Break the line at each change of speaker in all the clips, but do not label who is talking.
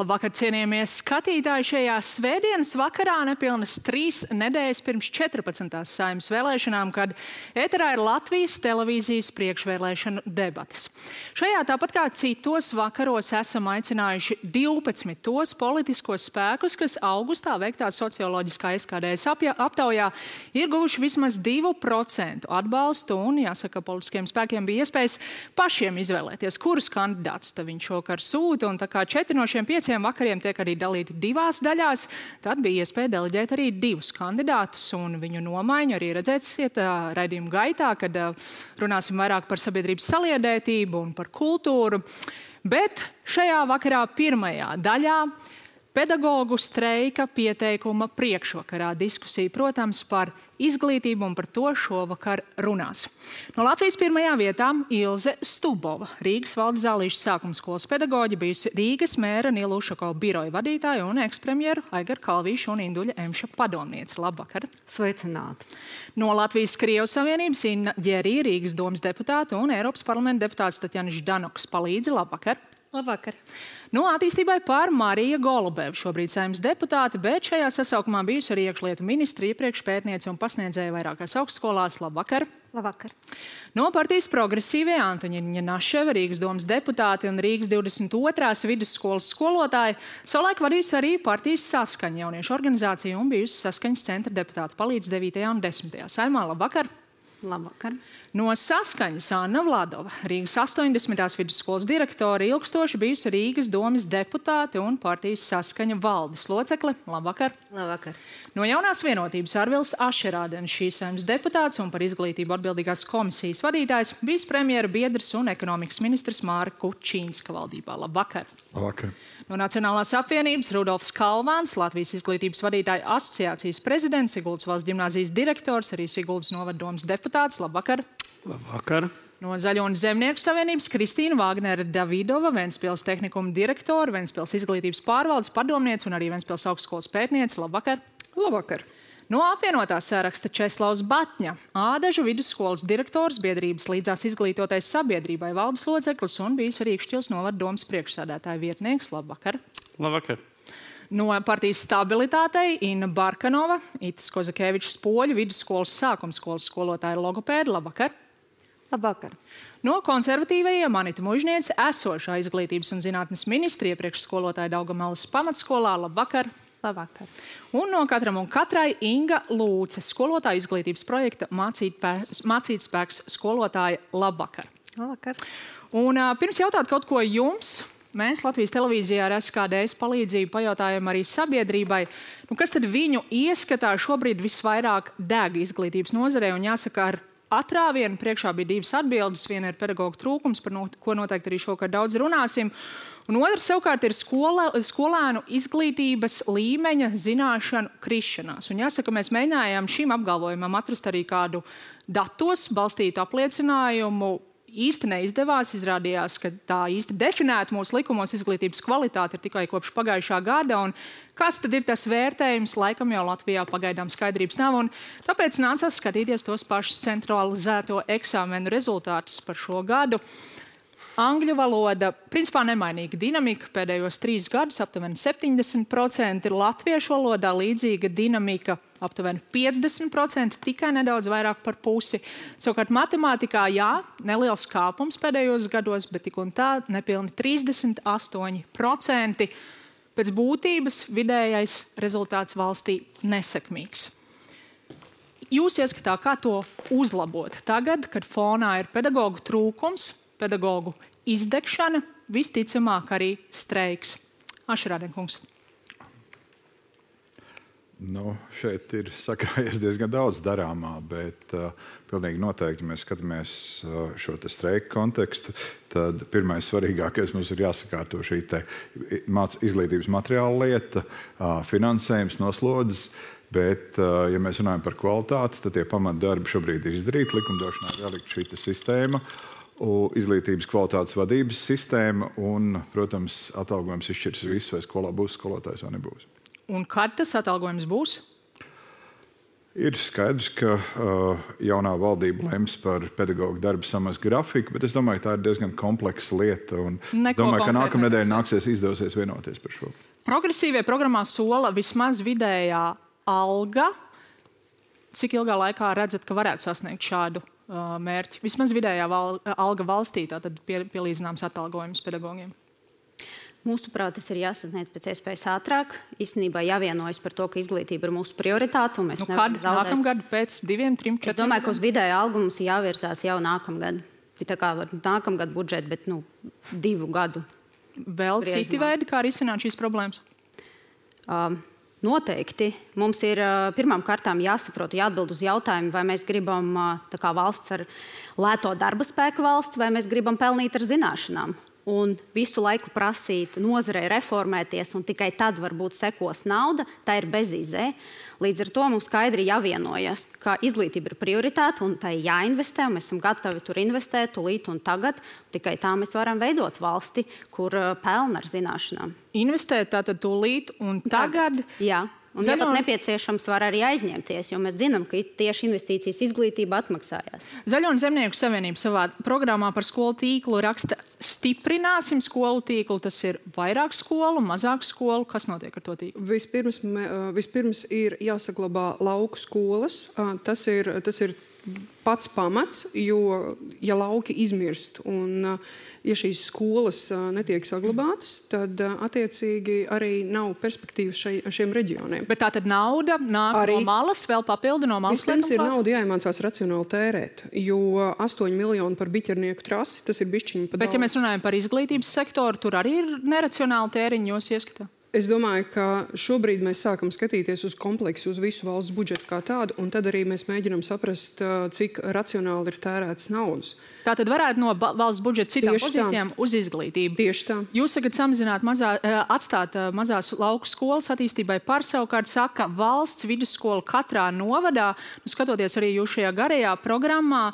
Labvakar, cienījamie skatītāji, šajā svētdienas vakarā nepilnas 3 nedēļas pirms 14. Saeimas vēlēšanām, kad ēterā ir Latvijas televīzijas priekšvēlēšanu debates. Šajā tāpat kā citos vakaros esam aicinājuši 12 tos politiskos spēkus, kas augustā veiktā socioloģiskā SKDS aptaujā ir guvuši vismaz 2% atbalstu un, jāsaka, politiskiem spēkiem bija iespējas pašiem izvēlēties, kurus kandidātus viņš šokar sūta, un tā kā 4 no šiem 5 vakariem tiek arī dalīti 2 daļās, tad bija iespēja deleģēt arī 2 kandidātus, un viņu nomaiņu arī redzēsiet raidījuma gaitā, kad runāsim vairāk par sabiedrības saliedētību un par kultūru. Bet šajā vakarā pirmajā daļā pedagogu streika pieteikuma priekšvakarā diskusija, protams, par izglītību, un par to šovakar runās. No Latvijas pirmajā vietā Ilze Stubova, Rīgas valdes Zālīšu sākuma skolas pedagoģe, bijusi Rīgas mēra Nila Ušakova biroja vadītāja un ekspremjeru Aigaru Kalvīšu un Induļa Emša padomniece. Labvakar!
Sveicināti!
No Latvijas Krievu Savienības Inna Ģerī, Rīgas domas deputāta, un Eiropas parlamenta deputāts Tatjana Ždanoks palīdzi. Labvakar!
Labvakar!
No attīstībai par Marija Golubeva, šobrīd Saeimas deputāte, bet šajā sasaukumā bijusi arī iekšlietu ministra, iepriekš pētniece un pasniedzēja vairākās augstskolās. Labvakar!
Labvakar!
No partijas progresīvie Antoņiņa Naševa, Rīgas domas deputāte un Rīgas 22. vidusskolas skolotāja, savulaik vadījusi arī partijas Saskaņa jauniešu organizāciju un bijusi Saskaņas centra deputāta palīdz 9. un 10. Saeimā. Labvakar!
Labvakar!
No Saskaņas Anna Vladova, Rīgas 80. vidusskolas direktore, ilgstoši bijusi Rīgas domas deputāte un partijas Saskaņa valdes locekle. Labvakar!
Labvakar!
No Jaunās vienotības Arvils Ašerādens, šīs Saeimas deputāts un par izglītību atbildīgās komisijas vadītājs, bijis premjera biedrs un ekonomikas ministrs Māra Kučīnska valdībā. Labvakar!
Labvakar!
No Nacionālās apvienības Rudolfs Kalvāns, Latvijas izglītības vadītāju asociācijas prezidents, Siguldas valsts ģimnāzijas direktors, arī Siguldas novaddomas deputāts. Labvakar!
Labvakar!
No Zaļo un Zemnieku savienības Kristīna Vāgnere Davidova, Ventspils tehnikuma direktora, Ventspils izglītības pārvaldes padomniece un arī Ventspils augstskolas pētniece. Labvakar!
Labvakar!
No apvienotā saraksta Česlavs Batņa, Ādažu vidusskolas direktors, biedrības līdzās izglītotais sabiedrībai valdes loceklis un bijis arī Ikšķils novaddomas priekšsēdētāja vietnieks. Labvakar!
Labvakar!
No partijas Stabilitātei Inna Barkanova, Itis Kozakēvičs Poļu vidusskolas sākumskolas skolotāja logopēda. Labvakar!
Labvakar!
No konservatīvajiem Anita Mužniece, esošā izglītības un zinātnes ministra, iepriekš skolotāja Daugavmalas pamatskolā. Labvakar!
Labvakar!
Un no katram un katrai Inga Lūce, skolotāja izglītības projekta Mācīt spēks skolotāja. Labvakar!
Labvakar!
Un pirms jautāt kaut ko jums, mēs Latvijas televīzijā ar SKDS palīdzību pajautājam arī sabiedrībai, kas tad viņu ieskatā šobrīd visvairāk deg izglītības nozarē, un jāsaka, ar atrāvienu priekšā bija 2 atbildes. Viena ir pedagoģu trūkums, par ko noteikti arī šokar daudz runāsim. Un otrs savukārt ir skolēnu izglītības līmeņa zināšanu krišanās. Un jāsaka, mēs mēģinājām šim apgalvojumam atrast arī kādu datos balstītu apliecinājumu. Īsti neizdevās, izrādījās, ka tā īsti definēta mūsu likumos izglītības kvalitāte ir tikai kopš pagājušā gada, un kāds tad ir tas vērtējums, laikam jau Latvijā pagaidām skaidrības nav, un tāpēc nācās skatīties tos pašus centralizēto eksāmenu rezultātus par šo gadu. Angļu valoda, principā nemainīga dinamika, pēdējos 3 gadus aptuveni 70%, ir latviešu valodā līdzīga dinamika, aptuveni 50%, tikai nedaudz vairāk par pusi. Savukārt matemātikā, jā, neliels kāpums pēdējos gados, bet tik un tā nepilni 38%. Pēc būtības vidējais rezultāts valstī nesekmīgs. Jūs ieskatā, kā to uzlabot tagad, kad fonā ir pedagoģu trūkums, pedagoģu izdegšana, visticamāk arī streiks? Ašerādenkungs.
Šeit ir sakrājies diezgan daudz darāmā, bet pilnīgi noteikti, ja mēs skatāmies šo streiku kontekstu, tad pirmais svarīgākais mums ir jāsakārto šī izglītības materiāla lieta, finansējums, noslodzes. Bet, ja mēs runājam par kvalitāti, tad tie pamatdarbi šobrīd ir izdarīti. Likumdošanā ir ielikt šī sistēma, izglītības kvalitātes vadības sistēma un, protams, atalgojums izšķirs visu, vai skolā būs skolotājs vai nebūs.
Un kad tas atalgojums būs?
Ir skaidrs, ka jaunā valdība lems par pedagoģu darba samazu grafiku, bet es domāju, ka tā ir diezgan kompleksa lieta. Es domāju, ka nākamnedēļ izdosies vienoties par šo.
Progresīvie programmā sola vismaz vidējā alga. Cik ilgā laikā redzat, ka varētu sasniegt šādu mērķi? Vismaz vidējā alga valstī, tātad pielīdzināms atalgojums pedagogiem.
Mūsuprāt, tas ir jāsasniedz pēc iespējas ātrāk. Īstenībā jāvienojas par to, ka izglītība ir mūsu prioritāte.
Kad? Nākamgad, pēc 2, 3, 4?
Es domāju, ka uz vidēju algu mums jāvirzās jau nākamgad. Tā kā nākamgad budžeti, bet 2 gadu.
Vēl citi veidi, kā risināt šīs problēmas?
Noteikti. Mums ir pirmām kārtām jāsaprot, jāatbild uz jautājumu, vai mēs gribam tā kā valsts ar lēto darba spēku valsts, vai mēs gribam pelnīt ar zināšanām. Un visu laiku prasīt nozarei reformēties, un tikai tad varbūt sekos nauda, tā ir bezizē. Līdz ar to mums skaidri jāvienojas, ka izglītība ir prioritāte un tai jāinvestē, un mēs esam gatavi tur investēt tūlīt un tagad. Tikai tā mēs varam veidot valsti, kur pelna ar zināšanām.
Investēt tātad tūlīt un tagad?
Jā. Un, ja pat nepieciešams, var arī aizņemties, jo mēs zinām, ka tieši investīcijas izglītība atmaksājās.
Zaļo un Zemnieku savienība savā programmā par skolu tīklu raksta: stiprināsim skolu tīklu. Tas ir vairāk skolu, mazāk skolu. Kas notiek ar to tīklu?
Vispirms ir jāsaglabā lauku skolas. Tas ir pats pamats, jo ja lauki izmirst un ja šīs skolas netiek saglabātas, tad attiecīgi arī nav perspektīvas šiem reģioniem.
Bet tā tad nauda nāk arī no malas, vēl papildu no malas?
Vispirms ir nauda jāiemācās racionāli tērēt, jo 8 miljoni par biķernieku trasi, tas ir bišķiņi pa daudz.
Bet ja mēs runājam par izglītības sektoru, tur arī ir neracionāli tēriņi jūs ieskatā?
Es domāju, ka šobrīd mēs sākam skatīties uz kompleksu, uz visu valsts budžetu kā tādu, un tad arī mēs mēģinam saprast, cik racionāli ir tērētas naudas.
Tā tad varētu no valsts budžeta citām pozīcijām uz izglītību.
Tieši tā.
Jūs sakat samazināt, atstāt mazās lauku skolas attīstībai par, savukārt saka valsts vidusskola katrā novadā. Skatoties arī jūs šajā garajā programmā,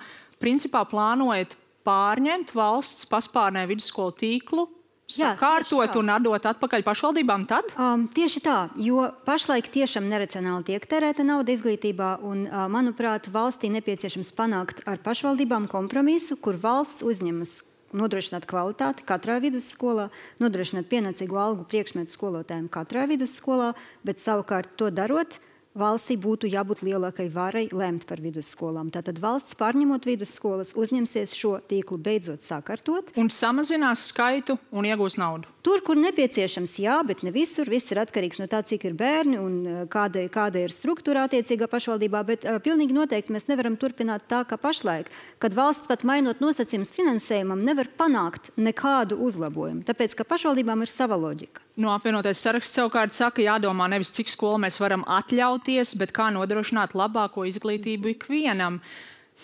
principā plānojat pārņemt valsts paspārnē vidusskolu tīklu, sakārtot un atdot atpakaļ pašvaldībām tad?
Tieši tā, jo pašlaik tiešām neracionāli tiek tērēta nauda izglītībā, un, manuprāt, valstī nepieciešams panākt ar pašvaldībām kompromisu, kur valsts uzņemas nodrošināt kvalitāti katrā vidusskolā, nodrošināt pienācīgu algu priekšmetu skolotājiem katrā vidusskolā, bet savukārt to darot, valstī būtu jābūt lielākai varai lemt par vidusskolām. Tātad valsts pārņemot vidusskolas uzņemsies šo tīklu beidzot sakārtot.
Un samazinās skaitu un iegūs naudu.
Tur, kur nepieciešams, jā, bet ne visur. Viss ir atkarīgs no tā, cik ir bērni un kāda ir struktūra attiecīgā pašvaldībā, bet pilnīgi noteikti mēs nevaram turpināt tā, kā pašlaik, kad valsts pat mainot nosacījumus finansējumam nevar panākt nekādu uzlabojumu, tāpēc, ka pašvaldībām ir sava loģika.
No apvienotais saraksts savukārt saka, jādomā nevis cik skolu mēs varam atļauties, bet kā nodrošināt labāko izglītību ikvienam.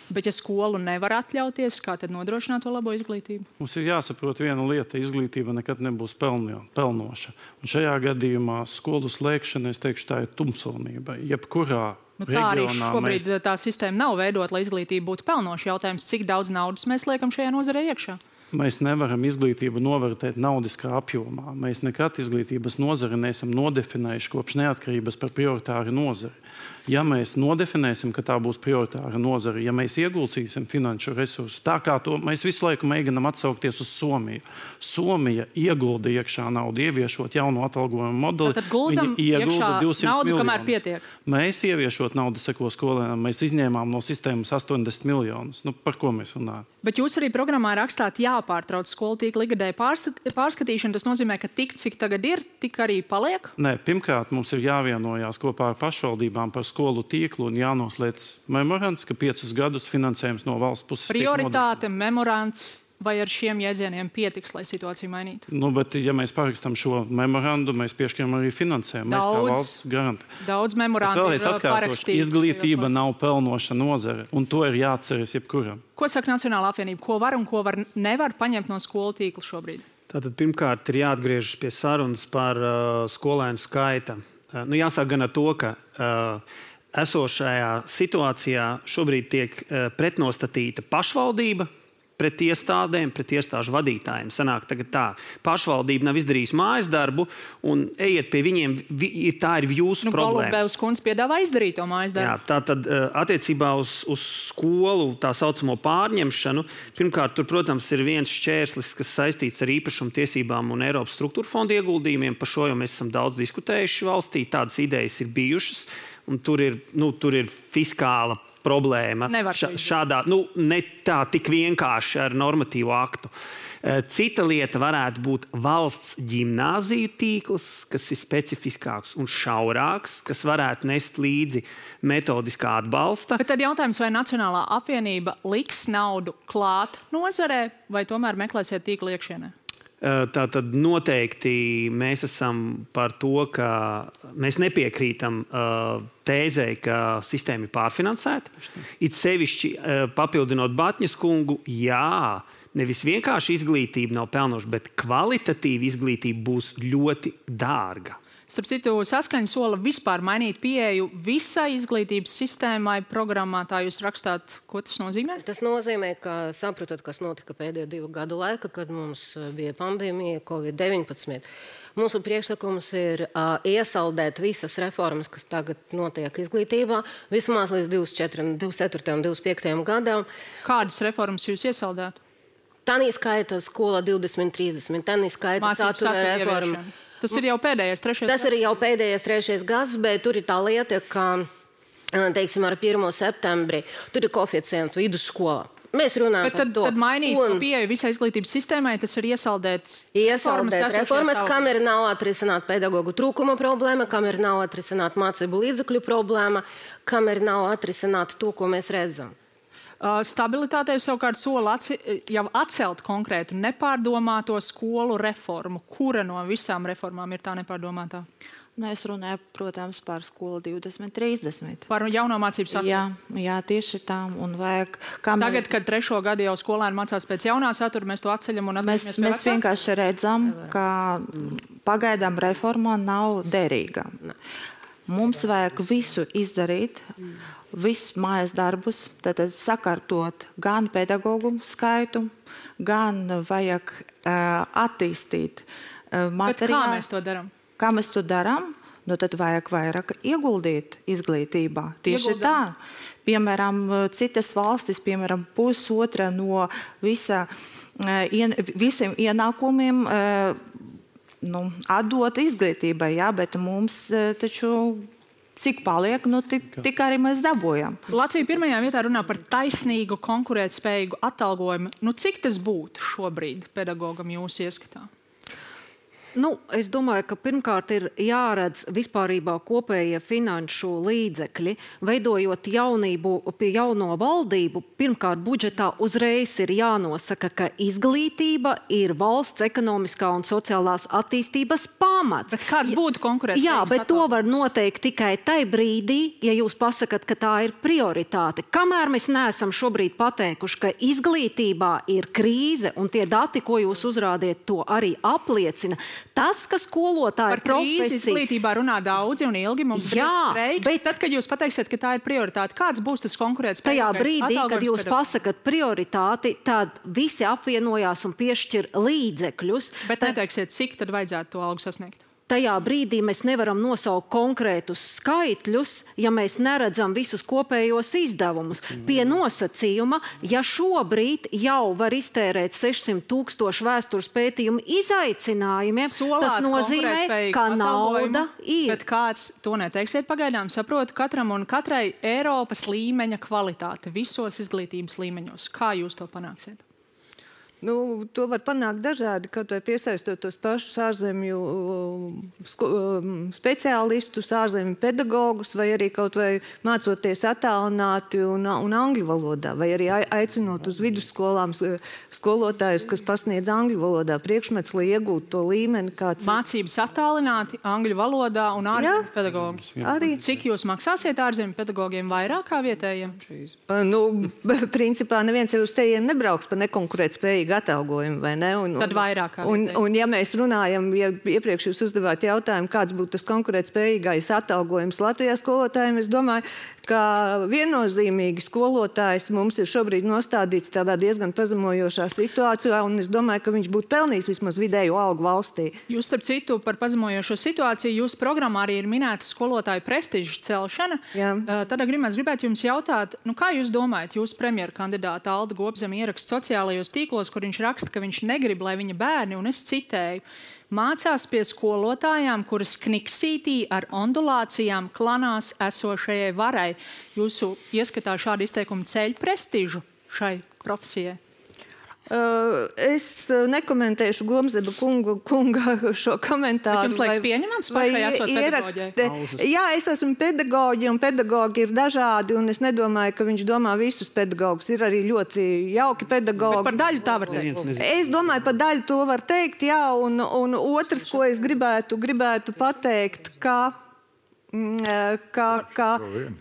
Bet ja skolu nevar atļauties, kā tad nodrošināt to labo izglītību?
Mums ir jāsaprot viena lieta, izglītība nekad nebūs pelnoša. Un šajā gadījumā skolu slēgšana, es teikšu, tā ir tumsonība. Jebkurā
tā arī šobrīd tā sistēma nav veidot, lai izglītība būtu pelnoša. Jautājums, cik daudz naudas mēs liekam šajā nozarē iekšā?
Mēs nevaram izglītību novērtēt naudiskā apjomā. Mēs nekad izglītības nozari neesam nodefinējuši kopš neatkarības par prioritāru nozari. Ja mēs nodefinēsim, ka tā būs prioritāra nozara, ja mēs ieguldīsim finanšu resursus, tā kā to mēs visu laiku mēģinam atsaukties uz Somiju. Somija iegulda iekšā naudu, ieviešot jaunu atalgojumu modeli.
Tātad guldam iekšā naudu, kamēr pietiek.
Mēs ieviešot naudu seko skolēnām, mēs izņēmām no sistēmas 80 miljonus. Par ko mēs runājam?
Bet jūs arī programmā rakstāt jāpārtrauc skolu tīkla ikgadēja pārskatīšana. Tas nozīmē, ka tik, cik tagad ir, tik arī paliek?
Nē, pirmkārt, mums ir jāvienojās kopā ar pašvaldībām par skolu tīklu un jānoslēdz memorands, ka 5 gadus finansējums no valsts puses
prioritāte, memorands, vai ar šiem jēdzieniem pietiks, lai situāciju mainītu?
Bet, ja mēs parakstam šo memorandu, mēs piešķiram arī finansējumu. Mēs kā valsts garantē.
Daudz memorandu ir parakstīts.
Izglītība nav pelnoša nozare, un to ir jāatceras jebkuram.
Ko saka Nacionālā apvienība? Ko var un ko nevar paņemt no skolu tīkla šobrīd?
Tātad pirmkārt ir jāatgriežas pie sarunas par skolēnu skaita. Jāsāk gan ar to, ka esošajā situācijā šobrīd tiek pretnostatīta pašvaldība pret iestādēm, pret iestāžu vadītājiem. Sanāk tagad tā, pašvaldība nav izdarījusi mājas darbu un ejiet pie viņiem, tā ir jūsu problēma.
Golubevs kundze piedāvā izdarīt to mājas darbu.
Jā, tātad attiecībā uz skolu tā saucamo pārņemšanu, pirmkārt, tur, protams, ir viens šķērslis, kas saistīts ar īpašumu tiesībām un Eiropas struktūra fonda ieguldījumiem. Par šo jau mēs esam daudz diskutējuši valstī, tādas idejas ir bijušas, un tur ir fiskāla problēma. Šādā, ne tā tik vienkārši ar normatīvu aktu. Cita lieta varētu būt valsts ģimnāziju tīkls, kas ir specifiskāks un šaurāks, kas varētu nest līdzi metodiskā atbalsta.
Bet tad jautājums, vai Nacionālā apvienība liks naudu klāt nozarē, vai tomēr meklēsiet tīklu iekšienē?
Tātad noteikti mēs esam par to, ka mēs nepiekrītam tēzei, ka sistēma ir pārfinansēta. It sevišķi papildinot Batņas kungu, jā, nevis vienkārši izglītība nav pelnoša, bet kvalitatīva izglītība būs ļoti dārga.
Starp citu, Saskaņa sola vispār mainīt pieeju visai izglītības sistēmai programmā. Tā jūs rakstāt, ko tas nozīmē?
Tas nozīmē, ka saprotat, kas notika pēdējo 2 gadu laika, kad mums bija pandēmija Covid-19. Mūsu priekšlikums ir iesaldēt visas reformas, kas tagad notiek izglītībā, vismaz līdz 24. un 25. gadam.
Kādas reformas jūs iesaldētu?
Tanī skaita skola 2030, tanī skaita satura reforma.
Tas ir jau pēdējais 3.
Tas ir jau pēdējais 3. gads, bet tur ir tā lieta, ka, teiksim, ar 1. septembri tur ir koeficientu vidusskolā. Mēs runājam par to.
Tad mainīt pieeju visai izglītības sistēmai, tas ir iesaldēt
reformas, kam ir nav atrisināt pedagogu trūkuma problēma, kam ir nav atrisināt mācību līdzekļu problēma, kam ir nav atrisināt to, ko mēs redzam.
Stabilitātei savukārt sola jau atcelt konkrētu nepārdomāto skolu reformu. Kura no visām reformām ir tā nepārdomātā?
Es runāju, protams, par skolu 2030.
Par jauno mācību saturu?
Jā, tieši tā.
Tagad, kad 3. gadu jau skolēni mācās pēc jaunā satura, mēs to atceļam un atceļamies pie
Mēs vienkārši redzam, ka pagaidām reforma nav derīga. Mums vajag visu izdarīt, visus mājas darbus, tad sakārtot gan pedagogu skaitu, gan vajag attīstīt materiālu.
Bet kā mēs to darām?
Kā mēs to darām? Tad vajag vairāk ieguldīt izglītībā. Tieši tā. Piemēram, citas valstis, piemēram, 1/2 no visiem ienākumiem atdot izglītībai, bet mums taču cik paliek, tik arī mēs dabūjam.
Latvija pirmajā vietā runā par taisnīgu, konkurētspējīgu atalgojumu. Cik tas būtu šobrīd pedagogam jūsu ieskatā?
Es domāju, ka pirmkārt ir jāredz vispārībā kopējie finanšu līdzekļi. Veidojot jauno valdību, pirmkārt budžetā uzreiz ir jānosaka, ka izglītība ir valsts ekonomiskā un sociālās attīstības pamats.
Bet kāds būtu konkurētspējīgs?
Jā, bet to var noteikt tikai tai brīdī, ja jūs pasakat, ka tā ir prioritāte. Kamēr mēs neesam šobrīd pateikuši, ka izglītībā ir krīze, un tie dati, ko jūs uzrādiet, to arī apliecina. Tas, ka skolotāja
profesija... Par krīzi izglītībā runā daudzi un ilgi, mums ir streiks. Bet tad, kad jūs pateiksiet, ka tā ir prioritāte, kāds būs tas konkurētspējīgais
tajā brīdī, kad jūs pasakat prioritāti, tad visi apvienojās un piešķir līdzekļus.
Bet neteiksiet, cik tad vajadzētu to algu sasniegt?
Tajā brīdī mēs nevaram nosaukt konkrētus skaitļus, ja mēs neredzam visus kopējos izdevumus. Pie nosacījuma, ja šobrīd jau var iztērēt 600,000 vēstures pētījumu izaicinājumiem, tas nozīmē, ka nauda ir.
Bet kāds to neteiksiet pagaidām, saprotu katram un katrai Eiropas līmeņa kvalitāte visos izglītības līmeņos. Kā jūs to panāksiet?
To var panākt dažādi, kaut vai piesaistot tos pašus ārzemju speciālistus, ārzemju pedagogus, vai arī kaut vai mācoties attālināti un angļu valodā, vai arī aicinot uz vidusskolām skolotājus, kas pasniedz angļu valodā priekšmets, lai iegūtu to līmeni, kāds
mācības attālināti angļu valodā un ārzemju pedagogi.
Arī.
Cik jūs maksāsiet ārzemju pedagogiem vairāk kā vietējiem?
Principā neviens jau uz tejiem nebrauks par nekonkurētspējīgu spējīgi atalgojumi, vai ne?
Tad vairāk kā
un ja mēs runājam, ja iepriekš jūs uzdevāt jautājumu, kāds būtu tas konkurētspējīgais atalgojums Latvijā skolotājiem, es domāju, ka viennozīmīgi skolotājs mums ir šobrīd nostādīts tādā diezgan pazemojošā situācijā, un es domāju, ka viņš būtu pelnījis vismaz vidēju algu valstī.
Jūs, starp citu, par pazemojošo situāciju, jūsu programmā arī ir minēta skolotāju prestiža celšana. Tad gribētu jums jautāt, kā jūs domājat, jūsu premjera kandidāta Alda Gobzeme ieraksta sociālajos tīklos, kur viņš raksta, ka viņš negrib, lai viņa bērni, un es citēju, mācās pie skolotājām, kuras kniksītī ar ondulācijām klanās esošajai varai. Jūsu ieskatā šādi izteikumi ceļ prestižu šai profesijai?
Es nekomentēšu Gobzema kunga šo komentāru.
Bet jums liekas pieņemams pašai esot pedagoģei?
Jā, es esmu pedagoģi, un pedagoģi ir dažādi, un es nedomāju, ka viņš domā visus pedagogus. Ir arī ļoti jauki pedagogi.
Bet par daļu tā var teikt?
Es domāju, par daļu to var teikt, jā, un otrs, ko es gribētu pateikt, ka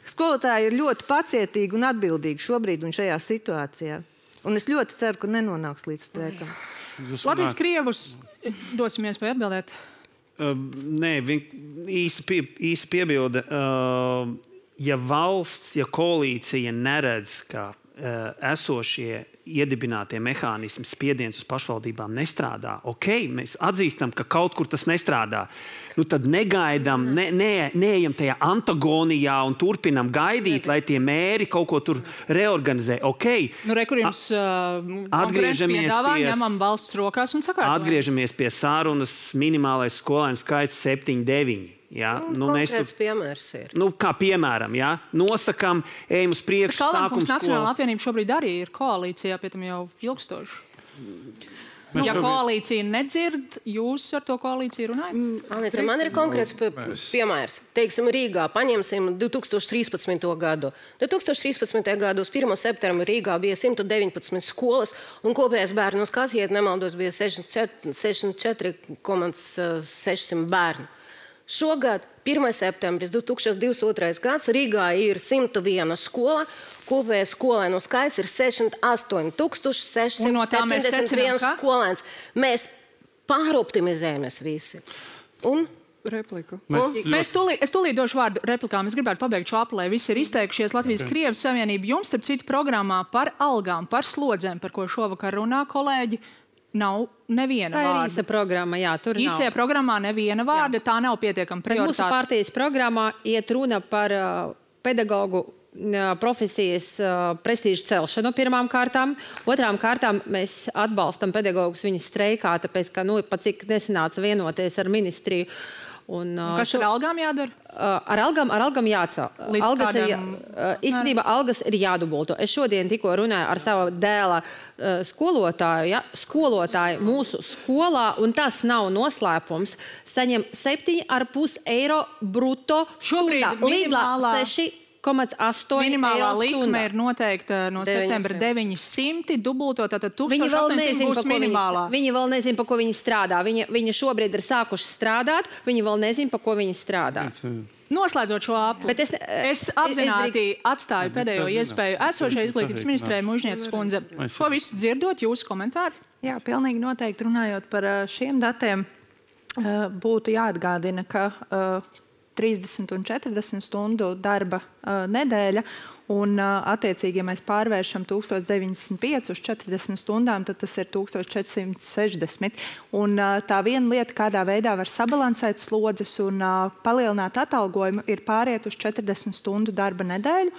skolotāji ir ļoti pacietīgi un atbildīgi šobrīd un šajā situācijā. Un es ļoti ceru, ka nenonāks līdz streikam.
Latvijas krievus dosim iespēju atbildēt.
Nē, īsi piebilde. Ja valsts, ja koalīcija neredz, ka esošie iedibinātie mehānismi spiediens uz pašvaldībām nestrādā, mēs atzīstam, ka kaut kur tas nestrādā. Tad negaidām, neejam tajā antagonijā un turpinam gaidīt, lai tie mēri kaut ko tur reorganizē.
Kur jums konkurenti piedāvā, ņemam valsts rokās un sakārtojam.
Atgriežamies pie sarunas minimālais skolēnu skaits 7-9.
Konkrēts piemērs ir.
Kā piemēram, nosakam, ejam uz priekšu, sākums skolu.
Nacionāla apvienība šobrīd arī ir koalīcijā, pie tam jau ilgstoši. Ja koalīcija nedzird, jūs ar to koalīciju runājat?
Man ir konkrēts piemērs. Teiksim, Rīgā paņemsim 2013. gadu. 2013. gadu uz 1. septembra Rīgā bija 119 skolas, un kopējais bērnu skaits, ja nemaldos, bija 64,600 bērnu. Šogad, 1. septembris 2022. gads, Rīgā ir 101 skola, kopējais skolēnu skaits ir 68,671 skolēns. Mēs pāroptimizējamies visi.
Replika.
Es tūlīt došu vārdu replikām. Es gribētu pabeigt šo apli, lai visi ir izteikušies. Latvijas Krievijas Savienība jums, starp citu, programmā par algām, par slodzēm, par ko šovakar runā kolēģi, nav neviena vārda.
Tā ir īsa programma, jā, tur nav.
Īsajā programmā neviena vārda, tā nav pietiekama prioritāte.
Mūsu partijas programmā iet runa par pedagogu profesijas prestižu celšanu pirmām kārtām. Otrām kārtām mēs atbalstam pedagogus viņas streikā, tāpēc, ka pat cik nesanāca vienoties ar ministriju.
Kas ar algām jādara?
Ar algām jācel. Īstenībā algas ir jādubulto. Es šodien tikko runāju ar savu dēla skolotāju. Skolotāji mūsu skolā, un tas nav noslēpums, saņem 7,5 eiro bruto stundā. Lidlā 6,8
minimālā likme ir noteikta no septembra 900, dubulto, tātad 1800 būs minimālā.
Viņi vēl nezin, pa ko viņi strādā. Viņi šobrīd ir sākuši strādāt, viņi vēl nezin, pa ko viņi strādā.
Noslēdzot šo apli, es apzināti atstāju pēdējo iespēju esošai izglītības ministrei Mužnieces kundze. Ko visu dzirdot, jūsu komentāri?
Jā, pilnīgi noteikti runājot par šiem datiem, būtu jāatgādina, ka 30 un 40 stundu darba nedēļa, un attiecīgi, ja mēs pārvēršam 1095 uz 40 stundām, tad tas ir 1460. Un tā viena lieta, kādā veidā var sabalansēt slodzes un palielināt atalgojumu, ir pāriet uz 40 stundu darba nedēļu.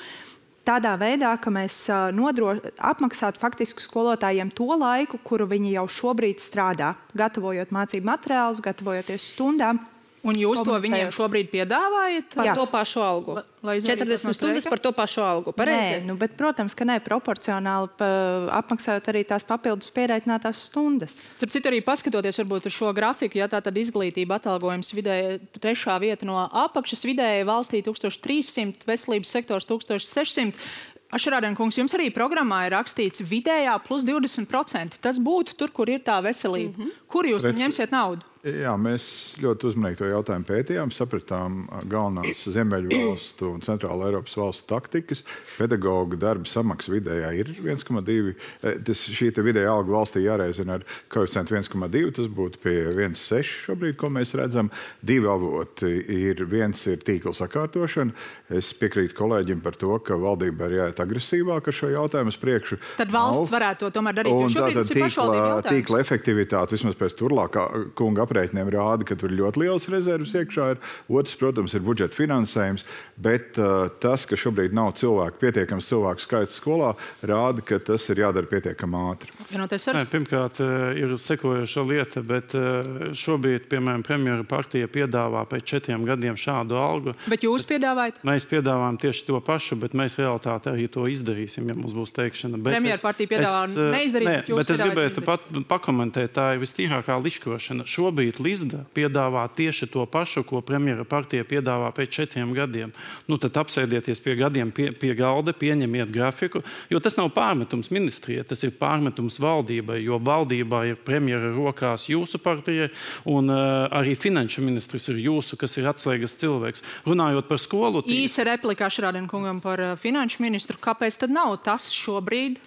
Tādā veidā, ka mēs apmaksātu faktiski skolotājiem to laiku, kuru viņi jau šobrīd strādā, gatavojot mācību materiālus, gatavojoties stundām.
Un jūs to viņiem šobrīd piedāvājat?
Par to pašu algu. 40 stundas par to pašu algu. Pareizi?
Nē, bet, protams, ka ne proporcionāli apmaksājot arī tās papildus pierēķinātās stundas.
Starp citu, arī paskatoties varbūt uz šo grafiku, ja tā tad izglītība atalgojums vidēji 3. vieta no apakšas, vidēji valstī 1300, veselības sektors 1600. Ašarādien kungs, jums arī programmā ir rakstīts vidējā plus 20%. Tas būtu tur, kur ir tā veselība. Kur jūs ņemsiet naudu?
Jā, mēs ļoti uzmanīgi to jautājumu pētījām, sapratām galvenās Ziemeļvalstu un Centrāla Eiropas valstu taktikas. Pedagoga darba samaksa vidējā ir 1,2. Šī vidējā alga valstī jāreizina ar koeficientu 1,2. Tas būtu pie 1,6 šobrīd, ko mēs redzam. 2 avoti ir. Viens ir tīkla sakārtošana. Es piekrītu kolēģim par to, ka valdība ir jāiet agresīvāk ar šo jautājumu uz priekšu.
Tad valsts varētu to tomēr darīt, jo šobrīd tas ir pašvaldību jautājums.
Tīkla efektivitāte, vismaz pēc Turlākā kunga aprēķiniem rāda, ka tur ļoti liels rezervas iekšā ir. Otrs, protams, ir budžeta finansējums, bet tas, ka šobrīd nav pietiekams cilvēku skaits skolā, rāda, ka tas ir jādara pietiekami ātri.
Pirmkārt, ir sekojoša lieta, bet šobrīd, piemēram, premjera partija piedāvā pēc 4 gadiem šādu algu.
Bet jūs piedāvājat?
Mēs piedāvājam tieši to pašu, bet mēs realitāti arī to izdarīsim, ja mums būs teikšana.
Premjera partija piedāvā neizdarīt, bet jūs
bet es gribētu pakomentēt, tā ir vistīrākā liškošana. Šobrīd Lizda piedāvā tieši to pašu, ko premjera partija piedāvā pēc 4 gadiem. Nu, tad apsēdieties pie gadiem pie galda, pieņemiet grafiku, jo tas nav pārmetums ministrijai, tas ir pārmetums valdībai, jo valdībā ir premjera rokās jūsu partijai, un arī finanšu ministrs ir jūsu, kas ir atslēgas cilvēks. Runājot par skolu...
Īsa replika Ašrādien kungam par finanšu ministru. Kāpēc tad nav tas šobrīd,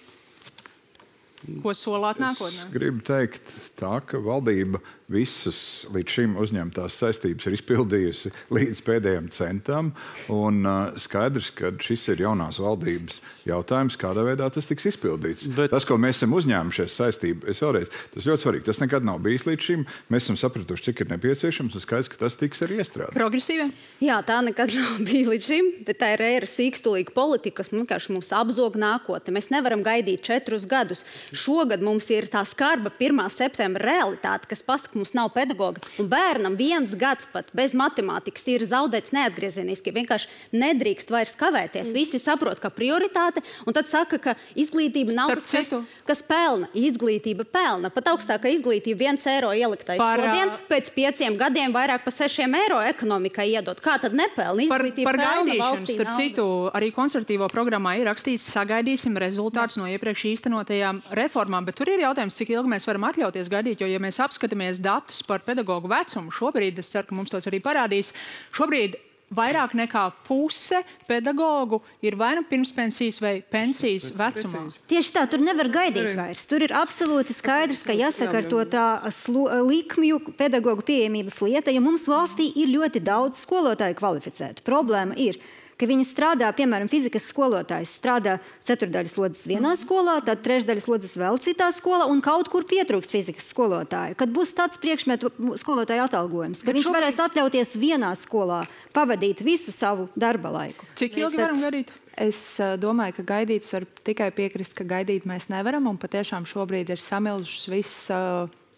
ko solāt nākotnē?
Es gribu teikt tā, ka valdība visas līdz šim uzņemtās saistības ir izpildījusi līdz pēdējiem centam, un skaidrs, ka šis ir jaunās valdības jautājums, kādā veidā tas tiks izpildīts. Tas, ko mēs esam uzņēmušies saistību, tas ļoti svarīgi. Tas nekad nav bijis līdz šim. Mēs esam sapratuši, cik ir nepieciešams, un skaidrs, ka tas tiks arī iestrādāts.
Progresīvi?
Jā, tā nekad nav bijis līdz šim, bet tā ir ēra sīkstulīga politika, kas vienkārši mums apzog nākotni. Mēs nevaram gaidīt 4 gadus. Šogad mums ir tā skarba 1. septembra realitāte, kas pasaka, mums nav pedagoga. Un bērnam 1 gads pat bez matemātikas ir zaudēts neatgriezeniski. Vienkārši nedrīkst vairs kavēties. Visi saprot, ka prioritāte, un tad saka, ka izglītība nav tas, kas pelna. Izglītība pelna. Pat augstākā izglītība 1 eiro ieliktai šodien, pēc 5 gadiem vairāk pa 6 eiro ekonomikai iedot. Kā tad nepelna? Izglītība
par
pelna valstī
starp citu, arī konservatīvo programmā ir rakstīts, sagaidīsim rezultātus no iepriekš īstenotajām reformām, bet tur ir jautājums, cik ilgi mēs varam atļauties gaidīt, jo, ja mēs apskatāmies datus par pedagogu vecumu, šobrīd, es ceru, ka mums tos arī parādīs, šobrīd vairāk nekā puse pedagogu ir vai nu pirmspensijas vai pensijas vecumā.
Tieši tā, tur nevar gaidīt vairs. Tur ir absolūti skaidrs, ka jāsakārto tā likmju pedagogu pieejamības lieta, jo mums valstī ir ļoti daudz skolotāju kvalificētu. Problēma ir, ka viņi strādā, piemēram, fizikas skolotājs strādā 4/4 slodzes vienā skolā, tad 3/3 slodzes vēl citā skolā, un kaut kur pietrūkst fizikas skolotāju. Kad būs tāds priekšmetu skolotāju atalgojums, ka viņš varēs atļauties vienā skolā pavadīt visu savu darba laiku.
Cik ilgi varam gaidīt?
Es domāju, ka gaidīts var tikai piekrist, ka gaidīt mēs nevaram, un patiešām šobrīd ir samilžušas viss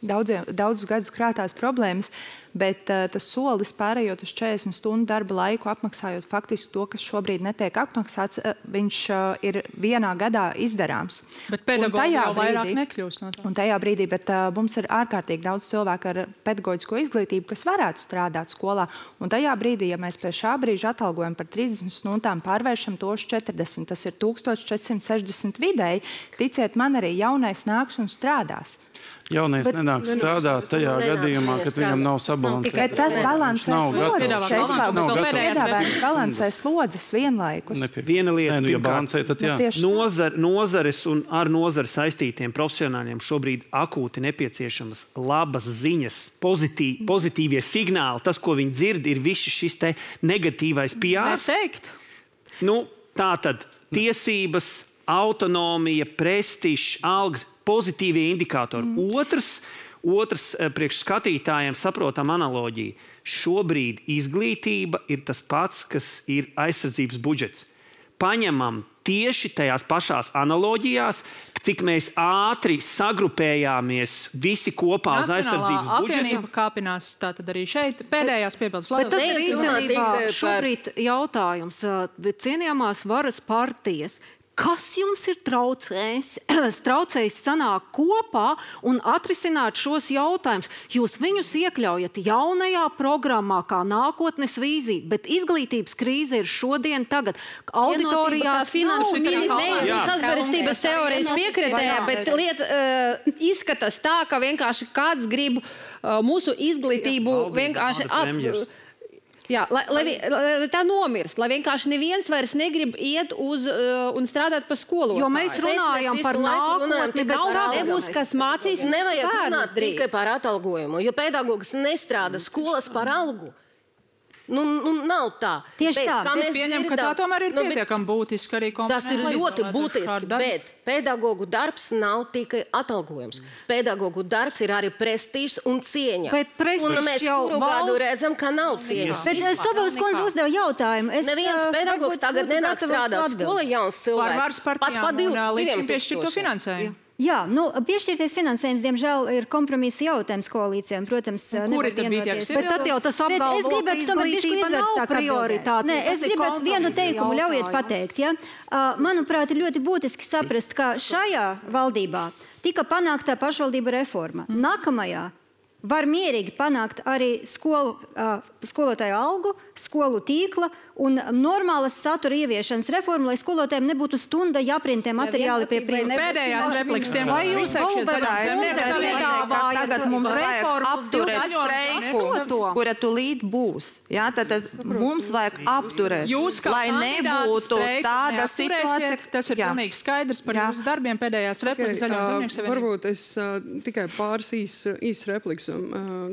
daudzus gadus krātās problēmas, bet tas solis pārējot uz 40 stundu darba laiku, apmaksājot faktiski to, kas šobrīd netiek apmaksāts, viņš ir vienā gadā izdarāms.
Bet pedagogi jau vairāk nekļūst no tā.
Un tajā brīdī, bet mums ir ārkārtīgi daudz cilvēku ar pedagoģisko izglītību, kas varētu strādāt skolā. Un tajā brīdī, ja mēs pie šā brīža atalgojam par 30 stundām pārvēršam to uz 40, tas ir 1460 vidēji, ticiet man, arī jaunais nāks un strādās.
Jaunais nenāk strādāt tajā gadījumā, kad viņam nav sabalansēts.
Tas balansē slodzes vienlaikus.
Viena lieta, nozares un ar nozari saistītiem profesionāļiem šobrīd akūti nepieciešamas labas ziņas, pozitīvie signāli. Tas, ko viņi dzird, ir viss šis te negatīvais PRs. Nu, tā tad tiesības, autonomija, prestižs, algas, pozitīvie indikātori. Otrs priekš skatītājiem saprotam analoģiju. Šobrīd izglītība ir tas pats, kas ir aizsardzības budžets. Paņemam tieši tajās pašās analoģijās, cik mēs ātri sagrupējāmies visi kopā uz aizsardzības budžetu.
Apvienība kāpinās tātad arī šeit. Pēdējās piebildes.
Bet tas ir īstenībā šobrīd jautājums. Cienījamās varas partijas, Kas jums ir traucējis sanākt kopā un atrisināt šos jautājumus? Jūs viņus iekļaujat jaunajā programmā kā nākotnes vīzija, bet izglītības krīze ir šodien, tagad. Auditorijās
finanšu sazvērestības teorijas piekritēja, bet lieta izskatās tā, ka vienkārši kāds grib mūsu izglītību vienkārši Jā, lai tā nomirst, lai vienkārši neviens vairs negrib iet uz un strādāt par skolotāju.
Jo mēs runājam par nākotni, bet
nebūs, kas mācīs.
Nevajag runāt tikai par atalgojumu, jo pedagogs nestrādā skolas par algu. Nu, nav tā.
Tieši tā. Es pieņemu, ka tā tomēr ir pietiekami būtiski arī
Tas ir ļoti būtiski, bet pedagogu darbs nav tikai atalgojums. Pedagogu darbs ir arī prestižs un cieņa. Un mēs kuru gadu redzam, ka nav cieņas.
Bet Stobovas kundze uzdeva jautājumu.
Neviens pedagogs tagad nenāk strādāt skolā jauns cilvēks.
Pat pa 2 piešķirto finansējumu.
Jā, piešķirties finansējums, diemžēl, ir kompromisa jautājums koalīcijām. Protams,
kuri tad bija tie?
Bet tad jau tas apgalvo, ka izglītība nav prioritāte.
Nē, es gribētu vienu teikumu ļaujiet pateikt. Ja? Manuprāt, ir ļoti būtiski saprast, ka šajā valdībā tika panākta pašvaldību reforma. Nākamajā var mierīgi panākt arī skolotāju algu, skolu tīkla un normālas satura ieviešanas reformu, lai skolotājiem nebūtu stunda jāprintē materiāli pie priekšā.
Pēdējās replikas tiem
vai jūs
tagad mums vajag apturēt streiku, kura tūlīt būs. Jā, tad mums vajag apturēt, lai nebūtu tāda situācija.
Tas ir pilnīgi skaidrs par jūsu darbiem pēdējās replikas Zaļo un Zemnieku savienību.
Varbūt es tikai pāris īs replikas.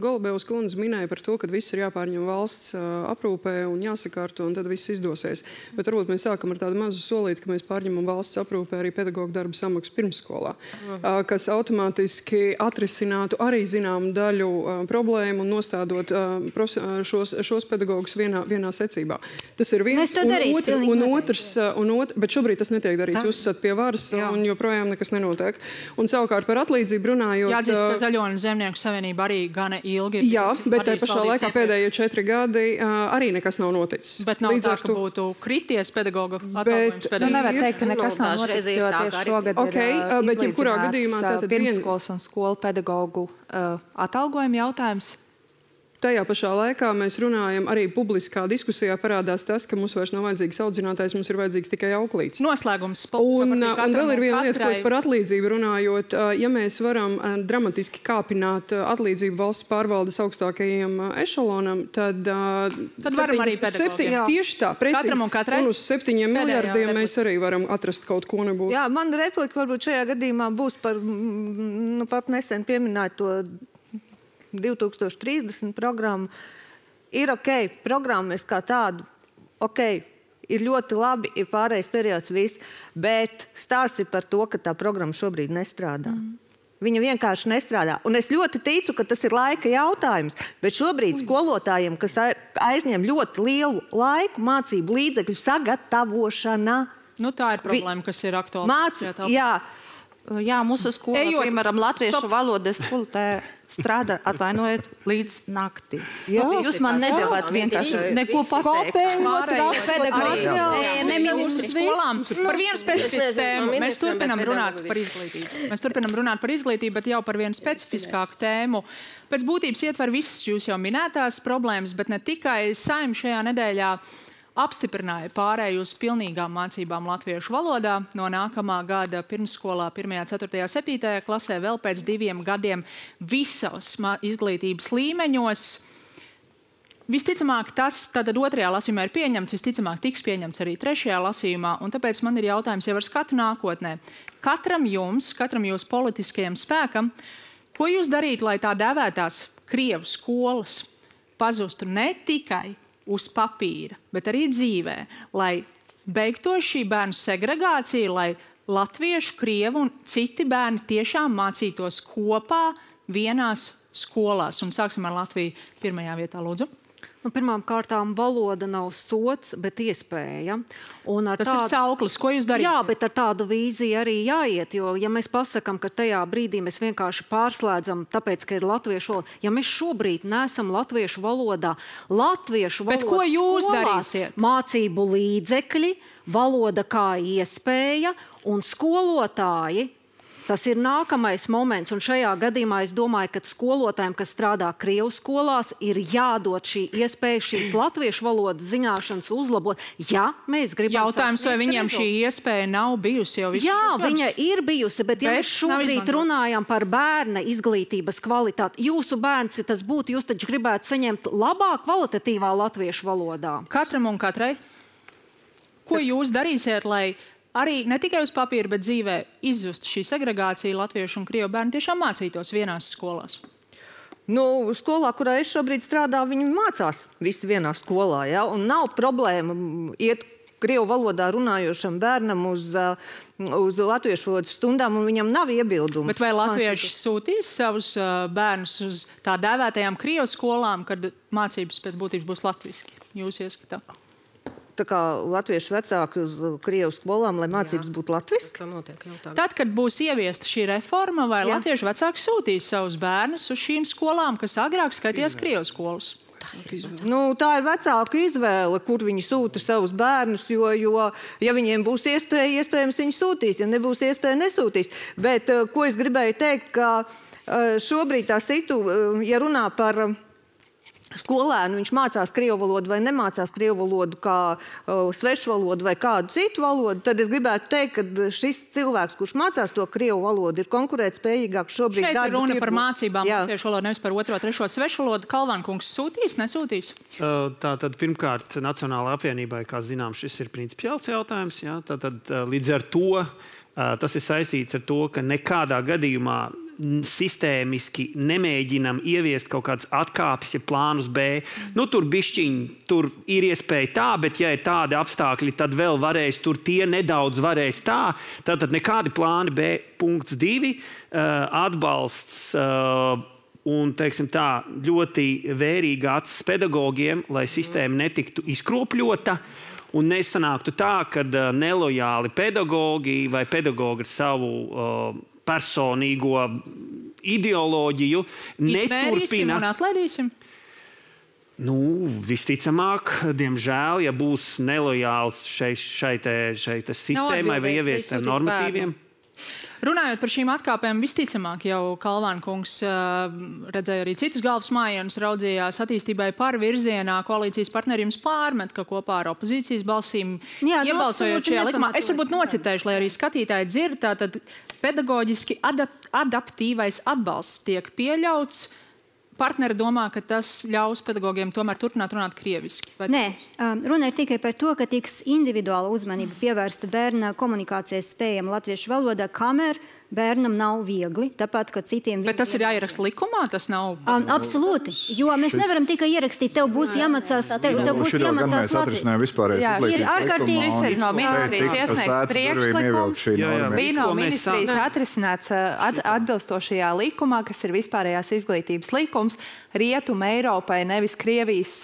Golubevas kundze minēja par to, ka viss ir jāpārņem valsts aprūpē un jāsakārto, un tad viss izdosies. Bet varbūt mēs sākam ar tādu mazu solīti, ka mēs pārņemam valsts aprūpē arī pedagoģu darba samaksu pirmsskolā, kas automātiski atrisinātu arī zināmu daļu problēmu un nostādot šos pedagogus vienā secībā. Tas ir viens, un otrs, bet šobrīd tas netiek darīts. Jūs esat pie varas un joprojām nekas nenotiek. Un savukārt par atlīdzību runājot...
Jāatzīst, ka Zaļo un Zemnieku savienība arī gana ilgi.
Jā, bet te pašā laikā pēdējie 4 gadi arī nekas nav noticis.
Bet nav tā, ka būtu krities pedagoga atalgojums.
Nevar teikt, ka nekas nav noticis, jo tieši šogad ir izlīdzināts pirmskolas un skolu pedagogu atalgojuma jautājums.
Tajā pašā laikā mēs runājam, arī publiskā diskusijā parādās tas, ka mums vairs nav vajadzīgs audzinātājs, mums ir vajadzīgs tikai auklīts.
Noslēgums.
Un vēl ir viena lieta, ko es par atlīdzību runājot. Ja mēs varam dramatiski kāpināt atlīdzību valsts pārvaldes augstākajiem ešalonam, tad
varam arī pedagogiem.
Tieši tā, precīzi. Un uz 7 miljardiem mēs arī varam atrast kaut ko nebūtu.
Jā, man replika varbūt šajā gadījumā būs par, pat nesen pieminēt to 2030 programmu. Ir programmas kā tādu, ir ļoti labi, ir pārējais periods viss, bet stāsts ir par to, ka tā programma šobrīd nestrādā. Viņa vienkārši nestrādā. Un es ļoti ticu, ka tas ir laika jautājums, bet šobrīd skolotājiem, kas aizņem ļoti lielu laiku, mācību līdzekļu sagatavošana.
Tā ir problēma, kas ir aktuāla.
Jā, mūsu skola, piemēram, latviešu valodas skolotāja strādā, atvainojiet, līdz nakti. Jūs man nedavāt vienkārši neko pateikt.
Par vienu specifisku tēmu. Mēs turpinam runāt par izglītību. Bet jau par vienu specifiskāku tēmu. Pēc būtības ietver visas jūs jau minētās problēmas, bet ne tikai. Saeima šajā nedēļā apstiprināja pārēju uz pilnīgām mācībām latviešu valodā no nākamā gada pirmsskolā 1., 4., 7. klasē vēl pēc 2 gadiem visos izglītības līmeņos. Visticamāk, tas tad 2. lasījumā ir pieņemts, visticamāk tiks pieņemts arī 3. lasījumā, un tāpēc man ir jautājums jau ar skatu nākotnē. Katram jūsu politiskajam spēkam, ko jūs darīt, lai tā dēvētās Krievu skolas pazustu ne tikai uz papīra, bet arī dzīvē, lai beigtos šī bērnu segregācija, lai latviešu, krievu un citi bērni tiešām mācītos kopā vienās skolās. Un sāksim ar Latviju 1. vietā, lūdzu.
Pirmām kārtām valoda nav sots, bet iespēja.
Tas ir sauklis, ko jūs darīsiet?
Jā, bet ar tādu vīziju arī jāiet, jo ja mēs pasakam, ka tajā brīdī mēs vienkārši pārslēdzam, tāpēc, ka ir latviešu valoda, ja mēs šobrīd neesam latviešu valodā,
bet ko jūs darīsiet?
Mācību līdzekļi, valoda kā iespēja un skolotāji. Tas ir nākamais moments, un šajā gadījumā es domāju, ka skolotājiem, kas strādā Krievu skolās, ir jādod šī iespēja šīs latviešu valodas zināšanas uzlabot, ja mēs gribam
Jautājums, vai viņiem šī iespēja nav bijusi jau visu?
Jā, viņa ir bijusi, bet ja mēs šobrīd runājam par bērna izglītības kvalitāti, jūsu bērns, ja tas būtu, jūs taču gribētu saņemt labāk kvalitatīvā latviešu valodā.
Katram un katrai. Ko jūs darīsiet, lai arī ne tikai uz papīra, bet dzīvē izzust šī segregācija latviešu un krievu bērni tiešām mācītos vienās skolās?
Skolā, kurā es šobrīd strādāju, viņi mācās visi vienā skolā, ja? Un nav problēma iet krievu valodā runājošam bērnam uz latviešu valodas stundām, un viņam nav iebildumu.
Bet vai latvieši sūtīs savus bērnus uz tā dēvētajām krievu skolām, kad mācības pēc būtības būs latviski? Jūs ieskatā?
Tā kā latviešu vecāki uz krievu skolām, lai mācības būtu latviski?
Tad, kad būs ieviesta šī reforma, vai latviešu vecāki sūtīs savus bērnus uz šīm skolām, kas agrāk skaitījās krievu skolas?
Tā ir vecāku izvēle, kur viņi sūta savus bērnus, jo ja viņiem būs iespēja, iespējams viņi sūtīs, ja nebūs iespēja, nesūtīs. Bet, ko es gribēju teikt, ka šobrīd tā ja runā par skolēnu, viņš mācās krievu valodu vai nemācās krievu valodu kā svešu valodu vai kādu citu valodu, tad es gribētu teikt, ka šis cilvēks, kurš mācās to krievu valodu, ir konkurētspējīgāks šobrīd.
Šeit ir runa par mācībām latviešu valodu, nevis par otro, trešo svešu valodu. Kalvānkungs sūtīs, nesūtīs?
Tātad pirmkārt Nacionālajai apvienībai, kā zinām, šis ir principiāls jautājums. Jā? Tātad līdz ar to tas ir saistīts ar to, ka nekādā gadījumā sistēmiski nemēģinam ieviest kaut kādas atkāpes, ja plānus B. Tur ir iespēja tā, bet ja ir tādi apstākļi, tad vēl varēs, tur tie nedaudz varēs tā. Tātad nekādi plāni B. Punkts 2. Atbalsts un, teiksim tā, ļoti vērīga acis pedagogiem, lai sistēma netiktu izkropļota. Un nesanāktu tā, ka nelojāli pedagogi vai pedagogi ar savu personīgo ideoloģiju neturpina.
Un atlaidīsim?
Visticamāk, diemžēl, ja būs nelojāls šai sistēmai vai ieviestiem normatīviem.
Runājot par šīm atkāpēm, visticamāk jau Kalvānkungs redzēja arī citus galvas mājienus, raudzījās attīstībai par virzienā, koalīcijas partneri jums pārmet, ka kopā ar opozīcijas balsīm iebalsojot šajā likumā. Es varbūt nocitēšu, lai arī skatītāji dzird, tātad pedagoģiski adaptīvais atbalsts tiek pieļauts. Partneri domā, ka tas ļaus pedagogiem tomēr turpināt runāt krieviski.
Nē, runa ir tikai par to, ka tiks individuāla uzmanība pievērsta bērna komunikācijas spējām latviešu valodā, kamēr bērnam nav viegli, tāpat, ka citiem...
Bet tas ir jāieraksta likumā, tas nav...
Absolūti, jo mēs nevaram tikai ierakstīt, tev būs jāmacās
latviešu.
Ir ārkārtīgi...
Šis ir no ministrijas iesniegts priekšlikums. Bija no ministrijas atrisināts atbilstošajā likumā, kas ir vispārējās izglītības likums, Rietuma Eiropai, nevis Krievijas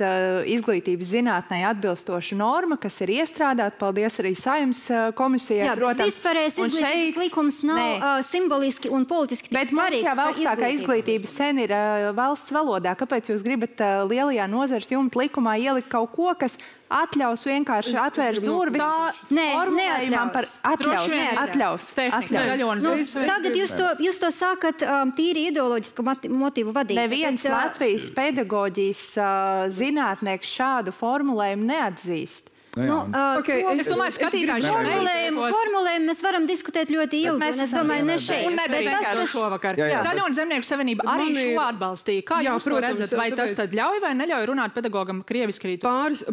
izglītības zinātnē atbilstoša norma, kas ir iestrādāta. Paldies arī Saeimas komisijai.
Jā, bet vispārējās izglītības likums nav simboliski un politiski
bet svarīgs. Bet mums jau augstākā izglītība sen ir valsts valodā. Kāpēc jūs gribat lielajā nozares jumta likumā ielikt kaut ko, kas atļaus vienkārši atvērs durvis? Atļaus.
Tagad jūs to sākat tīri ideoloģisku motīvu vadīt.
Neviens Latvijas pedagoģijas zinātnieks šādu formulējumu neatzīst.
Es domāju, skatītāji
formulējumu mēs varam diskutēt ļoti ilgi. Es domāju, ne šeit.
Un nedarīt to šovakar. Zaļo un Zemnieku savienība arī šo atbalstīja. Kā jūs to redzat? Vai tas tad ļauj vai neļauj runāt pedagogam krieviski rītu?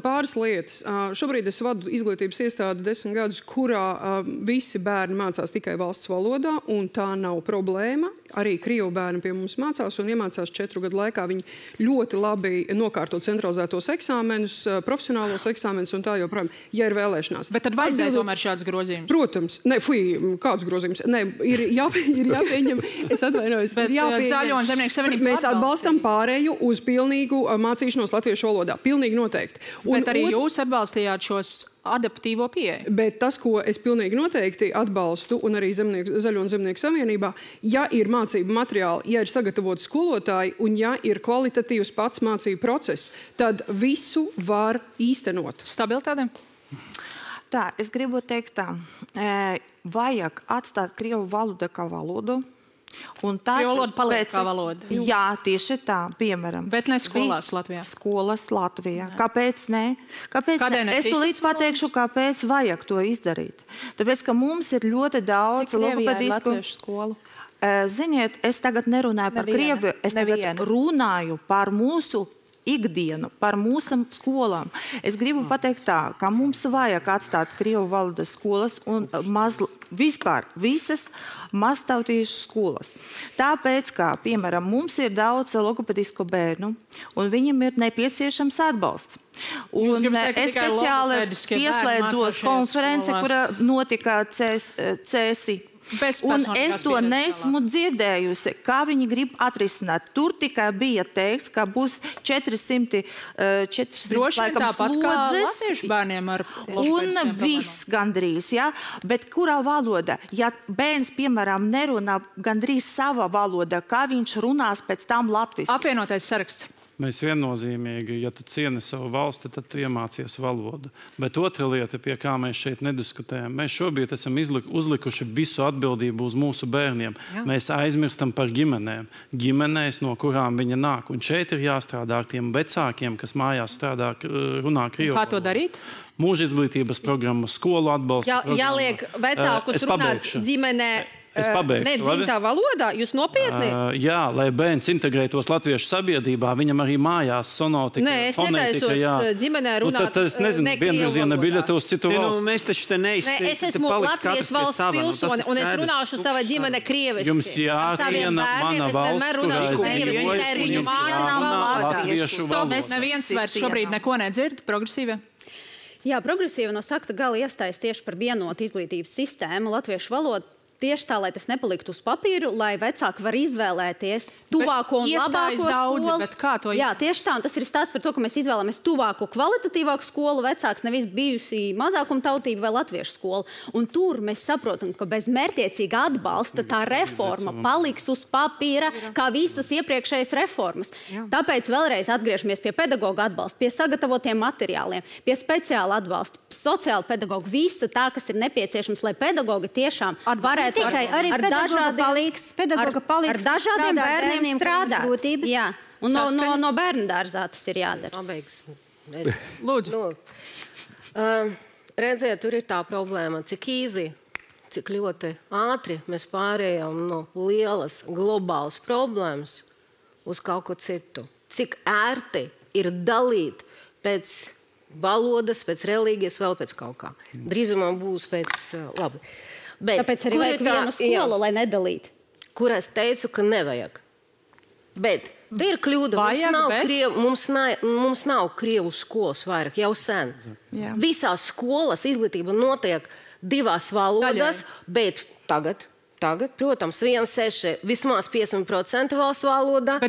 Pāris lietas. Šobrīd es vadu izglītības iestādi 10 gadus, kurā visi bērni mācās tikai valsts valodā, un tā nav problēma. Arī krievu bērni pie mums mācās un iemācās 4 gadu laikā. Viņi ļoti labi nokārto centralizētos eksāmenus, profesionālos eksāmenus un tā joprojām. joprojām, ja ir vēlēšanās.
Bet tad vajadzēja tomēr šāds grozījums?
Protams. Kāds grozījums? Ir jāpieņem, es atvainojos,
bet Zaļo un Zemnieku savienība
mēs atbalstam pārēju uz pilnīgu mācīšanos latviešu valodā. Pilnīgi noteikti.
Bet arī jūs atbalstījāt šos adaptīvo pieeju.
Bet tas, ko es pilnīgi noteikti atbalstu, un arī Zaļo un Zemnieku savienībā, ja ir mācību materiāli, ja ir sagatavoti skolotāji, un ja ir kvalitatīvs pats mācību process, tad visu var īstenot.
Stabilitāte?
Tā, es gribu teikt tā. Vajag atstāt krievu valodu kā valodu.
Krievu valoda paliek kā valoda?
Jā, tieši tā, piemēram.
Bet ne skolās Latvijā?
Skolas Latvijā. Kāpēc ne? Es tūlīt pateikšu, kāpēc vajag to izdarīt. Tāpēc, ka mums ir ļoti daudz logopedisku
skolu.
Ziniet, es tagad nerunāju par Krieviju, es tagad runāju par mūsu ikdienu, par mūsu skolām. Es gribu pateikt tā, ka mums vajag atstāt krievu valodas skolas un vispār visas maztautīšu skolas. Tāpēc, kā, piemēram, mums ir daudz logopedisku bērnu, un viņam ir nepieciešams atbalsts. Un es speciāli pieslēdzos konference, kura notika CESI. Un es to nesmu dzirdējusi, kā viņi grib atrisināt. Tur tikai bija teikts, ka būs 400 laikam slodzes un viss gandrīz, ja? Bet kurā valoda? Ja bērns, piemēram, nerunā gandrīz sava valoda, kā viņš runās pēc tam latviski?
Apvienotais saraksts.
Mēs viennozīmīgi, ja tu cieni savu valsti, tad tu iemācies valodu. Bet otra lieta, pie kā mēs šeit nediskutējam, mēs šobrīd esam uzlikuši visu atbildību uz mūsu bērniem. Jā. Mēs aizmirstam par ģimenēm. Ģimenēs, no kurām viņa nāk. Un šeit ir jāstrādā ar tiem vecākiem, kas mājās strādā, runā krievu valodu.
Kā to darīt?
Mūža izglītības programma, skolu atbalsta programma.
Jāliek vecākus runāt ģimenē. Nedzimtā valodā? Jūs nopietni?
Jā, lai bērns integrētos latviešu sabiedrībā, viņam arī mājās sonotika,
fonētika. Nē, es netaisos ģimenē runāt
tad es nezinu, vienvirziena biļete uz citu valstu.
Mēs taču te neizteikti.
Es esmu Latvijas valsts pilsoni, un es runāšu sava ģimene krieviski.
Jums jāciena mana valsts, latviešu valodu.
Neviens vairs šobrīd neko nedzird, progresīvie?
Jā, progresīva no sakta gala iestājas tieši par vienotu izglītības sistēmu, latviešu valodu. Tieši tā, lai tas nepaliktu uz papīru, lai vecāki var izvēlēties tuvāko un labāko skolu.
Bet kā to
Jā, tieši tā, un tas ir stāsts par to, ka mēs izvēlamies tuvāko, kvalitatīvāku skolu, vecāks nevis bijusi mazākuma tautība vai latviešu skolu. Un tur mēs saprotam, ka bez mērķiecīga atbalsta tā reforma paliks uz papīra, kā visas iepriekšējas reformas. Tāpēc vēlreiz atgriežamies pie pedagoga atbalsta, pie sagatavotiem materiāliem, pie speciāla atbalsta, sociāla pedagoga, visa tā, kas ir nepieciešams, lai pedagogi tiešām varētu
arī pedagoga palīdz
ar dažādiem bērniem strādāt. Jā, un no bērnu dārzā tas ir jādara.
Lūdzu.
Redziet, tur ir tā problēma, cik ļoti ātri mēs pārējām no lielas globālas problēmas uz kaut ko citu. Cik ērti ir dalīt pēc valodas, pēc reliģijas, vēl pēc kaut kā. Drīzumā būs pēc labi. Bet,
tāpēc arī vajag vienu skolu, lai nedalītu.
Kur es teicu, ka nevajag. Bet ir kļūda. Mums nav krievu skolas vairāk, jau sen. Jā. Visās skolas izglītība notiek 2 valodās, bet tagad, protams, 1,6, vismaz 50% valsts valodā.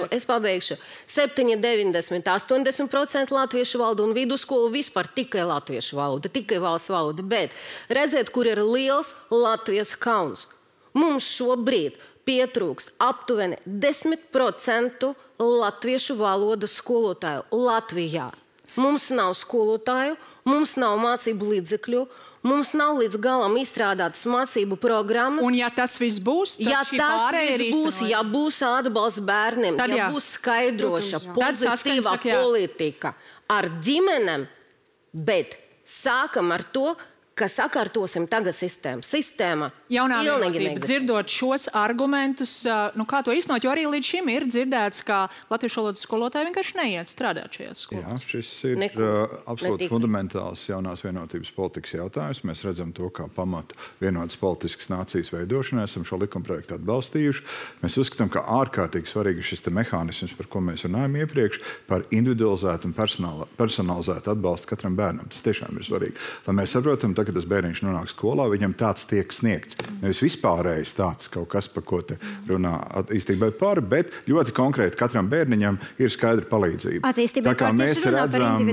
Es pabeigšu 7, 90, 80% latviešu valodu un vidusskolu vispār tikai latviešu valoda, tikai valsts valoda. Bet redziet, kur ir liels Latvijas kauns. Mums šobrīd pietrūkst aptuveni 10% latviešu valodas skolotāju Latvijā. Mums nav skolotāju, mums nav mācību līdzekļu, mums nav līdz galam izstrādātas mācību programmas.
Un ja tas viss būs,
ja būs atbalsts bērniem, ja būs skaidroša, pozitīvā politika ar ģimenēm, bet sākam ar to, ka sakārtosim tagad sistēmu. Sistēma
jaunā
pilnīgi
vienotība.
neexistē.
Dzirdot šos argumentus, kā to īstenot, jo arī līdz šim ir dzirdēts, ka latviešu valodas skolotāji vienkārši neiet strādāt šajās skolās.
Jā, šis ir absolūti fundamentāls jaunās vienotības politikas jautājums. Mēs redzam to kā pamatu vienotas politiskas nācijas veidošanai. Esam šo likumprojektu atbalstījuši. Mēs uzskatām, ka ārkārtīgi svarīgi šis mehānisms, par ko mēs runājam iepriekš, par individualizētu un personalizētu atbalstu katram bērnam. Tas tiešām ir svarīgi. Lai mēs saprotam, kad tas bērniņš nonāk skolā, viņam tāds tiek sniegts. Nevis vispārējais tāds kaut kas, par ko te runā attīstībai par, bet ļoti konkrēti katram bērniņam ir skaidra palīdzība. Tā kā mēs redzam,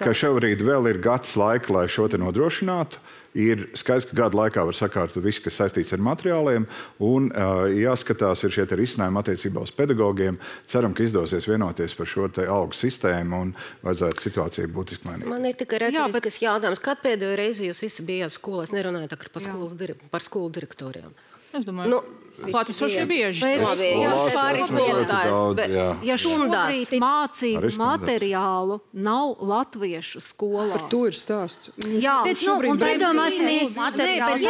ka šobrīd vēl ir gads laika, lai šo te nodrošinātu. Ir skaidrs, ka gada laikā var sakārtot visu, kas saistīts ar materiāliem, un jāskatās ir šie risinājumi attiecībā uz pedagogiem. Ceram, ka izdosies vienoties par šo te algu sistēmu un vajadzētu situāciju būtiski mainīt.
Man ir tikai retoriskas jautājums. Kad pēdējo reizi jūs visi bijāt skolās? Nerunājot par skolu direktoriem.
Es domāju, klātesošie bieži.
Ja šobrīd mācību materiālu nav latviešu skolā.
Par to ir stāsts.
Jā, bet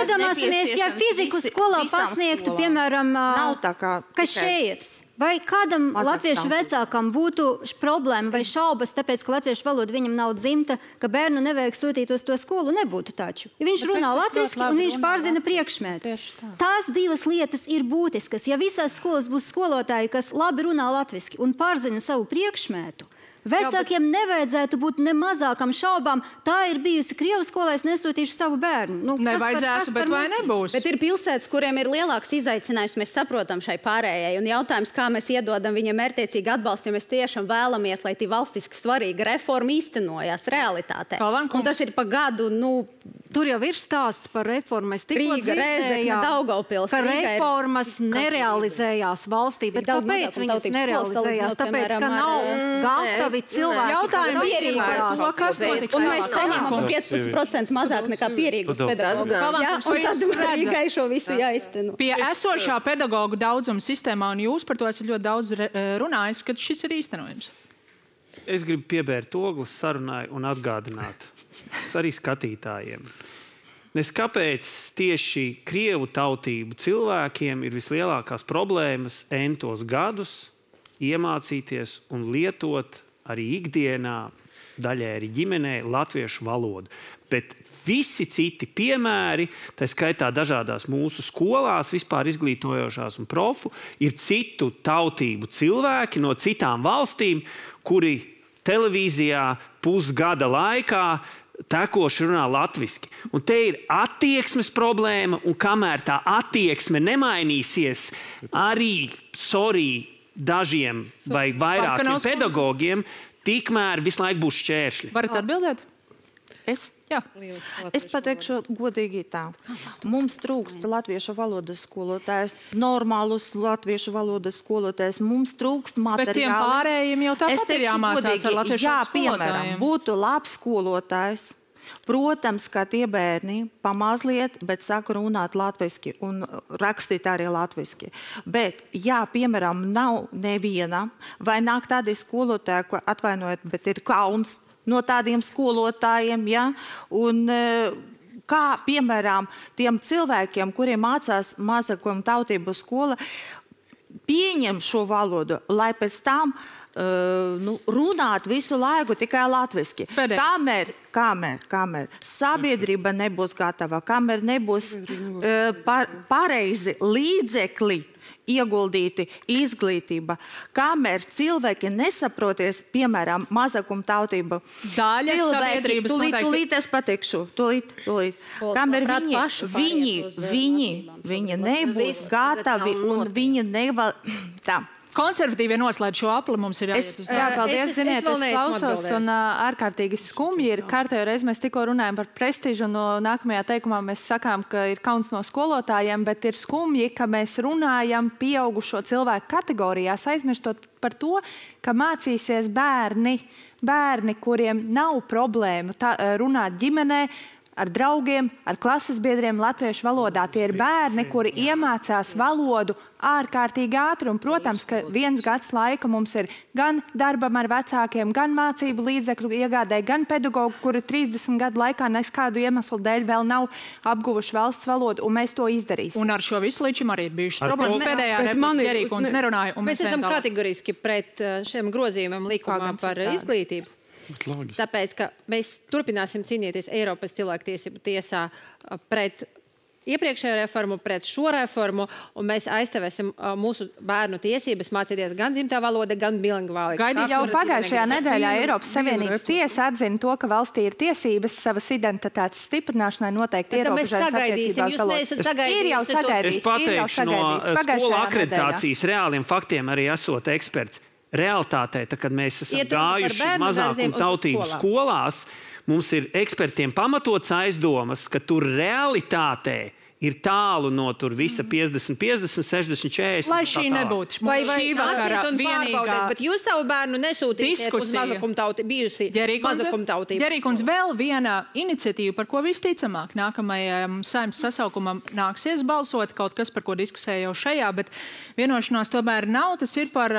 iedomāsimies, ja fiziku skolā pasniegtu, piemēram, Kašējevs. Vai kādam latviešu vecākam būtu problēma vai šaubas, tāpēc, ka latviešu valoda viņam nav dzimta, ka bērnu nevajag sūtīt uz to skolu? Nebūtu taču. Ja viņš runā latviski un viņš pārzina priekšmetu. Tās divas lietas ir būtiskas. Ja visās skolas būs skolotāji, kas labi runā latviski un pārzina savu priekšmetu, vecākiem nevajadzētu būt ne mazākam šaubām. Tā ir bijusi Krievu skolā, es nesūtīšu savu bērnu.
Nevajadzētu, bet vai nebūs?
Bet ir pilsētas, kuriem ir lielāks izaicinājums, mēs saprotam šai pārējai. Un jautājums, kā mēs iedodam viņam mērķtiecīgi atbalstu, ja mēs tiešām vēlamies, lai tī valstiski svarīga reforma īstenojās realitātē. Un tas ir pa gadu,
tur jau ir stāsts par reformu. Es tikko
dzirdēju,
ka reformas nerealizējās valstī. Bet kāpēc viņas nerealizējās? Tāpēc, ka nav gatavi cilvēki.
Jautājumi un mēs saņemam 15% mazāk nekā pierīgus pedagogus. Un tad Rīgai šo visu jāizteno.
Pie esošā pedagogu daudzuma sistēmā, un jūs par to esat ļoti daudz runājis, kad šis ir īstenojams.
Es gribu piebērt ogles sarunai un atgādināt arī skatītājiem. Kāpēc tieši Krievu tautību cilvēkiem ir vislielākās problēmas entos gadus iemācīties un lietot arī ikdienā, daļai arī ģimenē, latviešu valodu. Bet visi citi piemēri, tā skaitā dažādās mūsu skolās, vispār izglītojošās un profu, ir citu tautību cilvēki no citām valstīm, kuri televīzijā pusgada laikā tekoši runā latviski. Un te ir attieksmes problēma, un kamēr tā attieksme nemainīsies, arī, dažiem vai vairākiem pedagogiem, tikmēr visu laiku būs šķēršļi.
Varat atbildēt?
Es pateikšu godīgi tā. Mums trūkst latviešu valodas skolotājs, normālus latviešu valodas skolotājs, mums trūkst materiāli.
Bet tiem pārējiem jau tāpat ir jāmācās ar latviešu skolotājiem.
Piemēram, būtu labs skolotājs. Protams, ka tie bērni pamazliet, bet saka runāt latviski un rakstīt arī latviski. Bet, ja, piemēram, nav neviena, vai nāk tādi skolotāji, ko atvainojiet, bet ir kauns no tādiem skolotājiem, ja? Un kā, piemēram, tiem cilvēkiem, kuriem mācās mazākuma tautību skola, pieņem šo valodu, lai pēc tam runāt visu laiku tikai latviski. Kamēr sabiedrība nebūs gatava, kamēr nebūs pareizi līdzekļi ieguldīti izglītība, kamēr cilvēki nesaproties, piemēram, mazākuma tautība.
Daļa sabiedrības noteikti.
Tūlīt es pateikšu, tūlīt. Kamēr viņi nebūs gatavi un viņi nevar... Tā.
Konservatīvie noslēdz šo apli, mums ir jāiet uz darbu.
Jā, paldies, ziniet, es klausos un ārkārtīgi skumji ir. Kārtējo reizi mēs tikko runājam par prestižu, un nākamajā teikumā mēs sakām, ka ir kauns no skolotājiem, bet ir skumji, ka mēs runājam pieaugušo cilvēku kategorijās, aizmirstot par to, ka mācīsies bērni, kuriem nav problēma runāt ģimenē,
ar draugiem, ar klases biedriem latviešu valodā. Tie ir bērni, kuri iemācās valodu ārkārtīgi ātri. Un, protams, ka 1 gads laika mums ir gan darbam ar vecākiem, gan mācību līdzekļu iegādē, gan pedagogu, kuri 30 gadu laikā neskādu iemeslu dēļ vēl nav apguvuši valsts valodu, un mēs to izdarīsim.
Un ar šo visu līdz šim arī ir bijušas problēmas. Pēdējā replika Gerīkundze nerunāja.
Mēs esam kategoriski pret šiem grozījumiem likumā par izglītību. Tāpēc, ka mēs turpināsim cīnīties Eiropas cilvēktiesību tiesā pret iepriekšējo reformu, pret šo reformu, un mēs aizstāvēsim mūsu bērnu tiesības mācīties gan dzimtā valoda, gan bilingvāli.
Jau pagājušajā nedēļā Eiropas Savienības tiesa atzina to, ka valstī ir tiesības savas identitātes stiprināšanai noteikti ierobežojumas attiecībās valodas. Ir jau sagaidīts.
Es pateikšu no skolu akreditācijas reāliem faktiem arī esot eksperts. Realtātē, kad mēs esam gājuši mazākumu tautību skolās, mums ir ekspertiem pamatots aizdomas, ka tur realitātē ir tālu no tur visa 50, 50, 60, 40.
Lai šī nebūtu.
Vai šī vakara vienīgā. Bet jūs savu bērnu nesūtīsiet uz bijusi mazakumtautību.
Gerīkundze, vēl viena iniciatīva, par ko visticamāk nākamajam Saeimas sasaukumam nāksies balsot, kaut kas, par ko diskusēja jau šajā, bet vienošanās tomēr nav. Tas ir par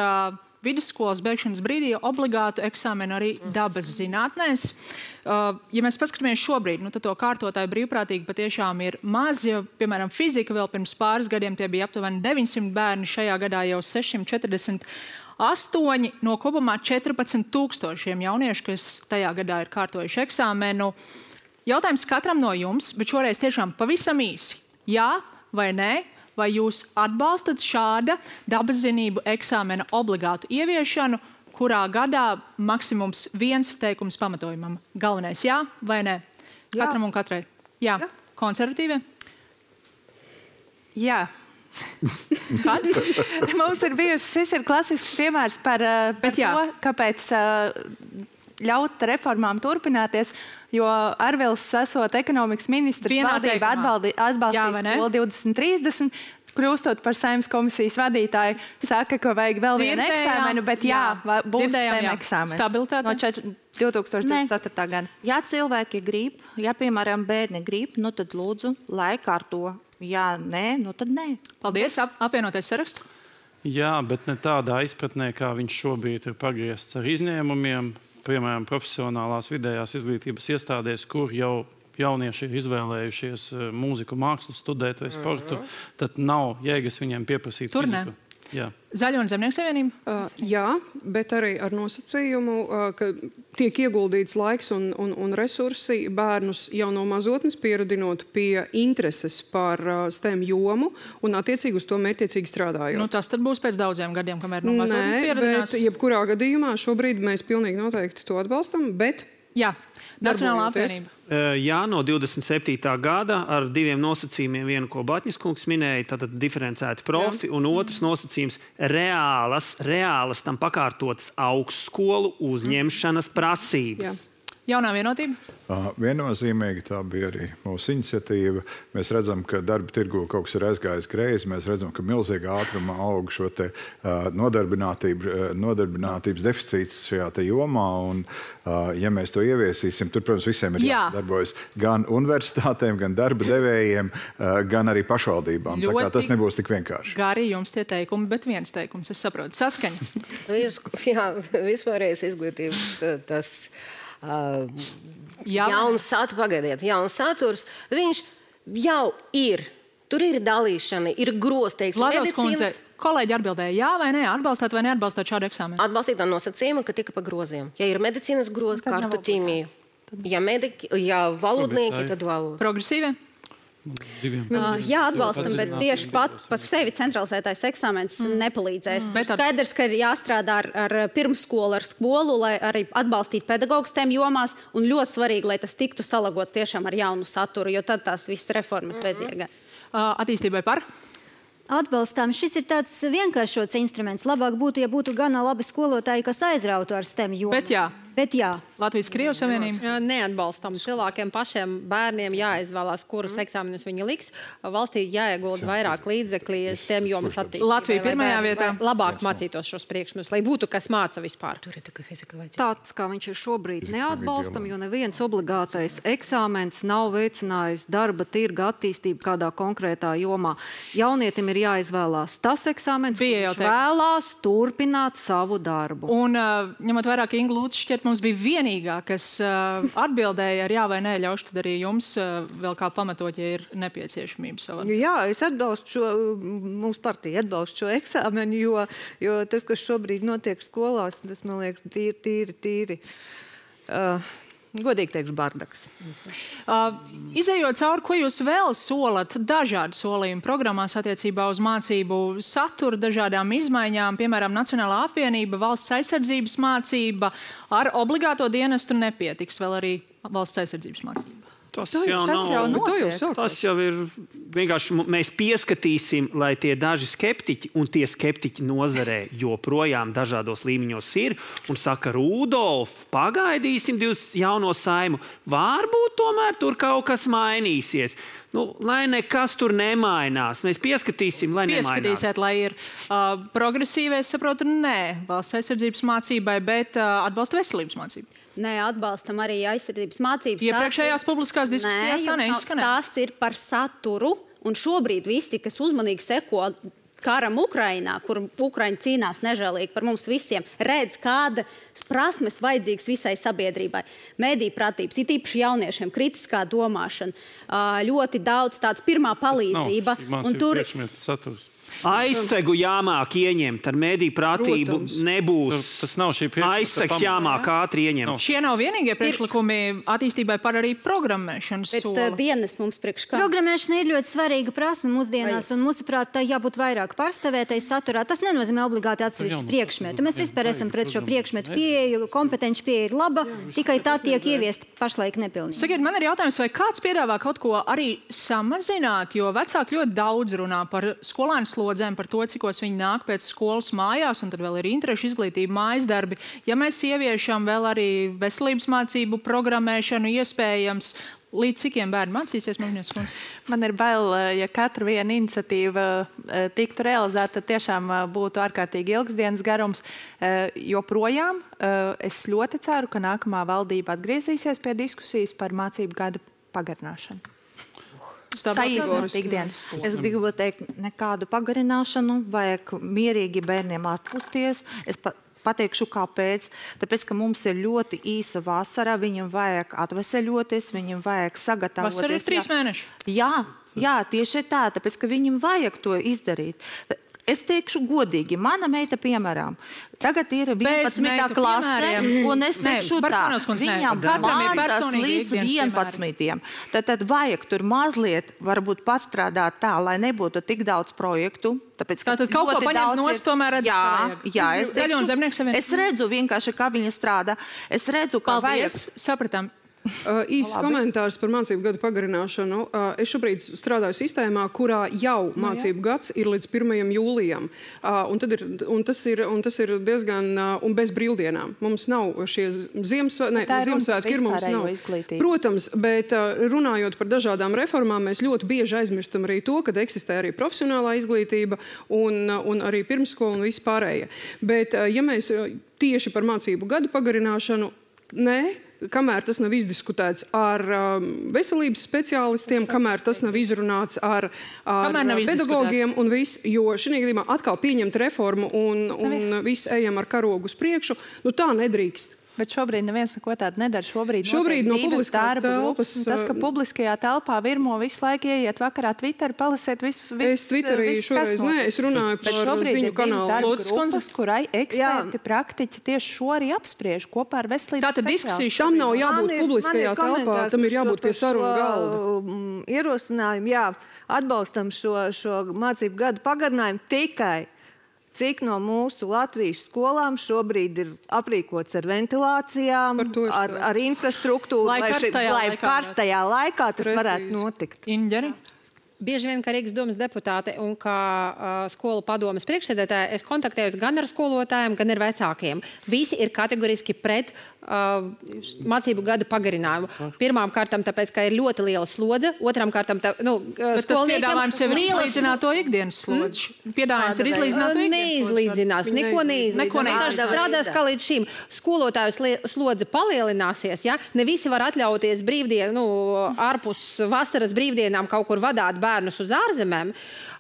vidusskolas beigšanas brīdī obligātu eksāmenu arī dabas zinātnēs. Ja mēs paskatāmies šobrīd, tad to kārtotāju brīvprātīgi patiešām ir maz. Ja, piemēram, fizika vēl pirms pāris gadiem tie bija aptuveni 900 bērni, šajā gadā jau 648 no kopumā 14,000 jauniešu, kas tajā gadā ir kārtojuši eksāmenu. Jautājums katram no jums, bet šoreiz tiešām pavisam īsi. Jā vai nē? Vai jūs atbalstat šāda dabaszinību eksāmena obligātu ieviešanu, kurā gadā maksimums 1 teikums pamatojumam? Galvenais jā vai nē? Jā. Katram un katrai. Jā. Konservatīvie?
Jā.
Kad?
Mums ir bijuši, šis ir klasisks piemērs par to, kāpēc ļaut reformām turpināties, jo Arvils, esot ekonomikas ministrs, valdība atbalstīs skolu 2030, kļūstot par Saeimas komisijas vadītāju, saka, ka vajag vēl vienu eksāmenu, bet būs STEM eksāmens.
Stabilitāte?
No 2024. gada.
Ja cilvēki grib, ja, piemēram, bērni grib, tad lūdzu, lai kārto. Ja nē, tad nē.
Paldies. Apvienotais saraksts?
Jā, bet ne tādā izpratnē, kā viņš šobrīd ir pagriezts ar izņēmumiem. Piemēram, profesionālās vidējās izglītības iestādēs, kur jau jaunieši ir izvēlējušies mūziku, mākslu studēt vai sportu, tad nav jēgas viņiem pieprasīt fiziku. Jā.
Zaļo un Zemnieku savienība?
Jā, bet arī ar nosacījumu, ka tiek ieguldīts laiks un resursi bērnus jau no mazotnes pieradinot pie intereses par STEM jomu un attiecīgi uz to mērķiecīgi strādājot.
Tas tad būs pēc daudziem gadiem, kamēr no mazotnes pieradinās?
Bet jebkurā gadījumā šobrīd mēs pilnīgi noteikti to atbalstam, bet
jā. Nacionālā apvienība.
Jā, no 27. gada ar 2 nosacījumiem. Vienu, ko Batņas kungs minēja, tātad diferencēti profi, un otrs nosacījums reālas tam pakārtotas augstskolu uzņemšanas prasības.
Jā. Jaunā vienotība?
Viennozīmīgi tā bija arī mūsu iniciatīva. Mēs redzam, ka darba tirgu kaut kas ir aizgājis greizi. Mēs redzam, ka milzīgā ātrumā aug šo te nodarbinātības deficīts šajā te jomā. Un, ja mēs to ieviesīsim, tur, protams, visiem ir jāsadarbojas gan universitātēm, gan darba devējiem, gan arī pašvaldībām. Tā kā tas nebūs tik vienkārši.
Gari jums tie teikumi, bet viens teikums, es saprotu. Saskaņa.
Jā, vispārējais izglītības tas... jauns saturs, viņš jau ir. Tur ir dalīšana, ir grozteikts.
Latvijas kundze, kolēģi atbildēja jā vai nē, atbalstāt vai neatbalstāt šādu eksāmenu?
Atbalstīt ar nosacījumu, ka tika pa groziem. Ja ir medicīnas grozi, kartu ķīmiju. Ja valodnieki, tad valoda.
Progresīvie?
Jā, atbalstam, bet tieši pat pa sevi centralizētais eksāmens nepalīdzēs. Skaidrs, ka ir jāstrādā ar pirmsskolu, ar skolu, lai arī atbalstītu pedagogus tiem jomās, un ļoti svarīgi, lai tas tiktu salagots tiešām ar jaunu saturu, jo tad tās visas reformas bezjēga.
Attīstībai par?
Atbalstām. Šis ir tāds vienkāršots instruments. Labāk būtu, ja būtu gana labi skolotāji, kas aizrautu ar STEM jomu.
Bet jā.
Bet jā.
Latvijas-Krievijas Savienība?
Neatbalstam. Cilvēkiem pašiem bērniem jāizvēlās, kurus eksāmenus viņi liks. Valstī jāiegulda vairāk līdzekļu STEM jomas attīstībai.
Latvija pirmajā vietā.
Labāk mācītos šos priekšmetus, lai būtu kas māca vispār.
Tāds, kā viņš ir šobrīd, neatbalstam, jo neviens obligātais eksāmens nav veicinājis darba tirga attīstību kādā konkrētā jomā. Jaunietim ir jāizvēlās tas eksāmens, kurš vēlās turpināt savu darbu.
Un ņemot vairāk Inga Lūdzu šķiet, mums bija vienīgā, kas atbildēja ar jā vai nē, ļaušu tad arī jums vēl kā pamatot, ja ir nepieciešamība savā.
Jā, es atbalstu šo, mūsu partija atbalstu šo eksāmenu, jo tas, kas šobrīd notiek skolās, tas, man liekas, tīri. Godīgi teikšu, bardaks.
Izejot cauri, ko jūs vēl solat dažādu solījumu programmās attiecībā uz mācību saturu, dažādām izmaiņām, piemēram, Nacionālā apvienība, valsts aizsardzības mācība, ar obligāto dienestu nepietiks vēl arī valsts aizsardzības mācība.
Tas jau ir vienkārši mēs pieskatīsim, lai tie daži skeptiķi un tie skeptiķi nozarē joprojām dažādos līmeņos ir un saka, Rudolf, pagaidīsim jauno Saimu. Varbūt tomēr tur kaut kas mainīsies. Lai nekas tur nemainās. Mēs pieskatīsim, lai nemainās.
Pieskatīsiet, lai ir progresīvi, es saprotu, nē, valsts aizsardzības mācībai, bet atbalsta veselības mācību.
Nē, atbalstam arī aizsardzības mācības.
Iepriekšējās publiskās diskusijās tā neizskanē.
Tas ir par saturu, un šobrīd visi, kas uzmanīgi seko karam Ukrainā, kur Ukraiņi cīnās nežēlīgi par mums visiem, redz, kāda prasmes vajadzīgas visai sabiedrībai. Mediju pratības, it īpaši jauniešiem, kritiskā domāšana, ļoti daudz tāds pirmā palīdzība.
Un tur saturs.
Aizsegu jāmāk ieņemt, ar mediju pratību nebūs.
Tas nav šī
aizsegs jāmāk ātri ieņemt.
Šie nav vienīgie priekšlikumi attīstībai par arī programmēšanas soli.
Bet dienas mums priekš kā?
Programmēšana ir ļoti svarīga prasme mūsdienās, un mūsuprāt, tā jābūt vairāk pārstāvētai saturā. Tas nenozīmē obligāti atsevišķu priekšmetu. Mēs vispār esam pret šo priekšmetu pieeju, kompetenci pieeja ir laba, tikai tā tiek ieviest pašlaik nepilnīgi.
Sakiet, man ir jautājums, vai kāds piedāvā kaut ko arī samazināt, jo vecāki ļoti daudz runā par skolēnu slodzēm, par to, cikos viņi nāk pēc skolas mājās, un tad vēl ir interešu izglītība, mājas darbi. Ja mēs ieviešam vēl arī veselības mācību programmēšanu, iespējams, līdz cikiem bērni mācīsies, Magnies kundze?
Man ir bail, ja katra viena iniciatīva tiktu realizēta, tad tiešām būtu ārkārtīgi ilgs dienas garums. Joprojām es ļoti ceru, ka nākamā valdība atgriezīsies pie diskusijas par mācību gada pagarināšanu.
Es gribu teikt, nekādu pagarināšanu, vajag mierīgi bērniem atpusties. Es pateikšu, kāpēc. Tāpēc, ka mums ir ļoti īsa vasara, viņam vajag atveseļoties, viņam vajag sagatavoties.
Vasara ir 3 mēneši.
Jā, tieši tā, tāpēc, ka viņam vajag to izdarīt. Es teikšu godīgi, mana meita, piemēram, tagad ir 11. klase, un es teikšu tā, viņam mācās līdz 11. Tad vajag tur mazliet varbūt pastrādāt tā, lai nebūtu tik daudz projektu.
Tātad kaut ko paņemt nost, tomēr redzēt.
Jā, es redzu vienkārši, kā viņa strādā. Es redzu, kā vajag.
Sapratām.
Īsts komentārs par mācību gadu pagarināšanu. Es šobrīd strādāju sistēmā, kurā jau mācību gads ir līdz 1. jūlijam. Un tas ir diezgan un bez brīvdienām. Mums nav šie Ziemassvētki, ir mums nav. Protams, bet runājot par dažādām reformām, mēs ļoti bieži aizmirstam arī to, ka eksistē arī profesionālā izglītība un arī pirmsskola un viss pārējie. Bet ja mēs tieši par mācību gadu pagarināšanu, kamēr tas nav izdiskutēts ar veselības speciālistiem, kamēr tas nav izrunāts ar pedagogiem un viss, jo šī gadījumā atkal pieņemt reformu un viss ejam ar karogu uz priekšu, tā nedrīkst.
Bet šobrīd neviens neko tādu nedara.
Šobrīd no publiskās telpas.
Tas, ka publiskajā telpā virmo visu laiku ieiet vakarā Twitter, palasiet visu.
Es Twitterī šoreiz es runāju par ziņu kanālu.
Grupas, kurai eksperti, praktiķi tieši šo arī apspriež kopā ar veselības
speciālistiem. Tam nav jābūt publiskajā telpā, tam ir jābūt pie sarunu galda.
Ierosinājumi, atbalstam šo mācību gadu pagarinājumu tikai. Cik no mūsu Latvijas skolām šobrīd ir aprīkots ar ventilācijām, ar infrastruktūru, lai karstajā laikā tas varētu notikt.
Inģeri?
bieži vien, kā Rīgas domas deputāte un kā skolu padomes priekšsēdētāja, es kontaktējos gan ar skolotājiem, gan ar vecākiem. Visi ir kategoriski pret mācību gada pagarinājumu. Pirmām kārtām, tāpēc, ka ir ļoti liela slodze, otrām kārtām,
bet tas piedāvājums jau ir izlīdzināt to ikdienas slodzi. Piedāvājums ir izlīdzināt to ikdienas
neizlīdzinās, neko neizlīdzinās. Strādās kā līdz šim. Skolotāju slodze palielināsies, ja? Ne visi var atļauties ārpus vasaras brīvdienām kaut kur vadāt bērnus uz ārzemēm.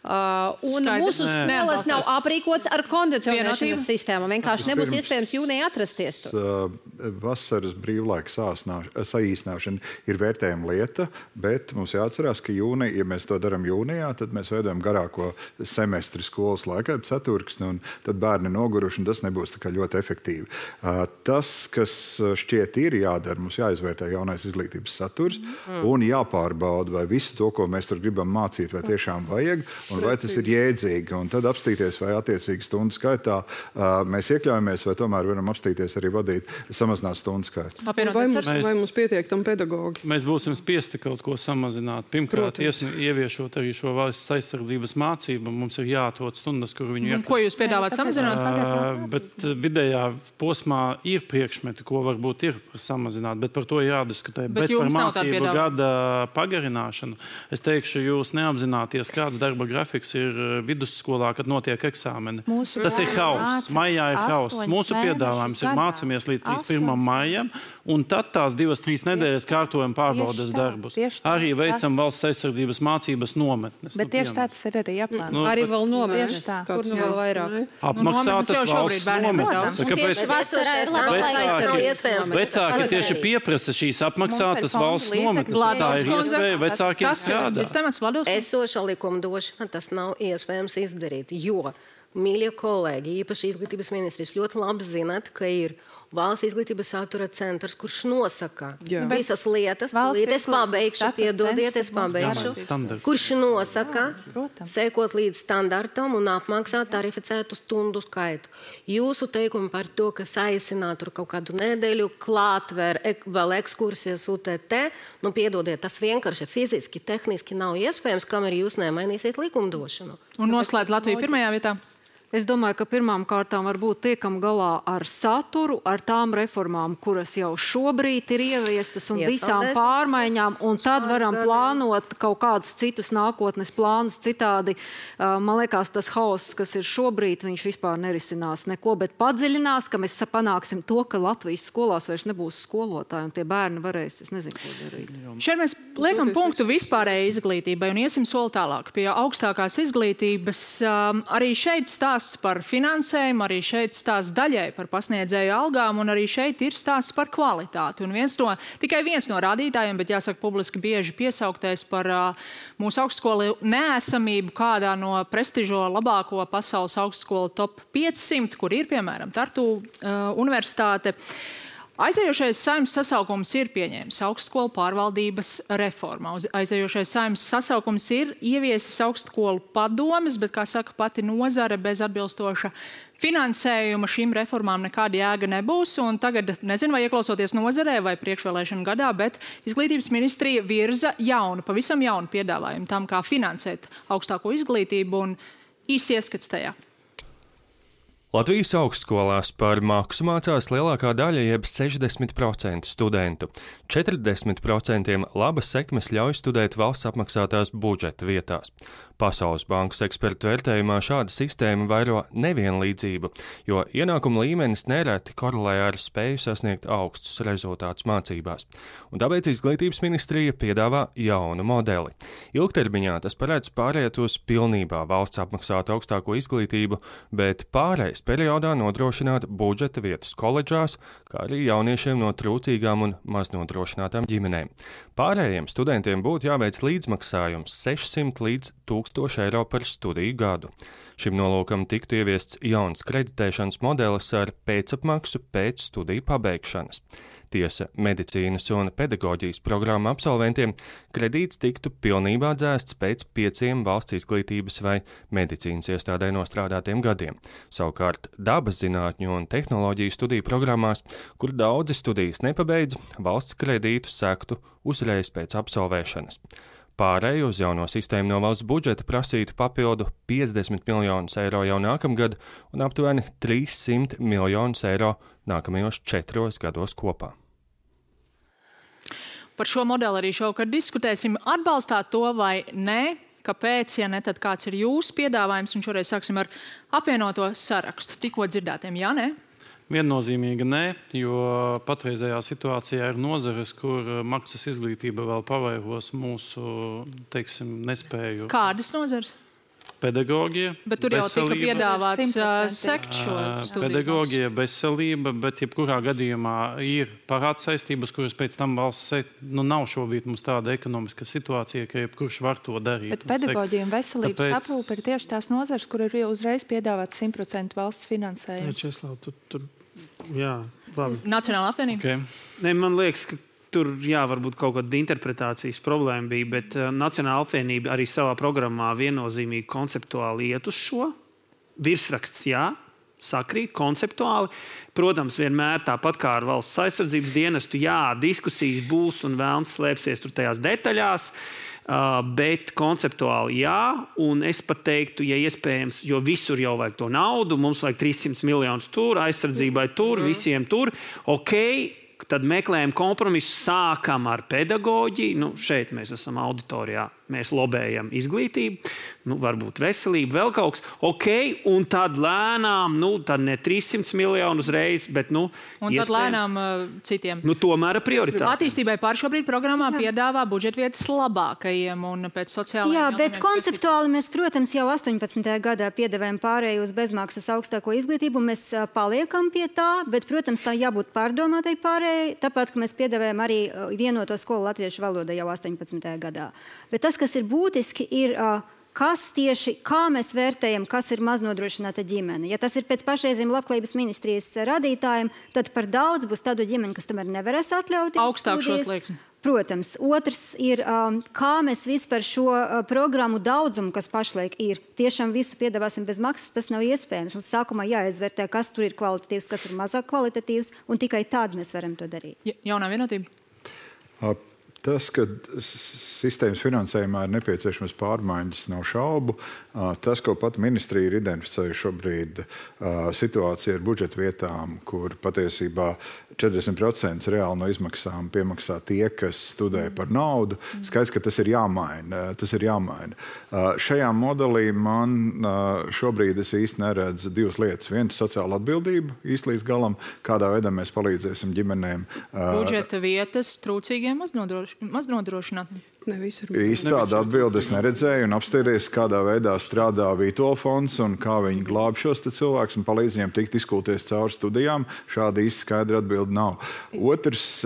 Un mūsu skolas nav aprīkots ar kondicionēšanas sistēmu. Vienkārši nebūs iespējams jūnijā atrasties tur.
Vasaras brīvlaika saīsināšana ir vērtējama lieta, bet mums jāatcerās, ka ja mēs to darām jūnijā, tad mēs veidojam garāko semestri skolas laikā, ceturksni, un tad bērni noguruši, un tas nebūs tā kā ļoti efektīvi. Tas, kas šķiet ir jādara, mums jāizvērtē jaunais izglītības saturs un jāpārbauda, vai visu to, ko mēs tur gribam mācīt, vai tiešām vajag, un vai tas ir jēdzīgi, un tad apstīties, vai attiecīgi stundu skaitā mēs iekļaujamies, vai tomēr varam apstīties arī vadīt, samazināt stundu skaitu.
Vai mums pietiek tam pedagogi?
Mēs būsim spiesti kaut ko samazināt. Pirmkārt, ieviešot arī šo valsts aizsardzības mācību, mums ir jāatrod stundas, kur viņu
Ko jūs piedāvāt samazināt?
Bet vidējā posmā ir priekšmeti, ko varbūt ir samazināt, bet par to jādiskutē. Bet par mācību gada pagarināšanu, es teikšu, jūs neapzināties, kāds darba grafiks ir vidusskolā, kad notiek eksāmeni. Tas ir hauss. Maijā ir hauss. Mūsu piedāvājums ir mācamies līdz 31. maijam, un tad tās 2-3 nedēļas kārtojam pārbaudas darbus. Arī veicam valsts aizsardzības mācības nometnes.
Bet tieši tāds ir arī jāplāno.
Arī vēl nometnes. Kur nu vēl vairāk?
Apmaksātas valsts nometnes. Kāpēc vecāki tieši pieprasa šīs apmaksātas valsts nometnes? Tā ir iespēja vecākiem strādāt.
Esoša likumdošana tas nav iespējams izdarīt, jo, mīļie kolēģi, īpaši izglītības ministrs, ļoti labi zināt, ka ir valsts izglītības satura centrs, kurš nosaka visas lietas, es pabeigšu, kurš nosaka, sekot līdz standartam un apmaksāt tarificētu stundu skaitu. Jūsu teikumi par to, ka saīsināt tur kaut kādu nedēļu, klātver, vēl ekskursijas UTT, piedodiet, tas vienkārši fiziski, tehniski nav iespējams, kamēr jūs nemainīsiet likumdošanu.
Un noslēdz Latviju pirmajā vietā.
Es domāju, ka pirmām kārtām varbūt tiekam galā ar saturu, ar tām reformām, kuras jau šobrīd ir ieviestas un visām pārmaiņām, un tad varam plānot kaut kādus citus nākotnes plānus citādi. Man liekas, tas hauss, kas ir šobrīd, viņš vispār nerisinās neko, bet padziļinās, ka mēs panāksim to, ka Latvijas skolās vairs nebūs skolotāji, un tie bērni varēs, es nezinu, ko darīt.
Šeit mēs liekam punktu vispārējai izglītībai un iesim soli tālāk pie augstākās izglītības. Arī šeit stāsts par finansējumu, arī šeit stāsts daļai par pasniedzēju algām, un arī šeit ir stāsts par kvalitāti. Un tikai viens no rādītājiem, bet jāsaka publiski bieži piesauktais par mūsu augstskolu neesamību kādā no prestižo labāko pasaules augstskolu top 500, kur ir, piemēram, Tartu universitāte. Aizējošais Saeimas sasaukums ir pieņēmis augstskolu pārvaldības reformu. Aizējošais Saeimas sasaukums ir ieviesis augstskolu padomes, bet, kā saka pati nozare, bez atbilstoša finansējuma šīm reformām nekāda jēga nebūs. Un tagad, nezinu, vai ieklausoties nozarē vai priekšvēlēšanu gadā, bet izglītības ministrija virza pavisam jaunu piedāvājumu tam, kā finansēt augstāko izglītību, un īsi ieskats tajā.
Latvijas augstskolās par maksu mācās lielākā daļa, jeb 60% studentu. 40% labas sekmes ļauj studēt valsts apmaksātās budžeta vietās. Pasaules bankas ekspertu vērtējumā šāda sistēma vairo nevienlīdzību, jo ienākuma līmenis nereti korelē ar spēju sasniegt augstus rezultātus mācībās. Un tāpēc izglītības ministrija piedāvā jaunu modeli. Ilgtermiņā tas paredz pāriet uz pilnībā valsts apmaksātu augstāko izglītību, bet pārējais periodā nodrošināt budžeta vietas koledžās, kā arī jauniešiem no trūcīgām un maznodrošinātām ģimenēm. Pārējiem studentiem būtu jāveic līdzmaksājums 600 līdz 1000 eiro par studiju gadu. Šim nolūkam tiktu ieviests jauns kreditēšanas modelis ar pēcapmaksu pēc studiju pabeigšanas. Tiesa, medicīnas un pedagoģijas programmu absolventiem kredīts tiktu pilnībā dzēsts pēc 5 valsts izglītības vai medicīnas iestādē nostrādātiem gadiem. Savukārt dabas zinātņu un tehnoloģiju studiju programmās, kur daudzi studijas nepabeidz, valsts kredītu sektu uzreiz pēc absolvēšanas. Pārēju uz jauno sistēmu no valsts budžeta prasītu papildu 50 miljonus eiro jau nākamgad un aptuveni 300 miljonus eiro nākamajos 4 gados kopā.
Par šo modeli arī šovakar diskutēsim. Atbalstāt to vai nē? Kāpēc, ja ne, tad kāds ir jūsu piedāvājums? Un šoreiz sāksim ar apvienoto sarakstu. Tikko dzirdētiem, jā, nē?
Viennozīmīgi nē, jo patreizējā situācijā ir nozares, kur maksas izglītība vēl pavairos mūsu, teiksim, nespēju.
Kādas nozares?
Pedagogija,
bet tur jau tika piedāvāts sekt šo studiju.
Pedagogija, veselība, bet jebkurā gadījumā ir parāds saistības, kuras pēc tam valsts nav šobrīd mums tāda ekonomiska situācija, ka jebkurš var to darīt.
Bet pedagoģija un veselības aprūpe ir tieši tās nozares, kur ir uzreiz piedāvāts 100% valsts finansējumu.
Česlav, jā, labi.
Nacionāla apvienība?
Okay. Ne, man liekas, ka tur, varbūt kaut kāda interpretācijas problēma bija, bet Nacionāla apvienība arī savā programmā viennozīmīgi konceptuāli iet uz šo. Virsraksts, sakrīt, konceptuāli. Protams, vienmēr tāpat kā ar valsts aizsardzības dienestu, diskusijas būs un vēlns slēpsies tur tajās detaļās, bet konceptuāli un es pat teiktu, ja iespējams, jo visur jau vajag to naudu, mums vajag 300 miljonus tur, aizsardzībai tur, visiem tur, tad meklējam kompromisu, sākam ar pedagoģiju. Šeit mēs esam auditorijā, mēs lobējam izglītību, varbūt veselību, vēl kaut kas. Un tad lēnām, tad ne 300 miljonu uzreiz, bet
un tad lēnām citiem.
Tomēr prioritāte.
Attīstībai pār šobrīd programmā piedāvā budžetvietas labākajiem un pēc sociālajiem.
Jā, bet konceptuāli mēs, protams, jau 18. gadā piedāvājam pārēju uz bezmaksas augstāko izglītību. Mēs paliekam pie tā, bet, protams, tā jābūt pārdomātai pārējai. Tāpat, ka mēs piedāvājam arī vienoto skolu latviešu valodā jau 18. gadā. Bet tas, kas ir būtiski, ir, kā mēs vērtējam, kas ir maznodrošināta ģimene. Ja tas ir pēc pašreizējiem labklājības ministrijas radītājiem, tad par daudz būs tādu ģimeni, kas tomēr nevarēs atļauties
augstāk šos slieksni.
Protams. Otrs ir, kā mēs vispār šo programmu daudzumu, kas pašlaik ir, tiešām visu piedāvāsim bez maksas, tas nav iespējams. Mums sākumā jāizvērtē, kas tur ir kvalitatīvs, kas ir mazāk kvalitatīvs, un tikai tad mēs varam to darīt.
Jaunā vienotība?
Tas, ka sistēmas finansējumā ir nepieciešamas pārmaiņas, nav šaubu. Tas, ko pat ministrija ir identificējusi šobrīd, situācija ar budžeta vietām, kur patiesībā 40% reāli no izmaksām piemaksā tie, kas studē par naudu. Skaidrs, ka tas ir jāmaina. Šajā modelī man šobrīd es īsti neredzu divas lietas. Viena - sociāla atbildība īsti līdz galam, kādā veidā mēs palīdzēsim ģimenēm.
Budžeta vietas trūcīgiem maznodrošinātiem.
Īsti tādu atbildi es neredzēju un apstāties, kādā veidā strādā Vītola fonds un kā viņi glāb šos cilvēkus un palīdz viņiem tikt izkulties cauri studijām. Šāda īsti skaidra atbildi nav. Otrs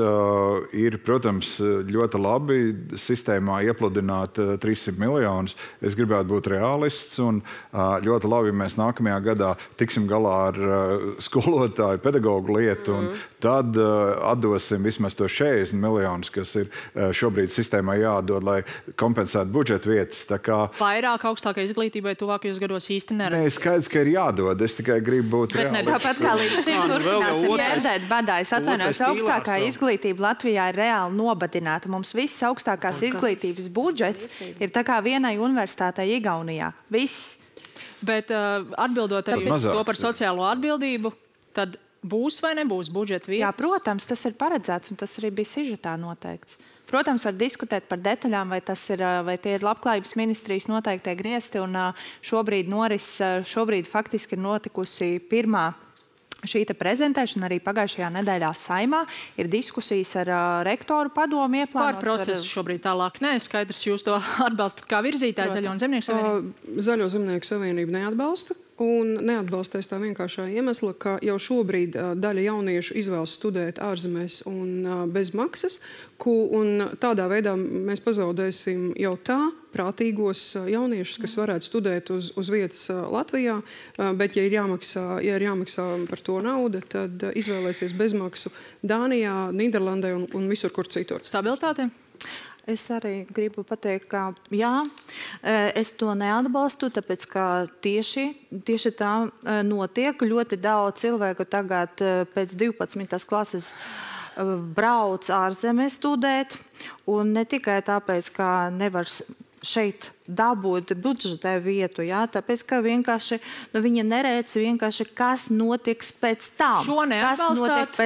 ir, protams, ļoti labi sistēmā iepludināt 300 miljonus. Es gribētu būt realists un ļoti labi, ja mēs nākamajā gadā tiksim galā ar skolotāju, pedagogu lietu un tad atdosim vismaz to 40 miljonus, kas ir šobrīd sistēmā jādod, lai kompensētu budžeta vietas.
Vairāk augstākai izglītībai tuvākajos gados īsti neredzēt.
Nē, skaidrs, ka ir jādod. Es tikai gribu būt reālists.
Tāpat kā līdz šim turpināsim ģērdēt badā. Es atvainojos, augstākā izglītība Latvijā ir reāli nobadināta. Mums viss augstākās izglītības budžets ir tā kā vienai universitātei Igaunijā. Viss.
Bet atbildot arī uz to par sociālo atbildību, tad būs vai nebūs budžeta vietas?
Jā, protams, tas ir paredzēts un tas arī bija sižetā noteikts. Protams, var diskutēt par detaļām, vai tie ir labklājības ministrijas noteiktie griezti. Un šobrīd faktiski ir notikusi pirmā šī prezentēšana arī pagājušajā nedēļā Saimā. Ir diskusijas ar rektoru padomu ieplānotas.
Par procesu šobrīd tālāk neskaidrs. Jūs to atbalstat kā virzītāji Zaļo un Zemnieku savienību?
Zaļo Zemnieku savienību neatbalsta. Un neatbalstēs tā vienkāršā iemesla, ka jau šobrīd daļa jauniešu izvēlas studēt ārzemēs un bez maksas, un tādā veidā mēs pazaudēsim jau tā prātīgos jauniešus, kas varētu studēt uz vietas Latvijā, bet ja ir jāmaksā par to nauda, tad izvēlēsies bezmaksu Dānijā, Nīderlandē un visur, kur citur.
Stabilitāte?
Es arī gribu pateikt, ka jā, es to neatbalstu, tāpēc, ka tieši tā notiek. Ļoti daudz cilvēku tagad pēc 12. klases brauc ārzemē studēt, un ne tikai tāpēc, ka nevar šeit dabūt budžetē vietu, jā, tāpēc, ka vienkārši, viņi neredz vienkārši, kas notiks pēc tam.
Šo neatbalstāt?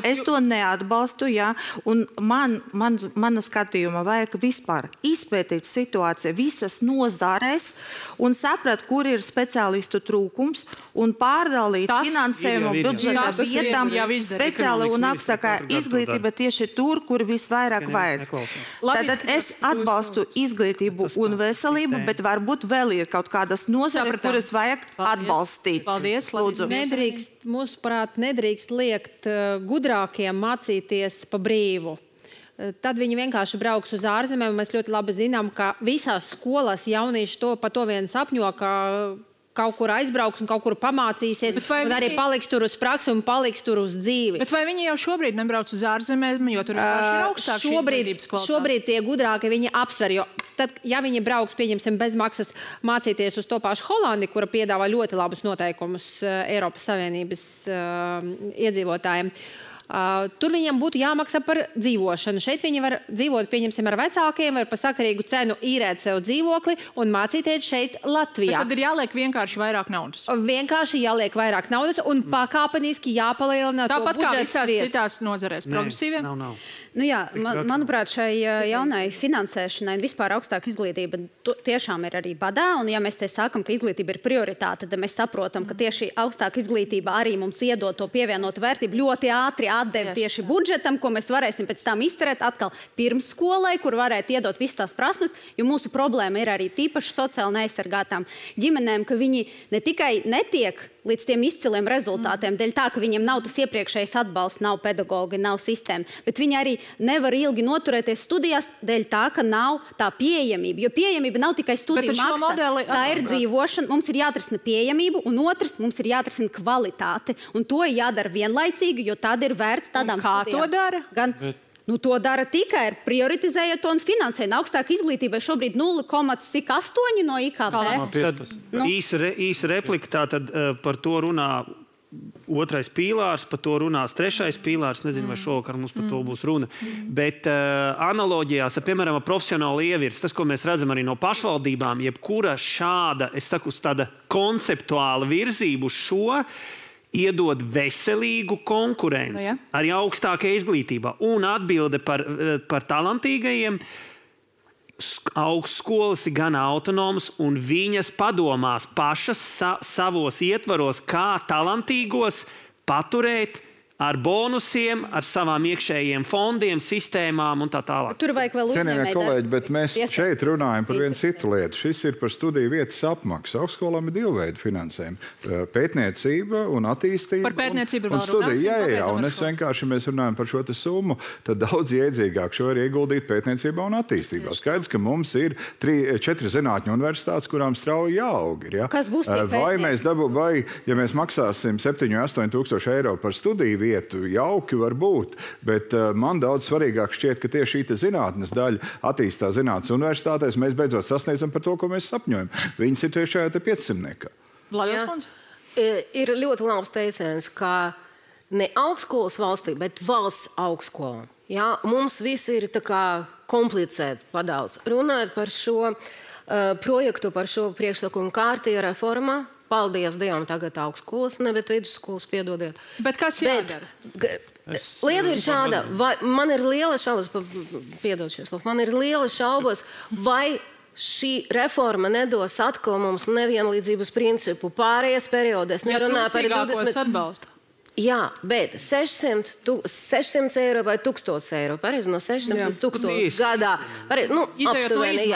Es to neatbalstu, jā, un mana skatījuma vajag vispār izpētīt situāciju visas nozarēs un saprat, kur ir speciālistu trūkums un pārdalīt finansējumu budžeta vietām speciāli un augstākā izglītība tieši tur, kur visvairāk vajag. Tātad es atbalstu izglītību un veselību, bet varbūt vēl ir kaut kādas nozare, kuras vajag atbalstīt.
Paldies,
lūdzu.
Mūsuprāt, nedrīkst liekt gudrākiem mācīties pa brīvu. Tad viņi vienkārši brauks uz ārzemēm. Mēs ļoti labi zinām, ka visās skolās jaunieši par to vien sapņo, ka kaut kur aizbrauks un kaut kur pamācīsies, un arī paliks tur uz praksi un paliks tur uz dzīvi.
Bet vai viņi jau šobrīd nebrauc uz ārzemēm, jo tur ir augstāks izglītības kvalitāte?
Šobrīd tie gudrāki viņi apsver, jo tad, ja viņi brauks, pieņemsim, bez maksas mācīties uz to pašu Holandi, kura piedāvā ļoti labus noteikumus Eiropas Savienības iedzīvotājiem, tur viņiem būtu jāmaksā par dzīvošanu. Šeit viņi var dzīvot, pieņemsim, ar vecākiem, var par sakarīgu cenu īrēt sev dzīvokli un mācīties šeit Latvijā.
Bet tad ir jāliek vienkārši vairāk naudas.
Vienkārši jāliek vairāk naudas un pakāpeniski jāpalielina to budžets vietas.
Tāpat kā visās citās nozarēs. Progresīviem?
Nav. Nu jā, manuprāt, šai jaunai finansēšanai un vispār augstāka izglītība tiešām ir arī badā, un ja mēs te sākam, ka izglītība ir prioritāte, tad mēs saprotam, ka tieši augstāka izglītība arī mums iedod to pievienotu vērtību ļoti ātri atdevi tieši budžetam, ko mēs varēsim pēc tam izterēt atkal pirms skolai, kur varētu iedot visas tās prasmes, jo mūsu problēma ir arī tīpaši sociāli neaizsargātām ģimenēm, ka viņi ne tikai netiek līdz tiem izciliem rezultātiem, dēļ tā, ka viņiem nav tas iepriekšējais atbalsts, nav pedagogi, nav sistēma, bet viņi arī nevar ilgi noturēties studijās, dēļ tā, ka nav tā pieejamība, jo pieejamība nav tikai studiju maksa, tā ir dzīvošana, mums ir jāatrisina pieejamību, un otrs, mums ir jāatrisina kvalitāte, un to jādara vienlaicīgi, jo tad ir vērts tādām studijām.
Kā to dara?
To dara tikai ar prioritizējot to un finansējot. Augstāka izglītība ir šobrīd 0,8 no IKP.
Īsa replika tātad par to runā otrais pīlārs, par to runās trešais pīlārs. Nezinu, vai šovakar mums par to būs runa. Bet analoģijās, piemēram, profesionāli ievirs, tas, ko mēs redzam arī no pašvaldībām, jebkura šāda, es saku, tāda konceptuāla virzība uz šo, iedod veselīgu konkurenci arī augstākajā izglītībā. Un atbilde par talantīgajiem augstskolas ir gan autonomas, un viņas padomās pašas savos ietvaros, kā talantīgos paturēt ar bonusiem, ar savām iekšējiem fondiem, sistēmām un tā tālāk.
Tur vajag vēl uzņēmēji.
Kolēģi, bet mēs šeit runājam par vienu citu lietu. Šis ir par studiju vietas apmaksu. Augstskolām ir divu veidu finansējumi. Pētniecība un attīstība.
Par pētniecību
un studija. Jā, un es vienkārši mēs runājam par šo te summu, tad daudz iedzīgāk šo ir ieguldīt pētniecībā un attīstībā. Skaidrs, ka mums ir 4 zinātņu universitātes, kurām strauji jāaug. Ja?
Kas būs tie
pētnieki? Vai, ja mēs maksāsim 7-8 tūkstoši eiro par studiju vietu, jauki var būt, bet man daudz svarīgāk šķiet, ka tieši šī zinātnes daļa attīstās zinātnes universitātēs, mēs beidzot sasniedzam par to, ko mēs sapņojam. Viņas ir tieši šajā 500.
Ir ļoti labs teiciens, ka ne augstskolas valstī, bet valsts augstskola. Ja? Mums viss ir tā kā komplicēti padaudz. Runājot par šo projektu, par šo priekšlikumu kārtīja reformā, paldies Dievam, tagad augstskolas, ne, bet vidusskolas, piedodiet.
Bet kas jādara?
Lieta ir šāda, man ir liela šaubas, piedod šies, man ir liela šaubas, vai šī reforma nedos atkal mums nevienlīdzības principu pārējais periodēs.
Nerunāju par 20 atbalstu.
Jā, bet 600 eiro vai 1000 eiro, pareizi, no 600 līdz 1000 gadā. Aptuveni,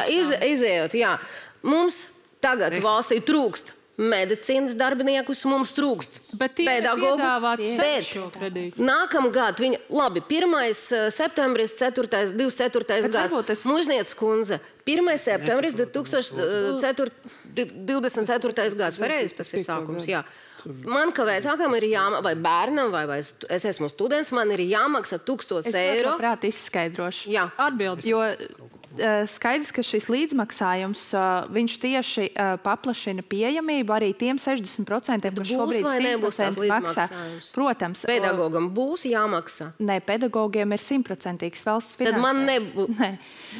izējot, jā. Mums tagad valstī trūkst medicīnas darbiniekus, mums trūkst pedagogus, bet nākamgad viņi, labi, 1. septembris, 24. gads, Mužnieces kundze, 1. septembris 2024. gads, pareizi, tas ir sākums, jā. Man, ka vecākam ir jāmaksā, vai bērnam, vai es esmu students, man ir jāmaksā 1000 eiro.
Es prāt izskaidrošu.
Jā.
Atbildes.
Jo skaidrs, ka šis līdzmaksājums, viņš tieši paplašina pieejamību arī tiem 60%, kas šobrīd 100% maksā. Protams.
Pedagogam būs jāmaksā?
Nē, pedagogiem ir 100% valsts finansējums.
Tad man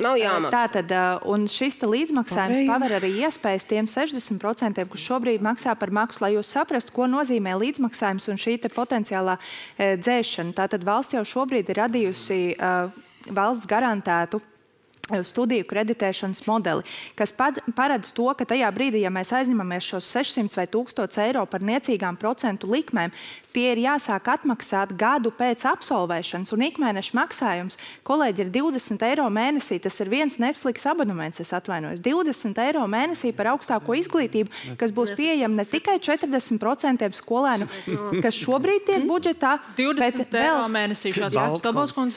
nav jāmaksā.
Tātad, un šis līdzmaksājums paver arī iespējas tiem 60%, kas šobrīd maksā par maksu, lai jūs saprastu, ko nozīmē līdzmaksājums un šī potenciālā dzēšana. Tātad valsts jau šobrīd ir radījusi valsts garantētu studiju kreditēšanas modeli, kas paredz to, ka tajā brīdī, ja mēs aizņemamies šos 600 vai 1000 eiro par niecīgām procentu likmēm, tie ir jāsāk atmaksāt gadu pēc absolvēšanas, un ikmēneša maksājums, kolēģi, ir 20 eiro mēnesī. Tas ir viens Netflix abonements, es atvainojos. 20 eiro mēnesī par augstāko izglītību, kas būs pieejama ne tikai 40% skolēnu, kas šobrīd tiek budžetā,
20 eiro mēnesī šāds jāapstābos, kundze.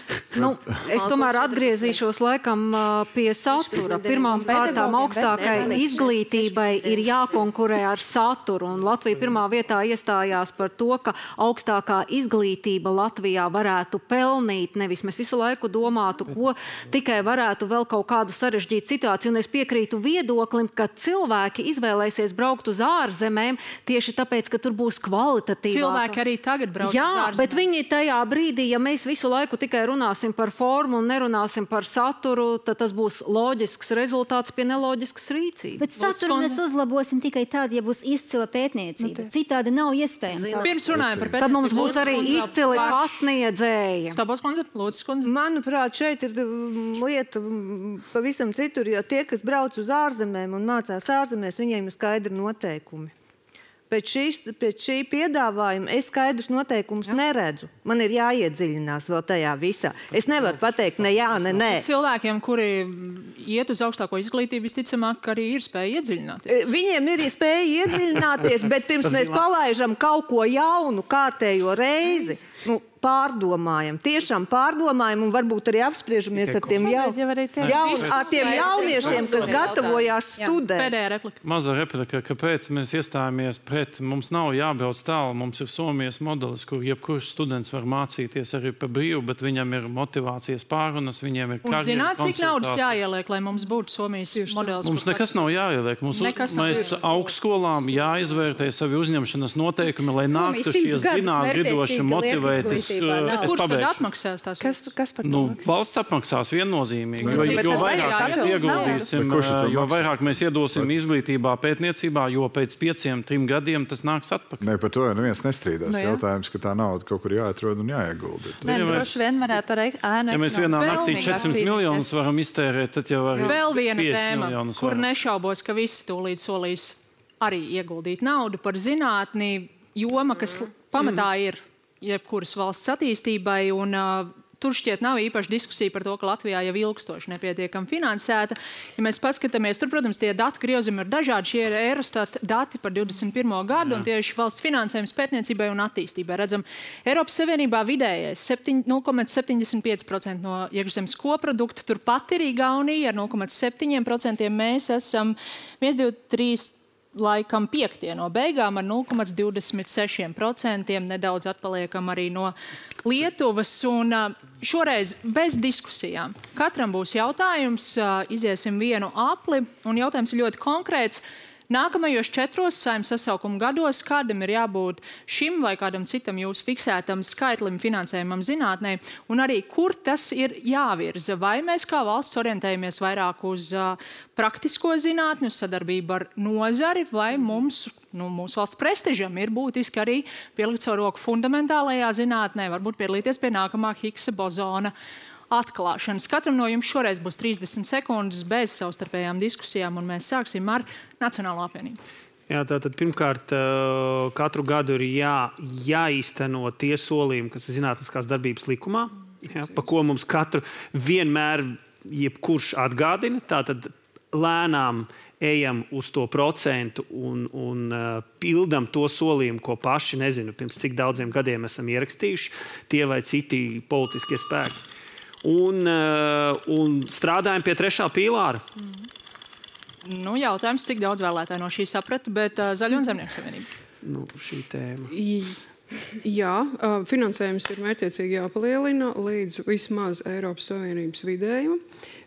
Es tomēr atgriezīšos laikam pie satura. Pirmām kārtām augstākai izglītībai ir jākonkurē ar saturu, un Latvija pirmā vietā iestājās par to, ka augstākā izglītība Latvijā varētu pelnīt, nevis mēs visu laiku domātu, ko tikai varētu vēl kaut kādu sarežģītu situāciju, un es piekrītu viedoklim, ka cilvēki izvēlēsies braukt uz ārzemēm tieši tāpēc, ka tur būs kvalitatīvāk.
Cilvēki arī tagad brauc uz ārzemēm.
Jā, bet viņi tajā brīdī, ja mēs visu laiku tikai runāsim par formu un nerunāsim par saturu, tad tas būs loģisks rezultāts pie neloģiskas rīcības.
Bet saturu mēs uzlabosim tikai tad, ja būs izcila pētniecība. Citādi nav iespējams.
Pirms runājam par pētniecību.
Tad mums būs arī izcili pasniedzēji.
Stābos kundze, lūdzu, kundze.
Manuprāt, šeit ir lieta pavisam citur, jo tie, kas brauc uz ārzemēm un mācās ārzemēs, viņiem ir skaidri noteikumi. Pēc šī piedāvājuma es skaidrus noteikumus neredzu. Man ir jāiedziļinās vēl tajā visā. Es nevaru pateikt ne jā, ne nē.
Cilvēkiem, kuri iet uz augstāko izglītību, visticamāk, arī ir spēja iedziļināties.
Viņiem ir spēja iedziļināties, bet pirms mēs palaižam kaut ko jaunu kārtējo reizi, pārdomājam, tiešām pārdomājam un varbūt arī apspriežamies ar tiem jauniešiem, kas gatavojās studēt.
Pēdējā replika.
Mazā replika, kāpēc mēs iestājāmies pret, mums nav jābrauc tālu, mums ir Somijas modelis, kur jebkurš students var mācīties arī pa brīvu, bet viņam ir motivācijas pārunas, viņiem ir karjeras konsultācijas. Un
zināt, cik naudas jāieliek, lai mums būtu Somijas modelis?
Mums nekas nav jāieliek. Mēs augstskolām jāizvērtē savi uzņemšanas noteikumi, lai nāktu šie zinātgridoši motivēti.
Kurš tad atmaksās tās?
Kas par to maksās? Valsts apmaksās viennozīmīgi. Jo vairāk mēs iedosim izglītībā, pētniecībā, jo pēc 5-3 gadiem tas nāks atpakaļ.
Ne, par to neviens nestrīdās. Jautājums, ka tā nauda kaut kur jāatrod un jāiegulda.
Droši vien varētu arī
ja mēs vienā naktī 400 miljonus varam iztērēt, tad jau var
vēl viena tēma, kur nešaubos, ka visi tūlīt solīs arī ieguldīt naudu par zinātni, joma, kas pamatā ir jebkuras valsts attīstībai, un tur šķiet nav īpaši diskusija par to, ka Latvijā jau ilgstoši nepietiekami finansēta. Ja mēs paskatāmies, tur, protams, tie datu griezumi ir dažādi. Šie ir Eurostat dati par 21. gadu, un tieši valsts finansējums pētniecībai un attīstībai. Redzam, Eiropas Savienībā vidējais 0,75% no iekšzemes koprodukta, turpat ir Igaunija ar 0,7%. Mēs esam 1, 2, 3, laikam 5. no beigām ar 0,26%, nedaudz atpaliekam arī no Lietuvas, un šoreiz bez diskusijām. Katram būs jautājums, iziesim vienu apli, un jautājums ir ļoti konkrēts. Nākamajos 4 Saeimas sasaukuma gados kādam ir jābūt šim vai kādam citam jūsu fiksētam skaitlim finansējumam zinātnē, un arī kur tas ir jāvirza. Vai mēs kā valsts orientējamies vairāk uz praktisko zinātni, uz sadarbību ar nozari, vai mūsu valsts prestižam ir būtiski arī pielikt savu roku fundamentālajā zinātnē, varbūt piedalīties pie nākamā Higgsa bozona atklāšanas. Katram no jums šoreiz būs 30 sekundes bez savstarpējām diskusijām, un mēs sāksim ar Nacionālo apvienību.
Jā, tātad pirmkārt, katru gadu ir jāīsteno tie solījumi, kas ir zinātniskās darbības likumā, pa ko mums katru vienmēr jebkurš atgādina. Tātad lēnām ejam uz to procentu un pildam to solījumu, ko paši, nezinu, pirms cik daudziem gadiem esam ierakstījuši, tie vai citi politiskie spēki. Un strādājam pie 3. pīlāra.
Jautājums, cik daudz vēlētāji no šī saprata, bet Zaļo un Zemnieku savienība.
Šī tēma.
Jā, finansējums ir mērķiecīgi jāpalielina līdz vismaz Eiropas Savienības vidējuma.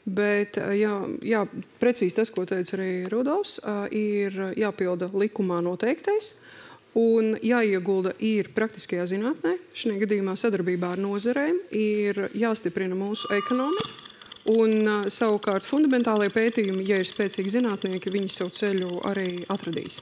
Bet, jā, precīzi tas, ko teica arī Rudolfs, ir jāpilda likumā noteiktais un jāiegulda ir praktiskajā zinātnē. Šajā gadījumā sadarbībā ar nozarēm ir jāstiprina mūsu ekonomika. Un savukārt fundamentālie pētījumi, ja ir spēcīgi zinātnieki, viņi savu ceļu arī atradīs.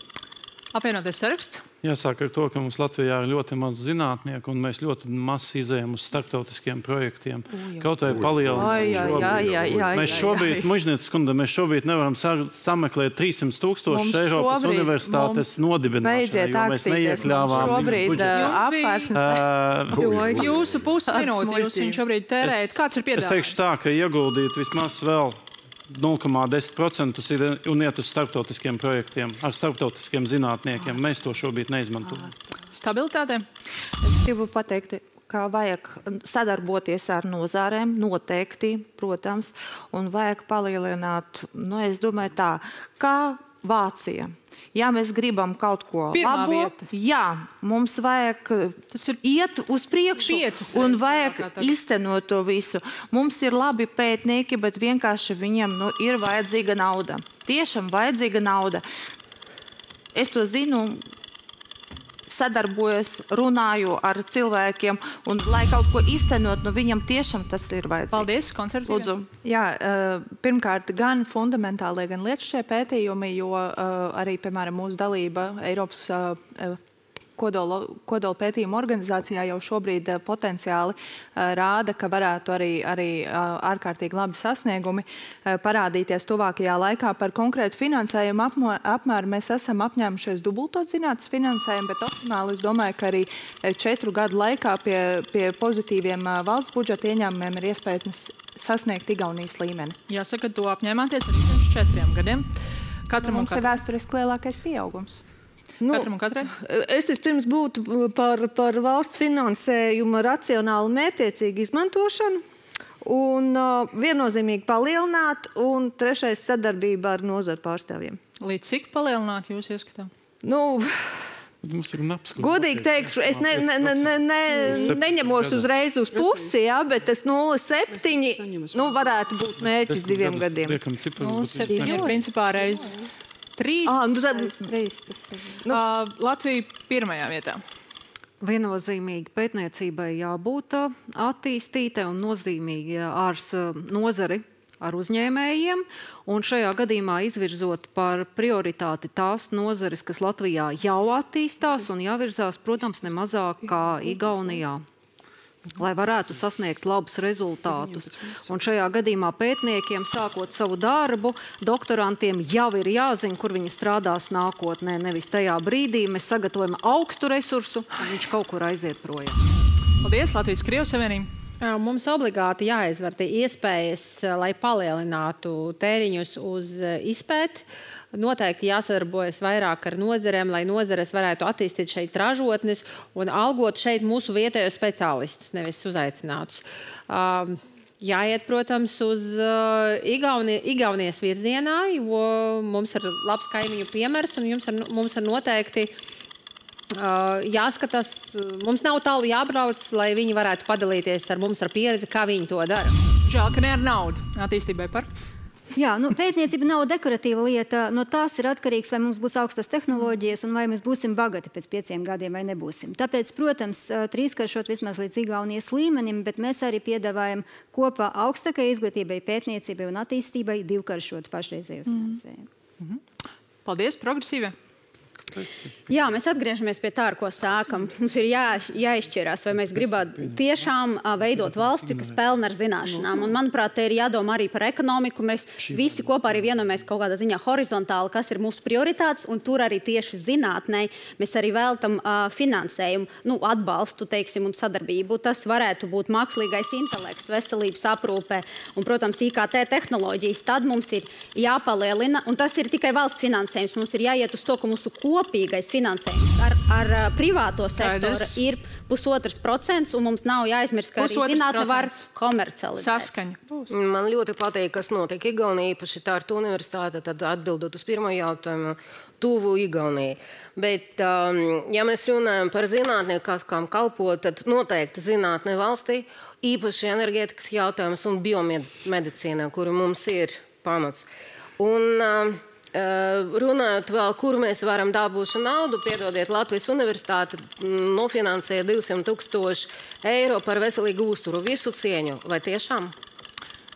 Apvienotais saraksts?
Jāsāk ar to, ka mums Latvijā ir ļoti maz zinātnieku, un mēs ļoti maz izējam uz starptautiskiem projektiem. Kaut vai palielināt. Mēs šobrīd, Mužnieces kundze, mēs šobrīd nevaram sameklēt 300,000 Eiropas universitātes nodibināšanai, jo mēs neiekļāvām
budžetu. Jūsu pusminūti jūs viņu šobrīd tērējat. Kāds ir piedāvājums?
Es teikšu tā, ka ieguldīt vismaz vēl 0,10% un iet uz starptautiskiem projektiem ar starptautiskiem zinātniekiem. Mēs to šobrīd neizmantojam.
Stabilitāte?
Es gribu pateikt, ka vajag sadarboties ar nozārēm, noteikti, protams, un vajag palielināt, es domāju tā, kā Vācija. Ja mēs gribam kaut ko labo, mums vajag iet uz priekšu un vajag iztenot to visu. Mums ir labi pētnieki, bet vienkārši viņiem ir vajadzīga nauda. Tiešām vajadzīga nauda. Es to zinu, sadarbojos, runāju ar cilvēkiem, un lai kaut ko iztenot, viņam tiešām tas ir vajadzīgs.
Paldies, konservatīvie.
Jā, pirmkārt, gan fundamentālie, gan lietušķie pētījumi, jo arī, piemēram, mūsu dalība Eiropas kodola pētījuma organizācijā jau šobrīd potenciāli rāda, ka varētu arī ārkārtīgi labi sasniegumi parādīties tuvākajā laikā. Par konkrētu finansējumu apmēru mēs esam apņēmušies dubultot zinātnes finansējumu, bet optimāli es domāju, ka arī 4 gadu laikā pie pozitīviem valsts budžeta ieņēmumiem ir iespējams sasniegt Igaunijas līmeni.
Jāsaka, to apņēmāties arī pirms 4 gadiem.
Mums ir vēsturiski lielākais pieaugums.
Es vispirms būtu par valsts finansējuma racionālu mērķtiecīgu izmantošanu un viennozīmīgi palielināt, un 3. sadarbība ar nozaru pārstāvjiem.
Līdz cik palielināt jūs ieskatām?
Godīgi teikšu, es neņemos uzreiz uz pusi, bet tas 0,7 varētu būt mērķis 2 gadiem.
0,7 ir principā reiz 3. Latvija pirmajā vietā.
Viennozīmīgi pētniecībai jābūt attīstītai un nozīmīgi ar nozari, ar uzņēmējiem, un šajā gadījumā izvirzot par prioritāti tās nozares, kas Latvijā jau attīstās un jāvirzās, protams, nemazāk kā Igaunijā, lai varētu sasniegt labus rezultātus. Un šajā gadījumā pētniekiem, sākot savu darbu, doktorantiem jau ir jāzina, kur viņi strādās nākotnē. Nevis tajā brīdī mēs sagatavojam augstu resursu, un viņš kaut kur aiziet projām.
Paldies, Latvijas-Krievijas Savienība.
Mums obligāti jāizvērtē iespējas, lai palielinātu tēriņus uz izpēti. Noteikti jāsadarbojas vairāk ar nozarēm, lai nozares varētu attīstīt šeit ražotnes un algot šeit mūsu vietējos speciālistus, nevis uzaicinātus. Jāiet, protams, uz Igaunijas virzienā, jo mums ir labs kaimiņu piemērs un mums ir noteikti jāskatās, mums nav tālu jābrauc, lai viņi varētu padalīties ar mums ar pieredzi, kā viņi to dara.
Žēl, ka ne ar naudu attīstībai par?
Jā, pētniecība nav dekoratīva lieta. No tās ir atkarīgs, vai mums būs augstas tehnoloģijas un vai mēs būsim bagati pēc 5 gadiem vai nebūsim. Tāpēc, protams, 3-karšot vismaz līdz Igaunijas līmenim, bet mēs arī piedāvājam kopā augstākai izglītībai, pētniecībai un attīstībai 2-karšot pašreizējo finansējumu.
Paldies, progresīvie!
Jā, mēs atgriežamies pie tā, ar ko sākam. Mums ir jāizšķirās, vai mēs gribētu tiešām veidot valsti, kas pelna ar zināšanām. Un, manuprāt, te ir jādomā arī par ekonomiku. Mēs visi kopā arī vienojamies kaut kādā ziņā horizontāli, kas ir mūsu prioritātes, un tur arī tieši zinātnē mēs arī veltam finansējumu, atbalstu, teiksim, un sadarbību. Tas varētu būt mākslīgais intelekts, veselības aprūpē un, protams, IKT tehnoloģijas. Tad mums ir jāpalielina, un tas ir tikai valsts finansējums. Mums ir jāiet uz to, ka mūsu kopējā kopīgais finansējums ar privāto sektoru ir 1,5%, un mums nav jāaizmirst, ka arī zinātne var komercializēt.
Saskaņa.
Man ļoti patīk, kas notiek Igaunijā, īpaši Tartu universitāte, tad atbildot uz pirmo jautājumu, tuvu Igaunijai. Bet, ja mēs runājam par zinātnieku, kam kalpo, tad noteikti zinātne valstī, īpaši enerģētikas jautājums un biomedicīnā, kuru mums ir pamats. Un runājot vēl, kur mēs varam dabūt šo naudu, piedodiet, Latvijas universitāte nofinansēja 200,000 eiro par veselīgu uzturu. Visu cieņu. Vai tiešām?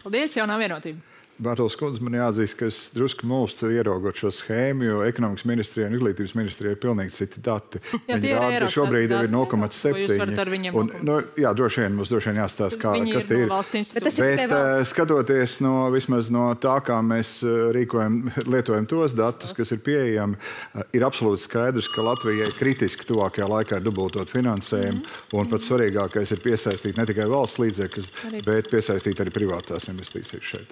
Paldies, jaunā vienotība.
Bārtaļs kundze, man jāatzīst, ka es drusku mulstu ieraugot šo schēmu, jo ekonomikas ministrijai un izglītības ministrijai ir pilnīgi citi dati. Viņi rāda, ka šobrīd jau ir 0,7. Jā, droši vien jāstāsta, kas tie ir. Bet skatoties vismaz no tā, kā mēs lietojam tos datus, kas ir pieejami, ir absolūti skaidrs, ka Latvijai kritiski tuvākajā laikā ir dubultot finansējumu, un pats svarīgākais ir piesaistīt ne tikai valsts līdzekļus, bet piesaistīt arī privātās investīcijas šeit.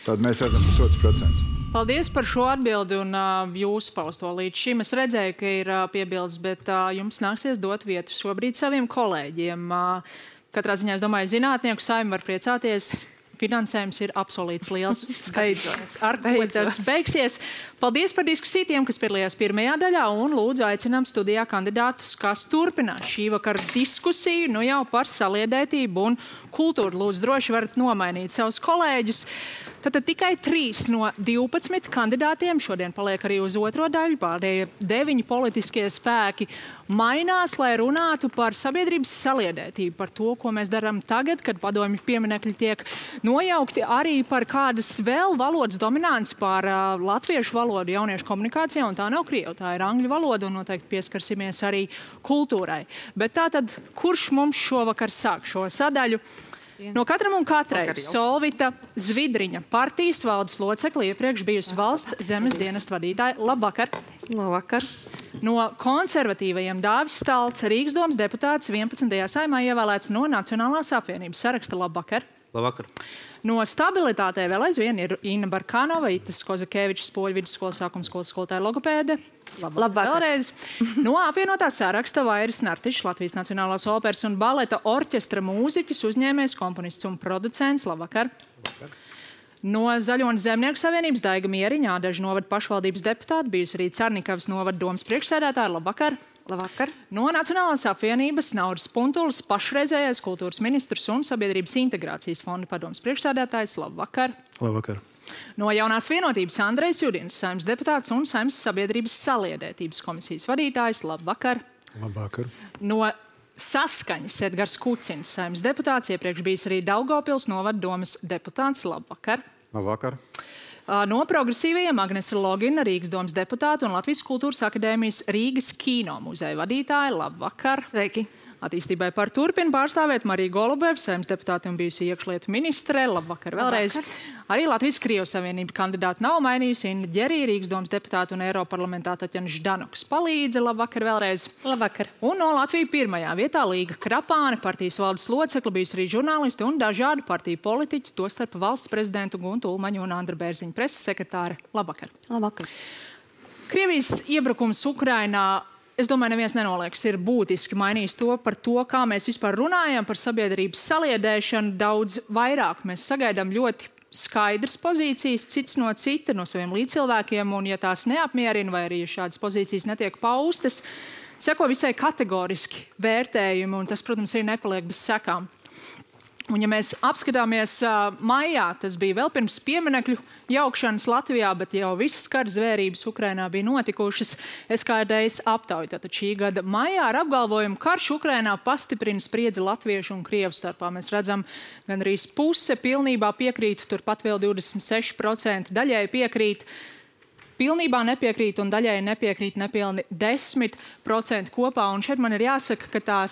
Tad mēs redzam 1,5%.
Paldies par šo atbildi un jūsu pausto līdz šim. Es redzēju, ka ir piebildes, bet jums nāksies dot vietu šobrīd saviem kolēģiem. Katrā ziņā, es domāju, zinātnieku saima var priecāties. Finansējums ir apsolīts liels. Skaidrs, ar ko tas beigsies. Paldies par diskusiju tiem, kas piedalījās pirmajā daļā, un lūdzu aicinām studijā kandidātus, kas turpinās šī vakara diskusiju, nu jau par saliedētību un kultūru. Lūdzu, droši varat nomainīt savus kolēģus. Tātad tikai 3 no 12 kandidātiem šodien paliek arī uz otro daļu. Pārējie 9 politiskie spēki mainās, lai runātu par sabiedrības saliedētību, par to, ko mēs darām tagad, kad padomju pieminekļi tiek nojaukti, arī par kādas vēl valodas dominants pār latviešu valodu jauniešu komunikācijā, un tā nav krievu, tā ir angļu valoda, un noteikti pieskarsimies arī kultūrai. Bet tātad, kurš mums šovakar sāk šo sadaļu? No katram un katrai Solvita Zvidriņa, partijas valdes locekli, iepriekš bijusi valsts zemes dienesta vadītāja. Labvakar!
Labvakar!
No konservatīvajiem Dāvis Stalts, Rīgas domas deputāts 11. saimā ievēlēts no Nacionālās apvienības saraksta. Labvakar!
Labvakar!
No stabilitātē vēl aizvien ir Inna Barkanova, Itas Kozakevičs, Poļu vidusskolas sākuma skolas skolotāja logopēde. Labvakar! Vēlreiz. No apvienotā saraksta Vairis Nartišs, Latvijas Nacionālās operas un baleta orķestra mūziķis, uzņēmējs, komponists un producents. Labvakar! Labvakar! No Zaļo un Zemnieku savienības Daiga Mieriņa, Ādažu novada pašvaldības deputāta, bijusi arī Carnikavas novada domas priekšsēdētāja. Labvakar!
Labvakar!
No Nacionālās apvienības Nauris Puntulis, pašreizējais kultūras ministrs un sabiedrības integrācijas fonda padomas priekšsēdētājs. Labvakar!
Labvakar!
No Jaunās vienotības Andrejs Judins, saimnes deputāts un saimnes sabiedrības saliedētības komisijas vadītājs. Labvakar!
Labvakar!
No Saskaņas Edgars Kucins, saimnes deputāts, iepriekš bijis arī Daugavpils novada domas deputāts. Labvakar!
Labvakar!
No progresīvajiem Agnese Logina, Rīgas domas deputāta un Latvijas kultūras akadēmijas Rīgas kino muzeja vadītāja. Labvakar!
Sveiki!
Attīstībai par turpinu pārstāvēt Marija Golubeva, saimnes deputāte un bijusi iekšlietu ministre. Labvakar vēlreiz. Labvakar. Arī Latvijas Krievijas Savienība kandidāta nav mainījusi. Inna Ģerija, Rīgas domas deputāta un Eiroparlamentā Taķena Ždanoks palīdze. Labvakar vēlreiz.
Labvakar.
Un no Latvijas pirmajā vietā Līga Krapāne, partijas valdes locekla, bijusi arī žurnālisti un dažādu partiju politiķi, tostarp valsts prezidentu Guntu Ulmaņu un Andra Bērziņa preses sekretāre. Labvakar.
Labvakar.
Krievijas iebrukums Ukrainā, es domāju, neviens nenolieks, ir būtiski mainījis to par to, kā mēs vispār runājam par sabiedrības saliedēšanu daudz vairāk. Mēs sagaidām ļoti skaidras pozīcijas, cits no cita, no saviem līdzcilvēkiem, un ja tās neapmierina, vai arī ja šādas pozīcijas netiek paustas, seko visai kategoriski vērtējumi, un tas, protams, arī nepaliek bez sekām. Un, ja mēs apskatāmies maijā, tas bija vēl pirms pieminekļu jaukšanas Latvijā, bet jau visas kara zvērības Ukrainā bija notikušas. SKDS aptauja tātad šī gada maijā ar apgalvojumu, karš Ukrainā pastiprina spriedzi latviešu un krievu starpā. Mēs redzam, gan arī puse pilnībā piekrīt, turpat vēl 26%, daļai piekrīt, pilnībā nepiekrīt un daļai nepiekrīt nepilni 10% kopā. Un šeit man ir jāsaka, ka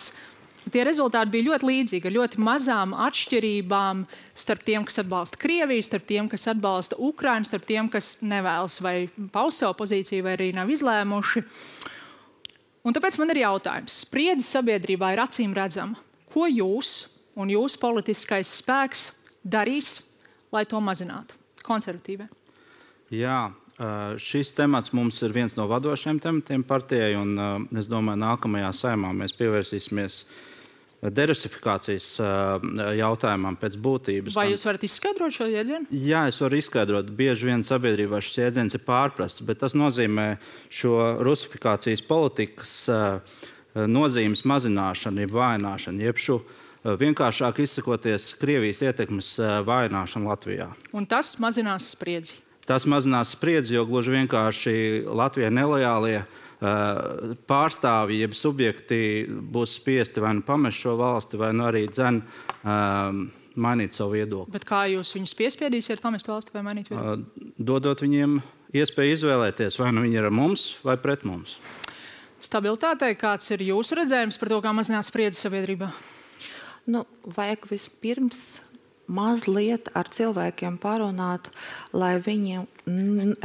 tie rezultāti bija ļoti līdzīgi, ar ļoti mazām atšķirībām starp tiem, kas atbalsta Krieviju, starp tiem, kas atbalsta Ukrainu, starp tiem, kas nevēlas vai paust savu pozīciju, vai arī nav izlēmuši. Un tāpēc man ir jautājums. Spriedze sabiedrībā ir acīm redzama. Ko jūs un jūsu politiskais spēks darīs, lai to mazinātu? Konservatīvie.
Jā, Šis temats mums ir viens no vadošajiem tematiem partijai, un es domāju, nākamajā saimā mēs pievērsīsimies derusifikācijas jautājumam pēc būtības.
Vai jūs varat izskaidrot šo jēdzienu?
Jā, es varu izskaidrot. Bieži vien sabiedrībā šis jēdziens ir pārprasts, bet tas nozīmē šo rusifikācijas politikas nozīmes mazināšanu, jeb vājināšanu, jeb šo vienkāršāk izsakoties Krievijas ietekmes vājināšanu Latvijā.
Un tas mazinās spriedzi?
Tas mazinās spriedzi, jo gluži vienkārši Latvijai nelojālie pārstāvji, jeb subjekti būs spiesti vai nu pamest šo valsti, vai nu arī mainīt savu viedokli.
Bet kā jūs viņus piespiedīsiet pamest valsti vai mainīt viedokli?
Dodot viņiem iespēju izvēlēties, vai nu viņi ir ar mums vai pret mums.
Stabilitātei, kāds ir jūsu redzējums par to, kā mazināt spriedzi sabiedrībā?
Vajag vispirms mazliet ar cilvēkiem parunāt, lai viņiem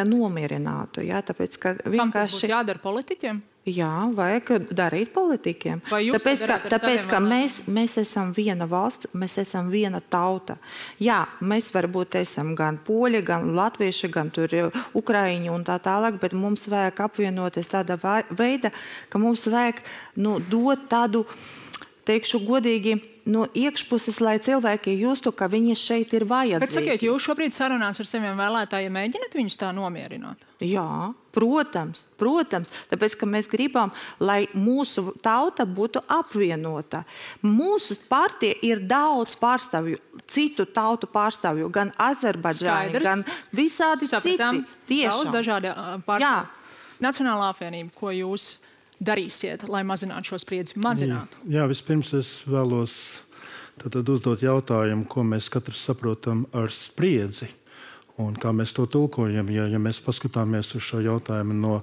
nomierinātu. Ja? Tāpēc, ka vienkārši...
Kam tas būtu jādara politiķiem?
Jā, vajag darīt politiķiem. Tāpēc, ka mēs esam viena valsts, mēs esam viena tauta. Jā, mēs varbūt esam gan poļi, gan latvieši, gan tur ukraiņi un tā tālāk, bet mums vajag apvienoties tādā veida, ka mums vajag dot tādu, teikšu godīgi, no iekšpuses, lai cilvēki justu, ka viņi šeit ir vajadzīgi.
Bet sakiet, jūs šobrīd sarunās ar saviem vēlētājiem mēģināt viņus tā nomierināt?
Jā, protams. Tāpēc, ka mēs gribam, lai mūsu tauta būtu apvienota. Mūsu partija ir daudz pārstāvju, citu tautu pārstāvju, gan Azerbaidžāni, gan visādi citi.
Daudz dažādi pārstāvju. Nacionālā apvienība, ko jūs darīsiet, lai mazinātu šo spriedzi?
Jā, vispirms es vēlos uzdot jautājumu, ko mēs katrs saprotam ar spriedzi un kā mēs to tulkojam. Ja mēs paskatāmies uz šo jautājumu no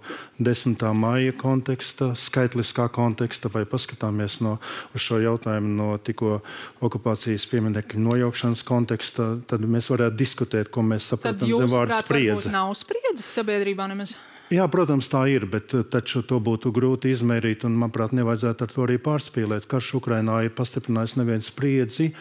10. maija konteksta, skaitliskā konteksta, vai paskatāmies uz šo jautājumu no tikko okupācijas pieminekļu nojaukšanas konteksta, tad mēs varētu diskutēt, ko mēs saprotam zem vārdu spriedze.
Tad jūs, prāt, nav spriedzes sabiedrībā nemaz?
Jā, protams, tā ir, bet taču to būtu grūti izmērīt, un, manuprāt, nevajadzētu ar to arī pārspīlēt. Karš Ukrainā ir pastiprinājis nevienu spriedzi.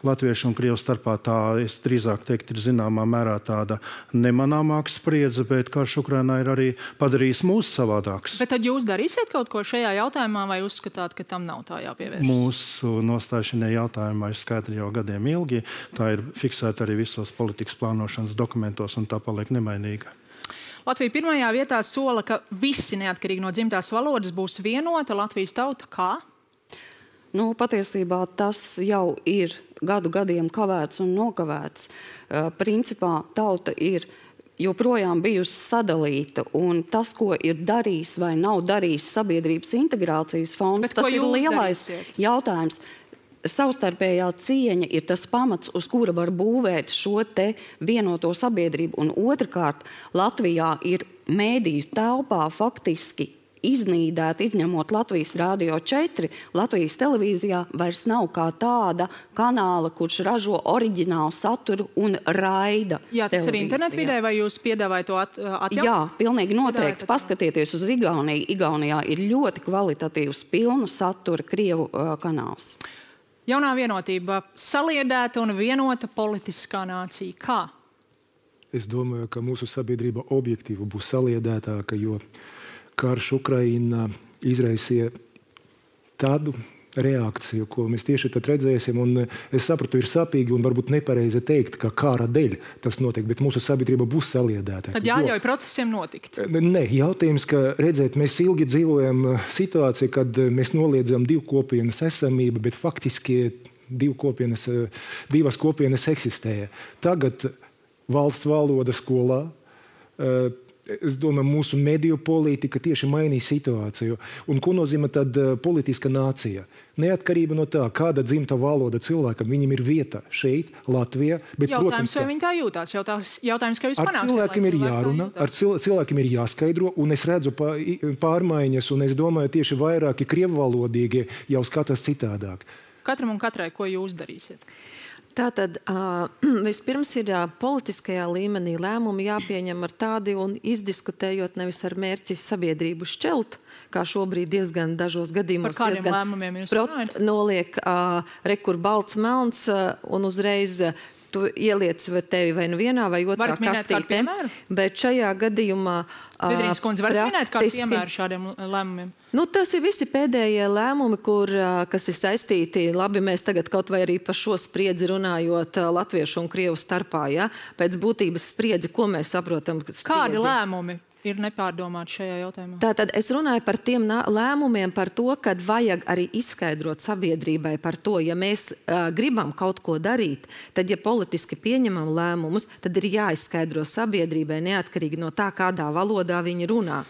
Latviešu un Krievu starpā tā, es drīzāk teikt, ir zināmā mērā tāda nemanāmāka spriedze, bet karš Ukrainā ir arī padarījis mūs savādāks.
Bet tad jūs darīsiet kaut ko šajā jautājumā, vai uzskatāt, ka tam nav tā jāpievērš?
Mūsu nostāja šajā jautājumā ir skaidra jau gadiem ilgi. Tā ir fiksēta arī visos politikas plānošanas dokumentos, un tā paliek nemainīga.
Latvija pirmajā vietā sola, ka visi neatkarīgi no dzimtās valodas būs vienota Latvijas tauta. Kā?
Patiesībā tas jau ir gadiem kavēts un nokavēts. Principā tauta ir joprojām bijusi sadalīta, un tas, ko ir darījis vai nav darījis sabiedrības integrācijas fonds, tas ir lielais jautājums. Savstarpējā cieņa ir tas pamats, uz kura var būvēt šo te vienoto sabiedrību. Un otrkārt, Latvijā ir mēdīju telpā faktiski iznīdēta, izņemot Latvijas Rādio 4, Latvijas televīzijā vairs nav kā tāda kanāla, kurš ražo oriģinālu saturu un raida.
Jā, tas ir internetvidē, vai jūs piedāvājat to atjaunot?
Jā, pilnīgi noteikti. Paskatieties uz Igauniju. Igaunijā ir ļoti kvalitatīvs pilnu satura Krievu kanāls.
Jaunā vienotība, saliedēta un vienota politiskā nācija. Kā?
Es domāju, ka mūsu sabiedrība objektīvi būs saliedētāka, jo karš Ukrainā izraisīja tādu reakciju, ko mēs tieši tad redzēsim. Un es sapratu, ir sāpīgi un varbūt nepareizi teikt, ka kara dēļ tas notiek, bet mūsu sabiedrība būs saliedēta.
Tad jāļauj procesiem notikt.
Nē, jautājums, ka redzēt, mēs ilgi dzīvojam situāciju, kad mēs noliedzam divu kopienas esamību, bet faktiski divas kopienas eksistēja. Tagad valsts valoda skolā, es domāju, mūsu mediju politika tieši mainīja situāciju. Un ko nozīmē tad politiska nācija? Neatkarība no tā, kāda dzimta valoda cilvēkam, viņam ir vieta šeit, Latvijā. Bet,
jautājums, vai viņi tā jūtās? Jautājums, kā jūs panāksiet?
Ar cilvēkiem ir jārunā, ar cilvēkiem ir jāskaidro, un es redzu pārmaiņas, un es domāju, tieši vairāki krievvalodīgi jau skatās citādāk.
Katram un katrai, ko jūs darīsiet?
Tātad vispirms ir politiskajā līmenī lēmumi jāpieņem ar tādi un izdiskutējot nevis ar mērķi sabiedrību šķelt, kā šobrīd diezgan dažos gadījumos.
Par kādiem lēmumiem jūs runājat?
Noliek rekur balts melns un uzreiz tu ieliec tevi vai nu vienā vai otrā kastītē. Bet šajā gadījumā
Svidrīgas kundze, varat minēt kādu piemēru šādiem lēmumiem?
Nu, tas ir visi pēdējie lēmumi, kas ir saistīti, labi, mēs tagad kaut vai arī par šo spriedzi runājot latviešu un krievu starpā, ja? Pēc būtības spriedzi, ko mēs saprotam?
Kādi lēmumi ir nepārdomāti šajā jautājumā?
Tātad es runāju par tiem lēmumiem, par to, kad vajag arī izskaidrot sabiedrībai par to, ja mēs gribam kaut ko darīt, tad, ja politiski pieņemam lēmumus, tad ir jāizskaidro sabiedrībai neatkarīgi no tā, kādā valodā viņi runā,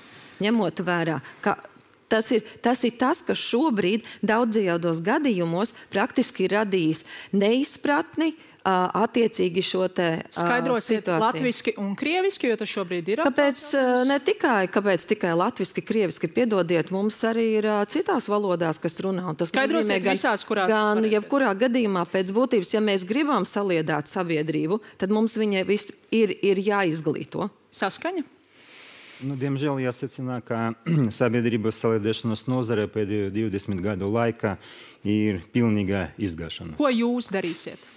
ņemot vērā, ka tas ir tas, kas šobrīd daudzajos gadījumos praktiski ir radījis neizpratni, attiecīgi šo te
Skaidrosiet
situāciju.
latviski un krieviski, jo tas šobrīd ir
Kāpēc tikai latviski, krieviski, piedodiet, mums arī ir citās valodās, kas runā. Un tas
Skaidrosiet
nozīmē,
visās, kurās
gan jebkurā gadījumā pēc būtības, ja mēs gribam saliedāt sabiedrību, tad mums viņai ir jāizglīto.
Saskaņa?
Nu, diemžēl jāsacina, ka sabiedrības saliedēšanas nozare pēdējo 20 gadu laikā ir pilnīga izgāšana.
Ko jūs darīsiet?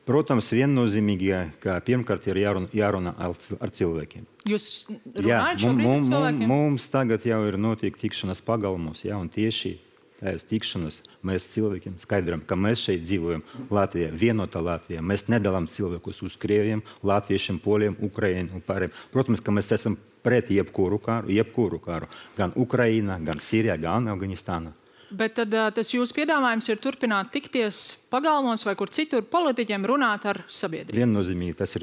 Protams, viennozīmīgi, ka pirmkārt ir jārunā ar cilvēkiem.
Jūs runājat šobrīd ar cilvēkiem?
Mums tagad jau ir notiek tikšanas pagalmos, ja, un tieši tādas tikšanas mēs cilvēkiem skaidram, ka mēs šeit dzīvojam Latvijā, vienotā Latvijā. Mēs nedalām cilvēkus uz krieviem, latviešiem, poliem, ukraiņiem un pārējiem. Protams, ka mēs esam pret jebkuru kāru, gan Ukrainā, gan Sīrijā, gan Afganistānā.
Bet tad tas jūsu piedāvājums ir turpināt tikties pagalmos vai kur citur politiķiem runāt ar sabiedrību?
Viennozīmīgi, tas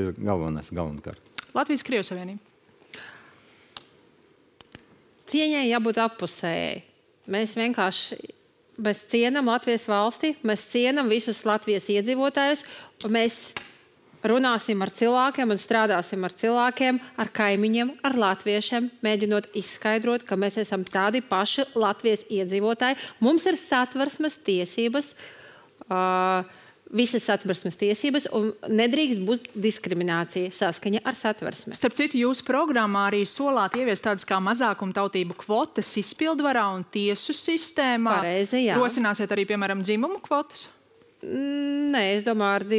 ir galvenokārt.
Latvijas-Krievijas Savienība.
Cieņai jābūt appusējai. Mēs cienam Latvijas valsti, mēs cienam visus Latvijas iedzīvotājus, un mēs runāsim ar cilvēkiem un strādāsim ar cilvēkiem, ar kaimiņiem, ar latviešiem, mēģinot izskaidrot, ka mēs esam tādi paši Latvijas iedzīvotāji. Mums ir satversmes tiesības, visas satversmes tiesības, un nedrīkst būt diskriminācija saskaņa ar satversmi.
Starp citu, jūsu programmā arī solāt ieviest tādas kā mazākumtautību kvotas izpildvarā un tiesu sistēmā.
Pareizi, jā.
Rosināsiet arī, piemēram, dzimumu kvotas?
Nē, es domāju,